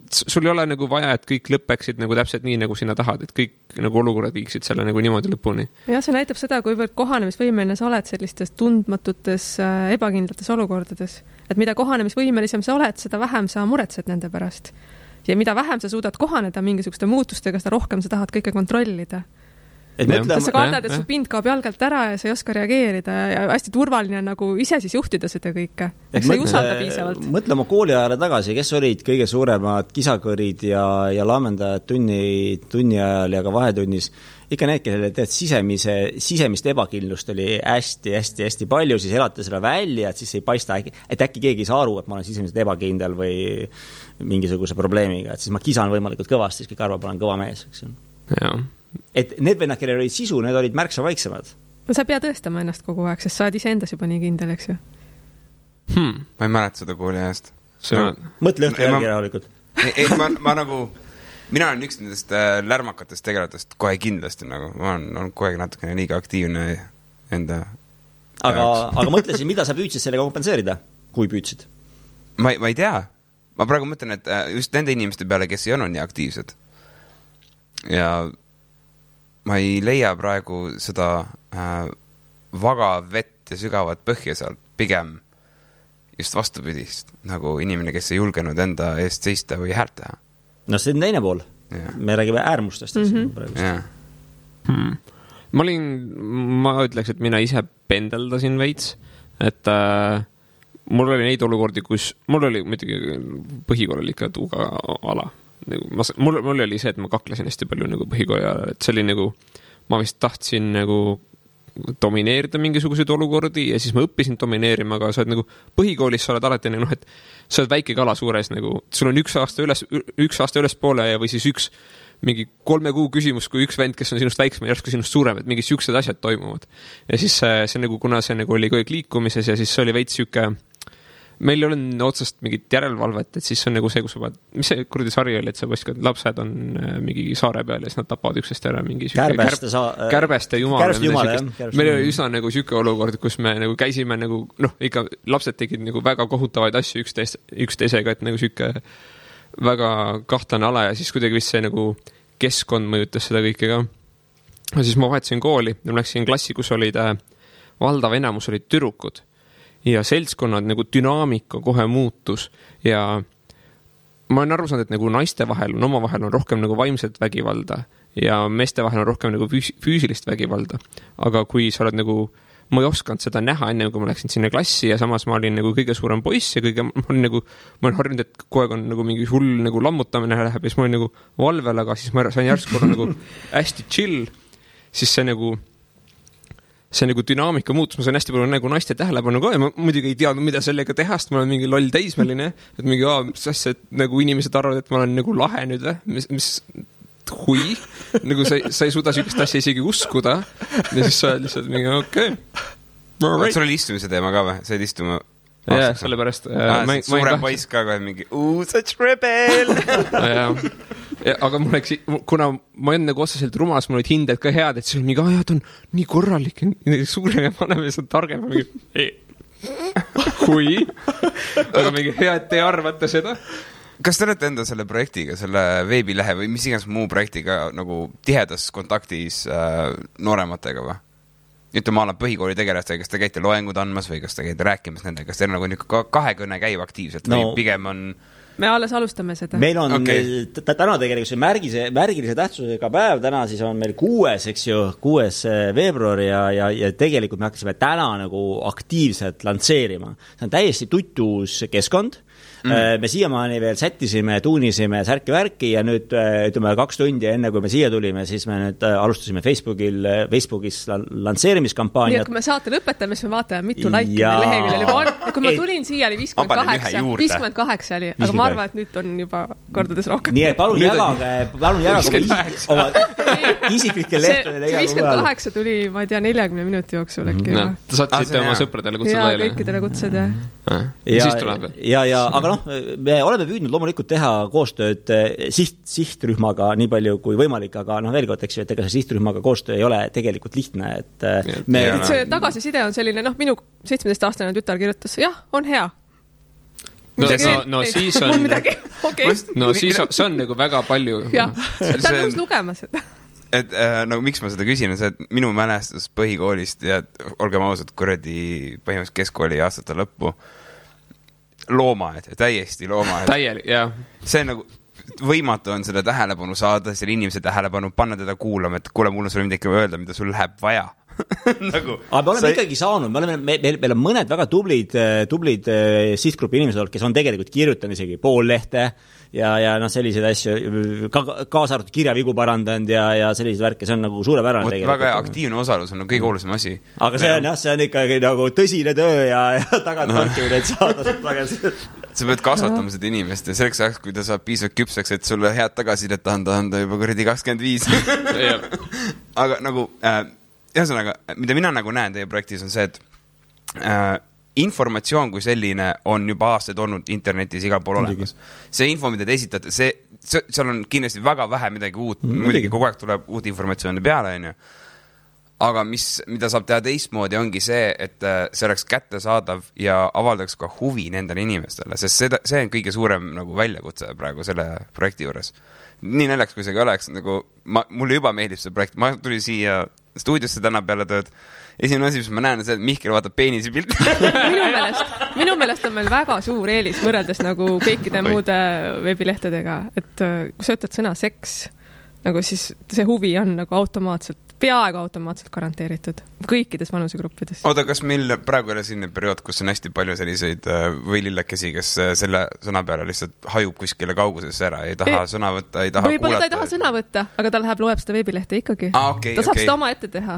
sul ei ole nagu vaja, et kõik lõpeksid nagu täpselt nii, nagu sina tahad, et kõik nagu olukorrad viiksid selle nagu niimoodi lõpuni. Ja see näitab seda, kuivõrd kohanemisvõimeline sa oled sellistes tundmatutes ebakindlates olukordades, et mida kohanemisvõimelisem sa oled, seda vähem sa muretsed nende pärast. Ja mida vähem sa suudad kohaneda mingisuguste muutustega, seda rohkem sa tahad kõike kontrollida. Sa kardad, et su pind kaob jalgalt ära ja sa ei oska reageerida ja hästi turvaline nagu ise siis juhtida seda kõike. Sa ei usalda piisavalt. Mõtle oma kooliajale tagasi, kes olid kõige suuremad kisakõrid ja laamendajad tunni ajal ja ka vahetunnis. Ikka need, kellele teed sisemist ebakindlust oli hästi palju, siis elate selle välja, et siis ei paista, et äkki keegi ei saa aru, et ma olen sisemiselt ebakindel või mingisuguse probleemiga, et siis ma kisan võimalikult kõvasti, siis kõik arvab, olen kõva mees. Jaa. Et need vennad, kellel olid sisu, need olid märksa vaiksemad. No sa pead tõestama ennast kogu aeg, sest sa oled ise endas juba nii kindel, eks ju? Ma ei mäleta seda kooli ajast. Mõtle õhtu järgi rahulikult. Ma nagu, mina olen üks nendest lärmakatest tegelatest kohe kindlasti, nagu ma olen kohe natukene liiga aktiivne enda aga mõtlesin, mida sa püüdsid sellega kompenseerida, kui püüdsid? Ma ei tea. Ma praegu mõtlen, et just nende inimeste peale, kes ei olnud nii aktiivsed. Ja ma ei leia praegu seda vaga vett ja sügavat põhja sealt, pigem just vastupidist, nagu inimene, kes ei julgenud enda eest seista või häält teha. No see on teine pool. Me räägime äärmustest. Ma ütleks, et mina ise pendeldasin veits, et mul oli neid olukordi, kus mul oli muidugi põhikool oli ikka tuuga ala. Mul oli see, et ma kaklesin hästi palju nagu põhikooli ajal, et see oli nagu, ma vist tahtsin nagu domineerida mingisuguseid olukordi ja siis ma õppisin domineerima, aga sa oled nagu põhikoolis sa oled alati nagu, et sa oled väike kala suures nagu, sul on üks aasta üles poole ja või siis mingi 3 kuu küsimus, kui üks vend, kes on sinust väiksem ja järsku sinust suurem, et mingi siuksed asjad toimuvad. Ja siis see nagu, kuna see nagu oli kõik liikumises ja siis see oli veits siuke meil ei ole otsast mingit järelevalvet, et siis on nagu see, kus sa vaad, mis see kuradi sari oli, et sa võiskad, lapsed on mingi saare peal ja siis nad tapavad üksteist ära mingi kärbeste jumala. Meil oli üsna nagu siuke olukord, kus me nagu käisime nagu, ikka lapsed tegid nagu väga kohutavaid asju üksteisega, et nagu siuke väga kahtlane ala ja siis kuidagi vist see nagu keskkond mõjutas seda kõike ka. Ja siis ma vahetasin kooli ja ma läksin klassi, kus olid valdav enamus olid tüdrukud. Ja seltskonnad nagu dünaamika kohe muutus ja ma olen aru saanud, et nagu naiste vahel on omavahel on rohkem nagu vaimset vägivalda ja meeste vahel on rohkem nagu füüsilist vägivalda. Aga kui sa oled nagu, ma ei osanud seda näha enne, kui ma läksin sinna klassi ja samas ma olin nagu kõige suurem poiss ja ma olen harjunud, et kogu aeg on nagu mingi hull nagu lammutamine läheb ja siis ma olin nagu valvel, aga siis ma sain järsku nagu hästi chill, siis see nagu dünaamika muutus, ma sain hästi palju nagu naiste tähelepanu ka ja ma muidugi ei teadnud, mida sellega teha, sest ma olen mingi loll teismeline, et mingi sest, et nagu inimesed arvavad, et ma olen nagu lahe nüüd või, mis hui, nagu sa ei suuda sükest asja isegi uskuda ja siis sa lihtsalt mingi okei. Sul oli istumise teema ka või? Sa olid istuma? Jah, sellepärast suurem poiss ka kohe mingi such rebel! Aga mul läks, kuna ma olen nagu otseselt rumas, mul olid hinded ka head, et see oli mingi, ta on nii korralik ja suurem ja vanem ja see on targem kui aga mingi hea, et te arvate seda. Kas te olete enda selle projektiga, selle veebilehe või mis iganes muu projektiga nagu tihedas kontaktis noorematega või? ütleme, ma olen põhikooli tegelastega, kas te käite loengud andmas või kas te käite rääkimas nendega, kas teil nagu kahekõne käib aktiivselt või pigem on... Me alles alustame seda. Meil on täna tegelikult see märgilise tähtsusega päev, täna siis on meil 6. veebruar ja tegelikult me hakkasime täna nagu aktiivselt lantseerima. See on täiesti tutus keskkond. Me siiamaani veel sättisime, tuunisime särki-värki ja nüüd ütleme 2 tundi enne, kui me siia tulime, siis me nüüd alustasime Facebookis lantseerimiskampaaniat. Nii, et kui me saate lõpetame, siis me vaatame, mitu laiki leheküljel juba on. Ja kui ma tulin siia, oli 58 oli, aga ma arvan, et nüüd on juba kordades rohkem. Nii, et palun jagage oma isiklikke lehtedele. 58 tuli, ma ei tea, 40 minuti jooksul äkki. Te saatsite oma sõpradele kutsed laiali. Ja kõikidele kutsed, ja aga me oleme püüdnud loomulikult teha koostööd sihtrühmaga nii palju kui võimalik, aga veel kord, eks ju, et ega see sihtrühmaga koostöö ei ole tegelikult lihtne, et see tagasiside on selline, minu 17-aastane tütar kirjutas, jah, on hea. Siis on siis on nagu väga palju. Jah, ta on nõus lugema seda. Et miks ma seda küsin, on see, et minu mälestus põhikoolist ja olgem ausad, põhimõtteliselt keskkooli aastate lõppu loomaed, täiesti loomaed. Täielik, jah. See on nagu võimatu on seda tähelepanu saada, selle inimese tähelepanu, panna teda kuulama, et kuule, mul on sulle midagi öelda, mida sul läheb vaja. Aga me oleme ikkagi saanud, meil on mõned väga tublid sihtgrupi inimesed, kes on tegelikult kirjutanud isegi pool lehte ja selliseid asju, kaasa arvatud kirjavigu parandanud ja selliseid värke, see on nagu suurepärane tegelikult. Väga aktiivne osalus on kõige olulisem asi. Aga see on ikkagi nagu tõsine töö ja tagant torkimine, et saada tagasi. Sa pead kasvatama seda inimest ja selleks ajaks, kui ta saab piisavalt küpseks, et sulle head tagasidet anda juba 25. Aga nagu... Ühesõnaga, mida mina nagu näen teie projektis on see, et informatsioon kui selline on juba aastaid olnud internetis igal pool olemas. See info, mida te esitate, seal on kindlasti väga vähe midagi uut, muidugi kogu aeg tuleb uut informatsiooni peale, aga mida saab teha teistmoodi ongi see, et see oleks kättesaadav ja avaldaks ka huvi nendele inimestele, sest see on kõige suurem nagu väljakutse praegu selle projekti juures. Nii näljaks, kui see ka oleks, nagu mulle juba meeldib see projekt, ma tulin siia stuudiosse täna peale tööd. Esimene asi, mis ma näen, on see, et Mihkel vaatab peenisi pilti. Minu meelest on meil väga suur eelis võrreldes nagu kõikide muude veebilehtedega, et kui sa ütled sõna seks, nagu siis see huvi on nagu peaaegu automaatselt garanteeritud kõikides vanusegruppides. Oota, kas meil praegu oli selline periood, kus on hästi palju selliseid võilillakesi, kes selle sõna peale lihtsalt hajub kuskile kaugusesse ära, ei taha sõna võtta, ei taha kuulata? Ta ei taha sõna võtta, aga ta loeb seda veebilehte ikkagi. Ta saab seda oma ette teha.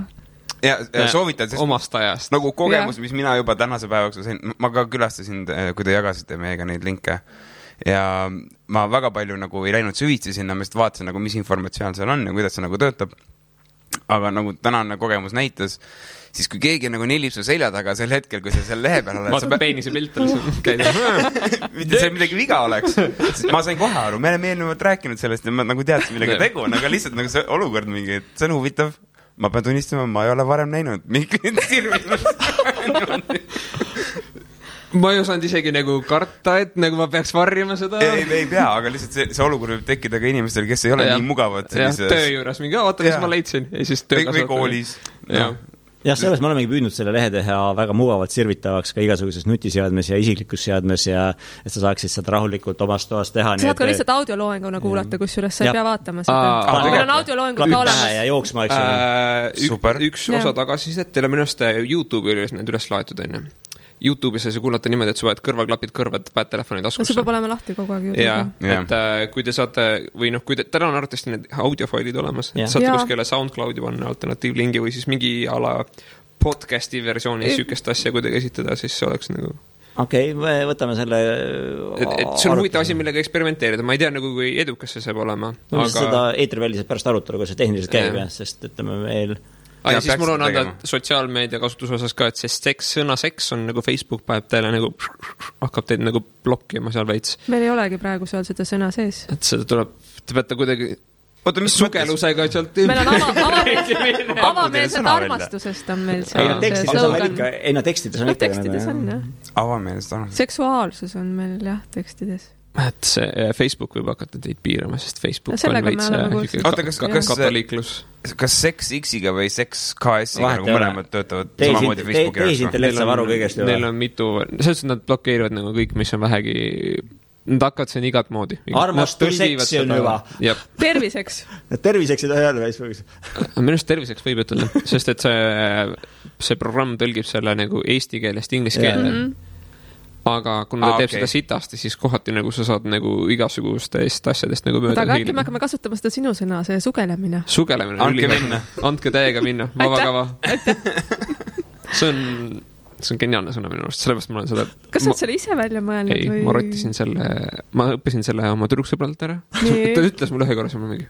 Ja soovitan, omast ajast. Nagu kogemus, mis mina juba tänase päevaks sain, ma ka külastasin, kui te jagasite meiega neid linke ja ma väga palju nagu ei läinud süvitsi sinna, ma just vaatasin nagu, mis informatsioon seal on ja kuidas see nagu töötab. Aga nagu tänane kogemus näitas, siis kui keegi nagu nelib su selja taga sel hetkel, kui sa seal lehe peal oled... Vaata peenise pilt oli mitte see midagi viga oleks. Ma sain kohe aru, me oleme eelnevalt rääkinud sellest ja ma nagu teadsin, millega tegu on, aga lihtsalt nagu see olukord mingi, et see on huvitav. Ma pean tunnistama, ma ei ole varem näinud. Ma ei osanud isegi nagu karta, et nagu ma peaks varjama seda. Ei pea, aga lihtsalt see olukord võib tekkida ka inimestel, kes ei ole nii mugavad. Töö juures mingi, vaata, mis ma leidsin. Või koolis. Jah, selles me olemegi püüdnud selle lehe teha väga mugavalt sirvitavaks ka igasuguses nutiseadmes ja isiklikus seadmes ja et sa saaksid seda rahulikult omast toast teha. Sa saad ka lihtsalt audioloenguna kuulata, kusjuures sa ei pea vaatama seda. Meil on audioloengud ka olemas. Ja jooksma, eks üks osa tagasisidet, teile minust YouTube'i üles need üles laetud enne. YouTube'is sa kuulata niimoodi, et sa vaid kõrvaklapid kõrvad, päed telefoni taskusse. See peab olema lahti kogu aeg YouTube'i. Et kui te saate, või kui täna on arvatavasti need audiofailid olemas, et saate kuskile SoundCloudi panna alternatiivlingi või siis mingi ala podcasti versiooni sükest asja kuidagi esitada, siis see oleks nagu... Okei, me võtame selle... Et see on huvitav asi, millega eksperimenteerida. Ma ei tea, nagu kui edukas see saab olema. Aga... Seda eetriväliselt pärast arutelu, kui see tehniliselt käib, sest ütleme meil... Ja siis mul on anda sotsiaalmeedia kasutuse osas ka, et see sõna seks on nagu Facebook päev teile nagu hakkab teid nagu blokkima seal veits. Meil ei olegi praegu seal seda sõna sees. Et seda tuleb, te peate kuidagi sugelusega sealt... Meil on avameelset armastusest on meil see tekstides on tekstides on, jah. Avameelset armastusest. Seksuaalsus on meil, jah, tekstides. Et see Facebook võib hakata teid piirama, sest Facebook on veits katoliiklus. kas Sex X-iga või Sex KS-iga nagu mõlemad töötavad samamoodi Facebooki tehisintellekt saab aru kõigest. Neil on mitu, selles nad blokeerivad nagu kõik, mis on vähegi, nad hakkavad siin igat moodi. Armastuseks on juba. Terviseks. Terviseks ei taha öelda Facebookis. Minu arust terviseks võib ütelda, sest et see programm tõlgib selle nagu eesti keelest inglise keelde. Aga kui ta teeb seda sitasti, siis kohati nagu sa saad nagu igasugustest asjadest nagu mööda hiilida. Aga äkki me hakkame kasutama seda sinu sõna, see sugelemine. Sugelemine. Andke minna. Andke täiega minna. Vabakava. See on geniaalne sõna minu arust, sellepärast ma olen seda... Kas sa selle ise välja mõelnud? Ei, ma rottisin selle, ma õppisin selle oma tüdruksõbralt ära. Ta ütles mulle ühe korra, siis ma mingi...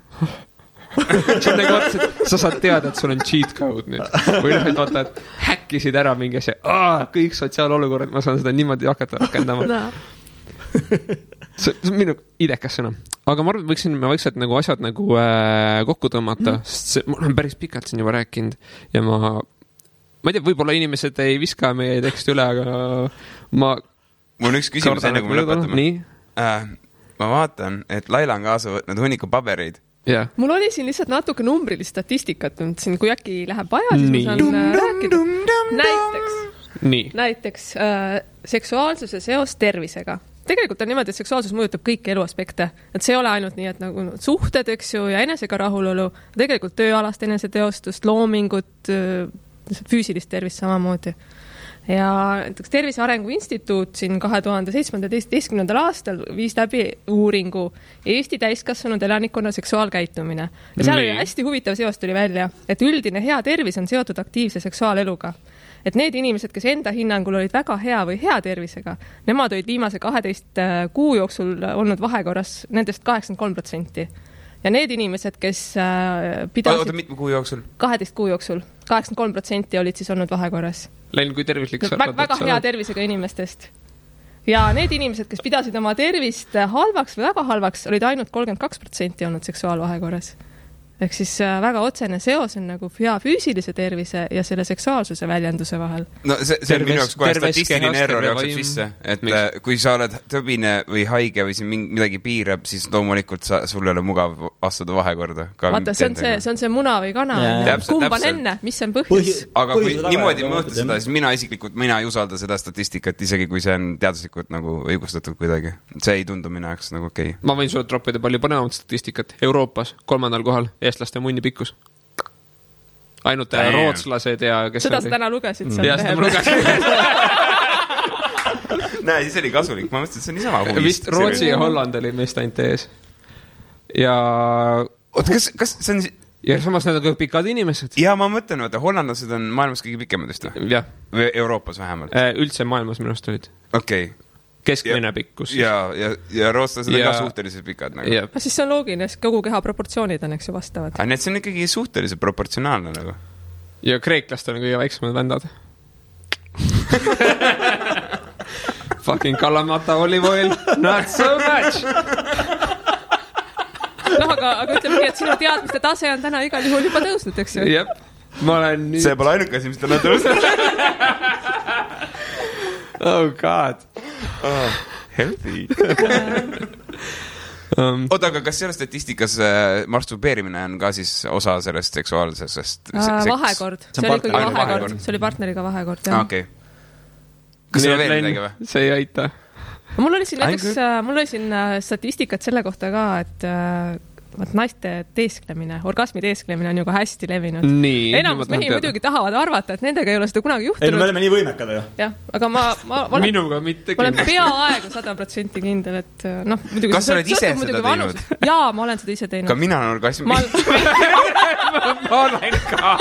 See on nagu vaata, et sa saad teada, et sul on cheat code nüüd. Või noh, et vaata, et häkkisid ära mingi asja. Kõik sotsiaalolukorrad, ma saan seda niimoodi hakata rakendama. See on minu idekas sõna. Aga ma arvan, me vaikselt nagu asjad nagu kokku tõmmata, sest ma olen päris pikalt siin juba rääkinud ja ma ei tea, võib-olla inimesed ei viska meie teksti üle, aga mul on üks küsimus enne, kui me lõpetame. Nii? Ma vaatan, et Laila on kaasa võtnud hunniku pabereid. Yeah. Mul oli siin lihtsalt natuke numbrilist statistikat, siin, kui äkki läheb vaja, siis ma saan rääkida. Näiteks seksuaalsuse seos tervisega. Tegelikult on niimoodi, et seksuaalsus mõjutab kõiki eluaspekte. Et see ei ole ainult nii, et nagu suhted, eks ju, ja enesega rahulolu, tegelikult tööalast eneseteostust, loomingut, füüsilist tervist samamoodi. Ja näiteks Tervise Arengu Instituut siin 2017. aastal viis läbi uuringu Eesti täiskasvanud elanikkonna seksuaalkäitumine. Ja seal oli hästi huvitav seos tuli välja, et üldine hea tervis on seotud aktiivse seksuaaleluga. Et need inimesed, kes enda hinnangul olid väga hea või hea tervisega, nemad olid viimase 12 kuu jooksul olnud vahekorras nendest 83%. Ja need inimesed, kes pidasid... Oota, mitme kuu jooksul? 12 kuu jooksul. 83% olid siis olnud vahekorras. Läinud kui tervislik väga hea tervisega inimestest. Ja need inimesed, kes pidasid oma tervist halvaks või väga halvaks, olid ainult 32% olnud seksuaalvahekorras. Ehk siis väga otsene seos on nagu hea füüsilise tervise ja selle seksuaalsuse väljenduse vahel. No see on minu jaoks kohe statistiline error jookseb sisse, et kui sa oled tõbine või haige või siin midagi piirab, siis loomulikult sul ei ole mugav astuda vahekorda. Vaata, see on see muna või kana. Kumb on enne, mis on põhjus? Aga kui niimoodi mõõta seda, siis mina ei usalda seda statistikat, isegi kui see on teaduslikult nagu õigustatud kuidagi. See ei tundu minu jaoks nagu okei. Ma võin sulle troppida palju põnevamat statistikat. Euroopas 3. kohal eestlaste munni pikkus. Ainult rootslased ja kes seda sa täna lugesid seal. Ja seda ma lugesin. Näe, siis oli kasulik. Ma mõtlesin, et see on niisama huvist. Vist Rootsi ja Holland oli meist ainult ees. Ja... Oota, kas see on... Ja samas need on pikad inimesed. Ja ma mõtlen, et hollandlased on maailmas kõige pikemad just. Ja. Või Euroopas vähemalt. Üldse maailmas minust olid. Okei. Keskmine pikkus. Ja rootslased on ka suhteliselt pikad. Nagu. Siis see on loogiline, sest kogu keha proportsioonid on, eks ju, vastavad. Aga need see on ikkagi suhteliselt proportsionaalne nagu. Ja kreeklastel on kõige väiksemad vändad. Fucking Kalamata olive oil, not so much! No, aga ütleme, et sinu teadmiste tase on täna igal juhul juba tõusnud, eks ju? Jep, ma olen nüüd... See pole ainuke asi, mis täna tõusnud. Oh god. Healthy. Oota, aga kas selles statistikas masturbeerimine on ka siis osa sellest seksuaalsest... Vahekord. See oli ikkagi vahekord. See oli partneriga vahekord, jah. Okei. Kas see veel midagi või? See ei aita. Mul oli siin statistikat selle kohta ka, et naiste teesklemine, orgasmi teesklemine on ju ka hästi levinud. Enamus mehi muidugi tahavad arvata, et nendega ei ole seda kunagi juhtunud. Ei, no me oleme nii võimekad, ju. Jah, aga ma minuga mitte olen peaaegu 100% kindel, et noh, muidugi... Kas sa oled ise seda teinud? Jaa, ma olen seda ise teinud. Ka mina olen orgasmi. Ma olen ka.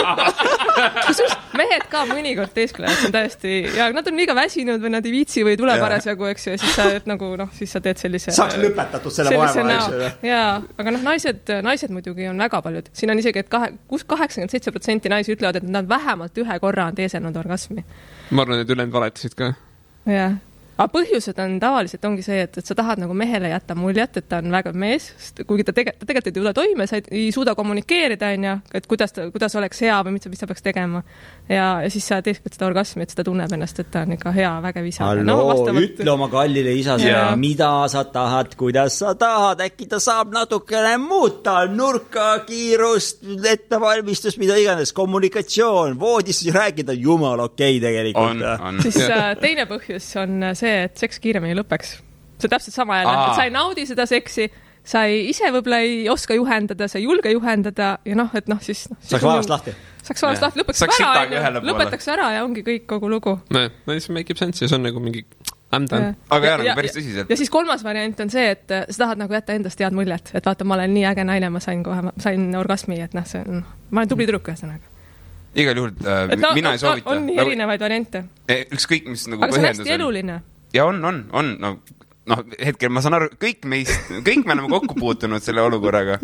Kusjuures mehed ka mõnikord teesklevad, see on täiesti... Ja nad on liiga väsinud või nad ei viitsi või tule parasjagu, eks ju, ja siis sa, nagu, siis sa teed sellise... Saaks lõpetatud selle vaeva, eks ju. Jaa, aga noh, naised muidugi on väga paljud. Siin on isegi, et 87% naisi ütlevad, et nad vähemalt ühe korra on teeselnud orgasmi. Ma arvan, et ülejäänud valetasid ka. Jah. Aga põhjused on tavaliselt ongi see, et sa tahad nagu mehele jätta muljet, et ta on väga mees, kuigi ta tegelikult ei tule toime, sa ei suuda kommunikeerida, et kuidas oleks hea või mis ta peaks tegema. Ja siis sa teeksid seda orgasmi, et seda tunneb ennast, et ta on ikka hea, vägev isa. Ütle oma kallile isasele, mida sa tahad, kuidas sa tahad, äkki ta saab natukene muuta, nurka, kiirust, ettevalmistus, mida iganes, kommunikatsioon, voodis rääkida, jumal okei tegelikult. Siis teine põhjus on see, et seks kiiremini lõpeks. See täpselt sama jälle, et sa ei naudi seda seksi, sa ise võib-olla ei oska juhendada, sa ei julge juhendada ja siis... Saaks vaevast lahti. Saaks vaevast lahti, lõpetaks ära ja ongi kõik kogu lugu. No, siis make sense ja see on nagu mingi... Aga nagu päris tõsiselt. Ja siis kolmas variant on see, et sa tahad nagu jätta endast head muljet, et vaata, ma olen nii äge naine, ma sain orgasmi, et ma olen tubli tüdruk ühesõnaga. Igal juhul mina ei soovita. On nii erinevaid variante. Ükskõik, mis nagu aga see on hästi eluline. Ja on. Hetkel ma saan aru, kõik me oleme kokku puutunud selle olukorraga.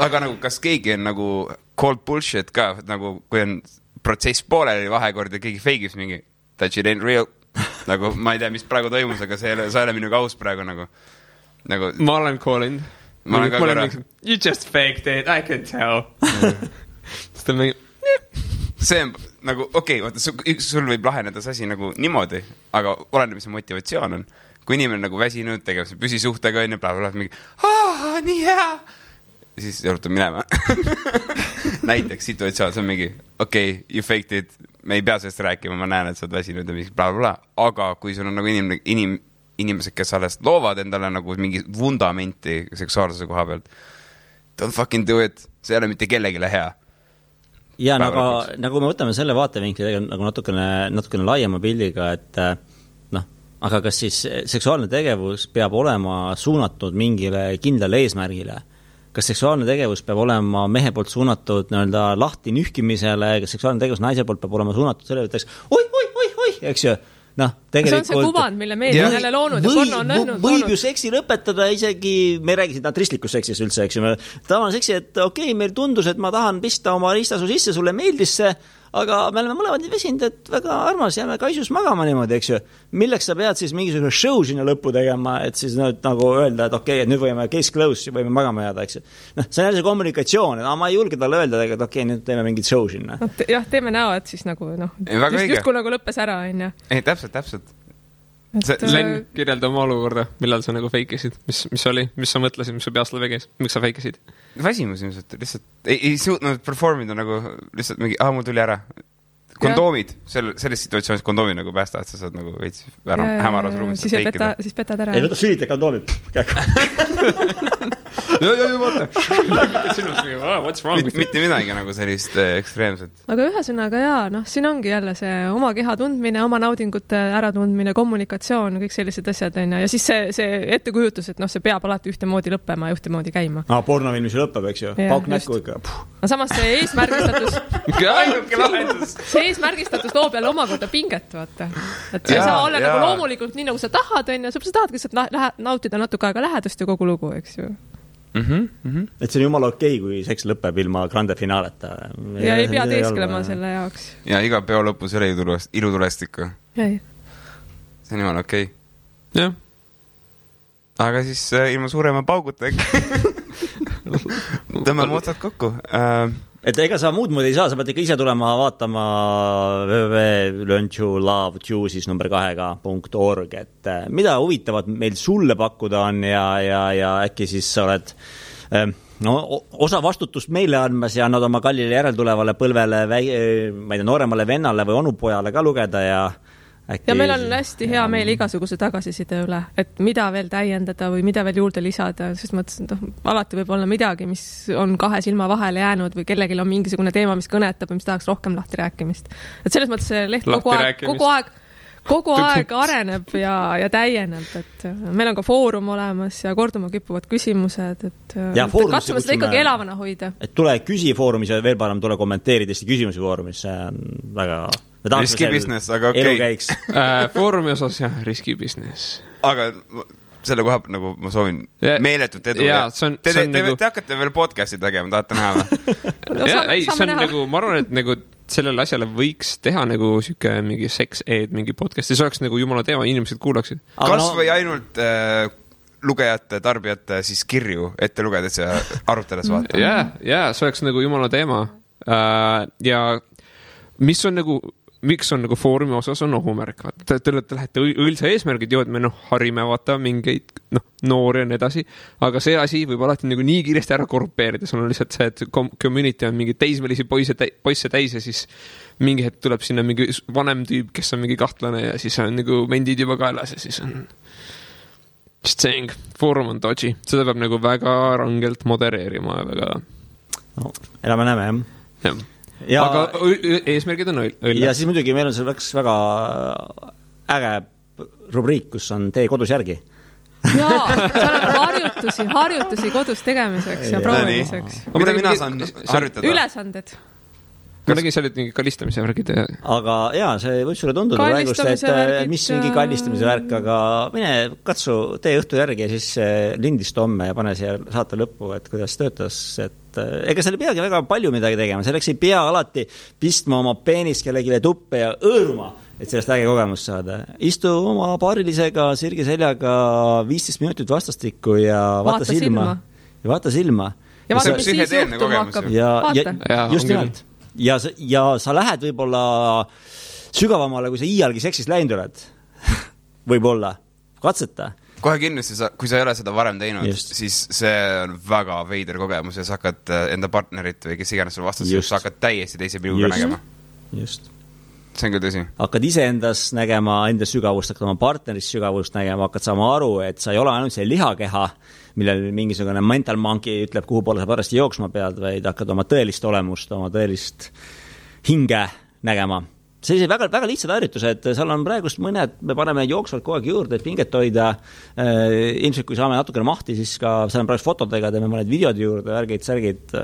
Aga nagu, kas keegi on nagu cold bullshit ka, nagu kui on protsess pooleli vahekord ja keegi feigis mingi that shit ain't real. Nagu ma ei tea, mis praegu toimus, aga sa ei ole minuga aus praegu nagu. Ma olen calling. Ma olen ka korra. You just faked it, I can tell. Sest on mingi... See on nagu, vaata, sul võib laheneda see asi nagu niimoodi, aga oleneb, mis motivatsioon on. Kui inimene nagu väsinud, tegeb see püsisuhtega on ja blablabla, mingi, nii hea. Ja siis juhtub minema. Näiteks situatsioon, see on mingi, you faked it, me ei pea sellest rääkima, ma näen, et sa oled väsinud ja mingi blablabla. Aga kui sul on nagu inimesed, kes alles loovad endale nagu mingi vundamenti seksuaalsuse koha pealt, don't fucking do it, see ei ole mitte kellegile hea. Ja nagu me võtame selle vaatevinkli nagu natukene laiema pildiga, et aga kas siis seksuaalne tegevus peab olema suunatud mingile kindlale eesmärgile? Kas seksuaalne tegevus peab olema mehe poolt suunatud lahti nühkimisele, kas seksuaalne tegevus naise poolt peab olema suunatud selle, et oi, eks ju? Tegelikult... See on see kuvand, mille meedia on jälle loonud ja porno on lõhnud. Võib ju seksi lõpetada isegi, me ei räägi siin tristlikus seksis üldse, eks ju. Tavaline seksi, et meil tundus, et ma tahan pista oma riistasu sisse, sulle meeldis see, aga me oleme mõlemad nii vesinud, et väga armas, jääme kaisus magama niimoodi, eks ju. Milleks sa pead siis mingisugune show sinna lõppu tegema, et siis nagu öelda, et et nüüd võime case close, võime magama jääda, eks ju. See on jälle see kommunikatsioon, et ma ei julge talle öelda, et nüüd teeme mingit show sinna. Jah, teeme näo, et siis nagu, just kui nagu lõppes ära, on ju. Ei, täpselt. Len, kirjelda oma olukorda, millal sa nagu feikisid, mis oli, mis sa mõtlesid, mis sa peast lävegis, miks sa feikisid? Väsimus ilmselt, lihtsalt ei suutnud performida nagu lihtsalt mingi, mul tuli ära. Kondoomid, selles situatsioonis kondoomi nagu päästa, et sa saad nagu veits hämaras ruumis feikida. Siis petad ära. Ei, võta sülita kondoomid. Mitte midagi nagu sellist ekstreemset. Aga ühesõnaga siin ongi jälle see oma keha tundmine, oma naudingute äratundmine, kommunikatsioon, kõik sellised asjad on ja siis see ettekujutus, et see peab alati ühtemoodi lõppema ja ühtemoodi käima. Pornofilmis lõppeb, eks ju. Pauk näkku ikka. Samas see eesmärgistatus loob jälle omakorda pinget, vaata. Et see ei saa olla nagu loomulikult nii, nagu sa tahad, on ja sa tahadki nautida natuke aega lähedust ja kogu lugu, eks ju. Et see on jumala okei, kui seks lõpeb ilma grande finaaleta. Ja ei pea teesklema selle jaoks. Ja iga peo lõpus ei ole ilutulest ikka. See on jumala okei. Jah. Aga siis ilma suurema pauguta tõmbame otsad kokku. Et ega sa muud moodi ei saa, sa pead ikka ise tulema vaatama www.learntolove2.org, et mida huvitavat meil sulle pakkuda on ja äkki siis sa oled osa vastutust meile andmas ja annad oma kallile järeltulevale põlvele, ma ei tea, nooremale vennale või onupojale ka lugeda ja ja meil on hästi hea meel igasuguse tagasiside üle, et mida veel täiendada või mida veel juurde lisada, sest mõtlesin, et alati võib olla midagi, mis on kahe silma vahele jäänud või kellelgi on mingisugune teema, mis kõnetab või mis tahaks rohkem lahti rääkimist. Et selles mõttes see leht kogu aeg areneb ja täieneb, et meil on ka foorum olemas ja korduma kippuvad küsimused, et katsume seda ikkagi elavana hoida. Et tule küsi foorumis ja veel parem tule kommenteerida Eesti küsimusi foorumis, see on väga... Riski business, aga okei. Foorumi osas jah, riski business. Aga selle koha nagu ma soovin meeletut edu. Te hakkate veel podcasti tegema, tahate näha? See on nagu, ma arvan, et nagu sellele asjale võiks teha nagu siuke mingi sex-ed, mingi podcast ja see oleks nagu jumala teema, inimesed kuulaksid. Kas või ainult lugejate, tarbijate siis kirju ette lugedes ja arutades vaata. Jaa, see oleks nagu jumala teema. Ja mis on nagu miks on nagu foorumi osas on ohumärk, vaata, te lähete õilsa eesmärgid ju, et me harime vaata mingeid noori ja nii edasi, aga see asi võib alati nagu nii kiiresti ära korrupeerida, sul on lihtsalt see, et community on mingi teismelisi poisse täis ja siis mingi hetk tuleb sinna mingi vanem tüüp, kes on mingi kahtlane ja siis on nagu mendid juba kaelas ja siis on just saying, foorum on dodgy, seda peab nagu väga rangelt modereerima ja väga elame-näeme, jah. Ja, aga eesmärgid on õll. Ja siis muidugi meil on see väga äge rubriik, kus on tee kodus järgi. Jaa, seal on harjutusi kodus tegemiseks ja proovimiseks. Mida mina saan harjutada? Ülesanded. Ma nägin seal mingi kallistamise värgid. Aga jaa, see võib sulle tunduda praegust, et mis mingi kallistamise värk, aga mine katsu, tee õhtu järgi ja siis lindist homme ja pane siia saate lõppu, et kuidas töötas, et ega seal ei peagi väga palju midagi tegema, selleks ei pea alati pistma oma peenist kellegile tuppe ja õõruma, et sellest äge kogemust saada. Istu oma paarilisega sirgi seljaga 15 minutit vastastikku ja vaata silma. Ja vaata silma. Ja vaata, mis siis juhtuma hakkab. Ja just nimelt. Ja sa lähed võib-olla sügavamale, kui sa iialgi seksist läinud oled. Võib-olla. Katseta. Kohe kindlasti, kui sa ei ole seda varem teinud, siis see on väga veider kogemus ja sa hakkad enda partnerit või kes iganes sul vastas, sa hakkad täiesti teise pilguga nägema. Just. See on küll tõsi. Hakkad ise endas nägema, enda sügavust, hakkad oma partnerist sügavust nägema, hakkad saama aru, et sa ei ole ainult see lihakeha, millel mingisugune mental monkey ütleb, kuhu poole sa parasti jooksma pead, vaid hakkad oma tõelist olemust, oma tõelist hinge nägema. Sellised väga, väga lihtsad harjutused, seal on praegust mõned, me paneme jooksvalt kogu aeg juurde, et pinget hoida. Ilmselt, kui saame natukene mahti, siis ka seal on praegu fotodega, teeme mõned videod juurde, värgid, särgid,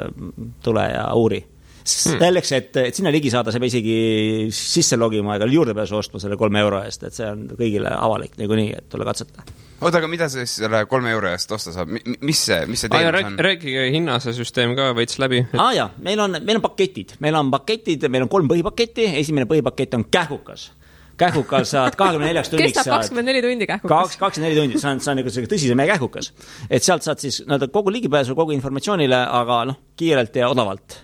tule ja uuri. Selleks, et sinna ligi saada, sa peab isegi sisse logima ega juurdepääsu ostma selle 3 euro eest, et see on kõigile avalik nagu nii, et tule katseta. Oota, aga mida see selle 3 euro eest osta saab? Mis see teenus on? Rääkige hinnase süsteem ka veits läbi. Jaa, meil on paketid. Meil on 3 põhipaketti. Esimene põhipakett on kähkukas. Kähkukas saad 24 tunniks. Kestab 24 tundi kähkukas. 24 tundi, see on nagu tõsise meie kähkukas. Et sealt saad siis kogu ligipääsu, kogu informatsioonile, aga kiirelt ja odavalt.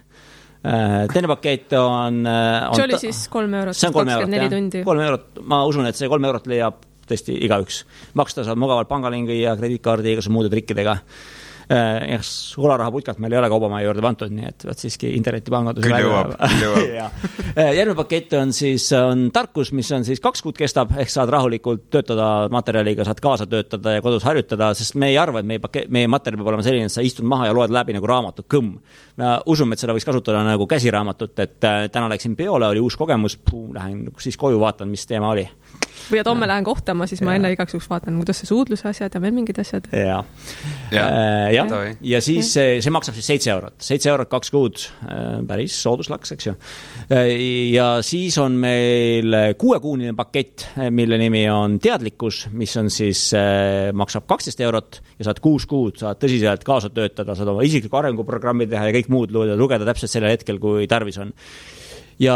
Teine pakett on see oli siis 3 eurot, 24 tundi. 3 eurot, ma usun, et see 3 eurot leiab tõesti igaüks. Maksta saab mugavalt pangalingi ja krediitkaardi igasuguse muude trikkidega. Olaraha putkalt meil ei ole kaubamaja juurde vantud, nii et siiski internetipangandus. Küll jõuab. Järgmine pakett on siis tarkus, mis on siis 2 kuud kestab, ehk saad rahulikult töötada materjaliga, saad kaasa töötada ja kodus harjutada, sest me ei arva, et meie materjal peab olema selline, et sa istud maha ja loed läbi nagu raamatut kõmm. Me usume, et seda võiks kasutada nagu käsiraamatut, et täna läksin peole, oli uus kogemus, lähen siis koju vaatan, mis teema oli. Või et homme lähen kohtama, siis ma enne igaks juhuks vaatan, kuidas see suudluse asjad ja veel mingid asjad. Ja siis see maksab siis 7 eurot. 7 eurot 2 kuud, päris sooduslaks, eks ju. Ja siis on meil 6-kuunine pakett, mille nimi on teadlikkus, mis on siis, maksab 12 eurot ja saad 6 kuud, saad tõsiselt kaasa töötada, saad oma isikliku arenguprogrammi teha ja kõik muud lugeda täpselt sellel hetkel, kui tarvis on. Ja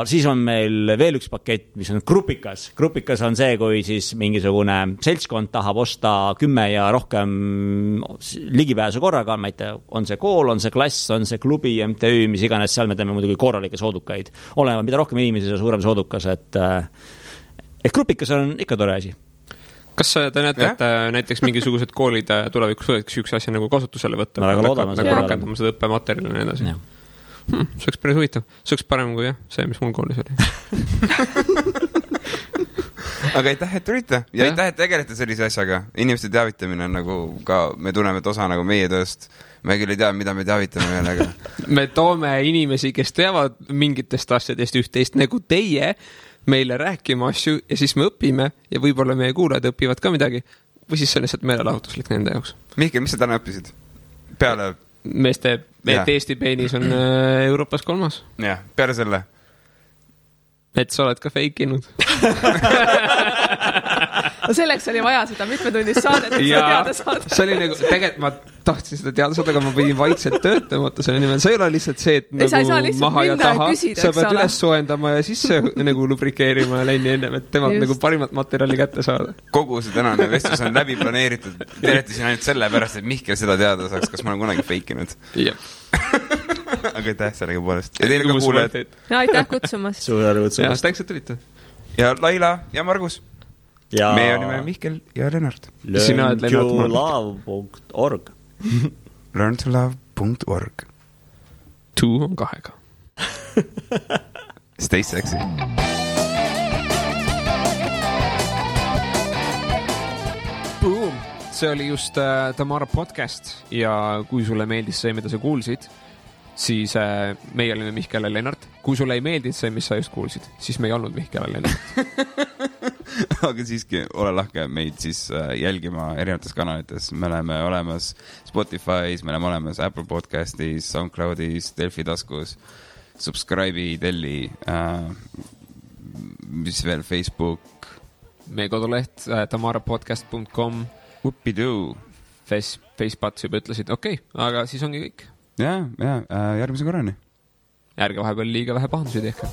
siis on meil veel üks pakett, mis on grupikas. Grupikas on see, kui siis mingisugune seltskond tahab osta 10 ja rohkem ligipääsu korraga, ma ei tea, on see kool, on see klass, on see klubi, MTÜ, mis iganes, seal me teeme muidugi korralikke soodukaid. Olema, mida rohkem inimesi, see suurem soodukas, et grupikas on ikka tore asi. Kas te näete, et näiteks mingisugused koolid tulevikus võiks üks asja nagu kasutusele võtta? Ma väga loodame. Nagu rakendama seda õppematerjali ja nii edasi. See oleks päris huvitav. See oleks parem kui see, mis mul koolis oli. Aga aitäh, et tulite. Ja aitäh, et tegelete sellise asjaga. Inimeste teavitamine on nagu ka, me tunneme, et osa nagu meie tööst. Me küll ei tea, mida me teavitame veel, aga... Me toome inimesi, kes teavad mingitest asjadest üht-teist nagu teie meile rääkima asju ja siis me õpime ja võib-olla meie kuulajad õpivad ka midagi. Või siis see on lihtsalt meelelahutuslik nende jaoks. Mihkel, mis sa täna õppisid? Peale... Meeste, et Eesti peenis on Euroopas 3. Jah, peale selle. Et sa oled ka feikinud. Selleks oli vaja seda mitmetunnist saadet, et seda teada saada. See oli nagu, tegelikult ma tahtsin seda teada saada, aga ma pidin vaikselt töötama selle nimel. See ei ole lihtsalt see, et nagu maha ja taha. Sa pead üles soojendama ja sisse nagu lubrikeerima ja läini ennem, et temalt nagu parimat materjali kätte saada. Kogu see tänane vestlus on läbi planeeritud. Teretasin ainult selle pärast, et Mihkel seda teada saaks, kas ma olen kunagi feikinud. Jah. Aga aitäh sellega poolest. Ja teile ka kuuled. Ja aitäh kutsumast. Suur tänu kutsumast. Ja tänks, et tulite. Ja Laila ja Margus. Ja meie olime Mihkel ja Lennart. learntolove.org learntolove.org 2 on 2-ga. Stay sexy. Boom! See oli just Tamara podcast ja kui sulle meeldis see, mida sa kuulsid, siis meie olime Mihkel ja Lennart. Kui sulle ei meeldinud see, mis sa just kuulsid, siis me ei olnud Mihkel ja Lennart. Aga siiski ole lahke meid siis jälgima erinevates kanalites. Me oleme olemas Spotify's, me oleme olemas Apple Podcastis, SoundCloudis, Delfi taskus, subscribe'i, telli, mis veel, Facebook. Meie koduleht tamarapodcast.com. Whoopidoo. Facepats juba ütlesid, okei, aga siis ongi kõik. Ja, järgmise korrani. Ärge vahepeal liiga vähe pahandusi tehke.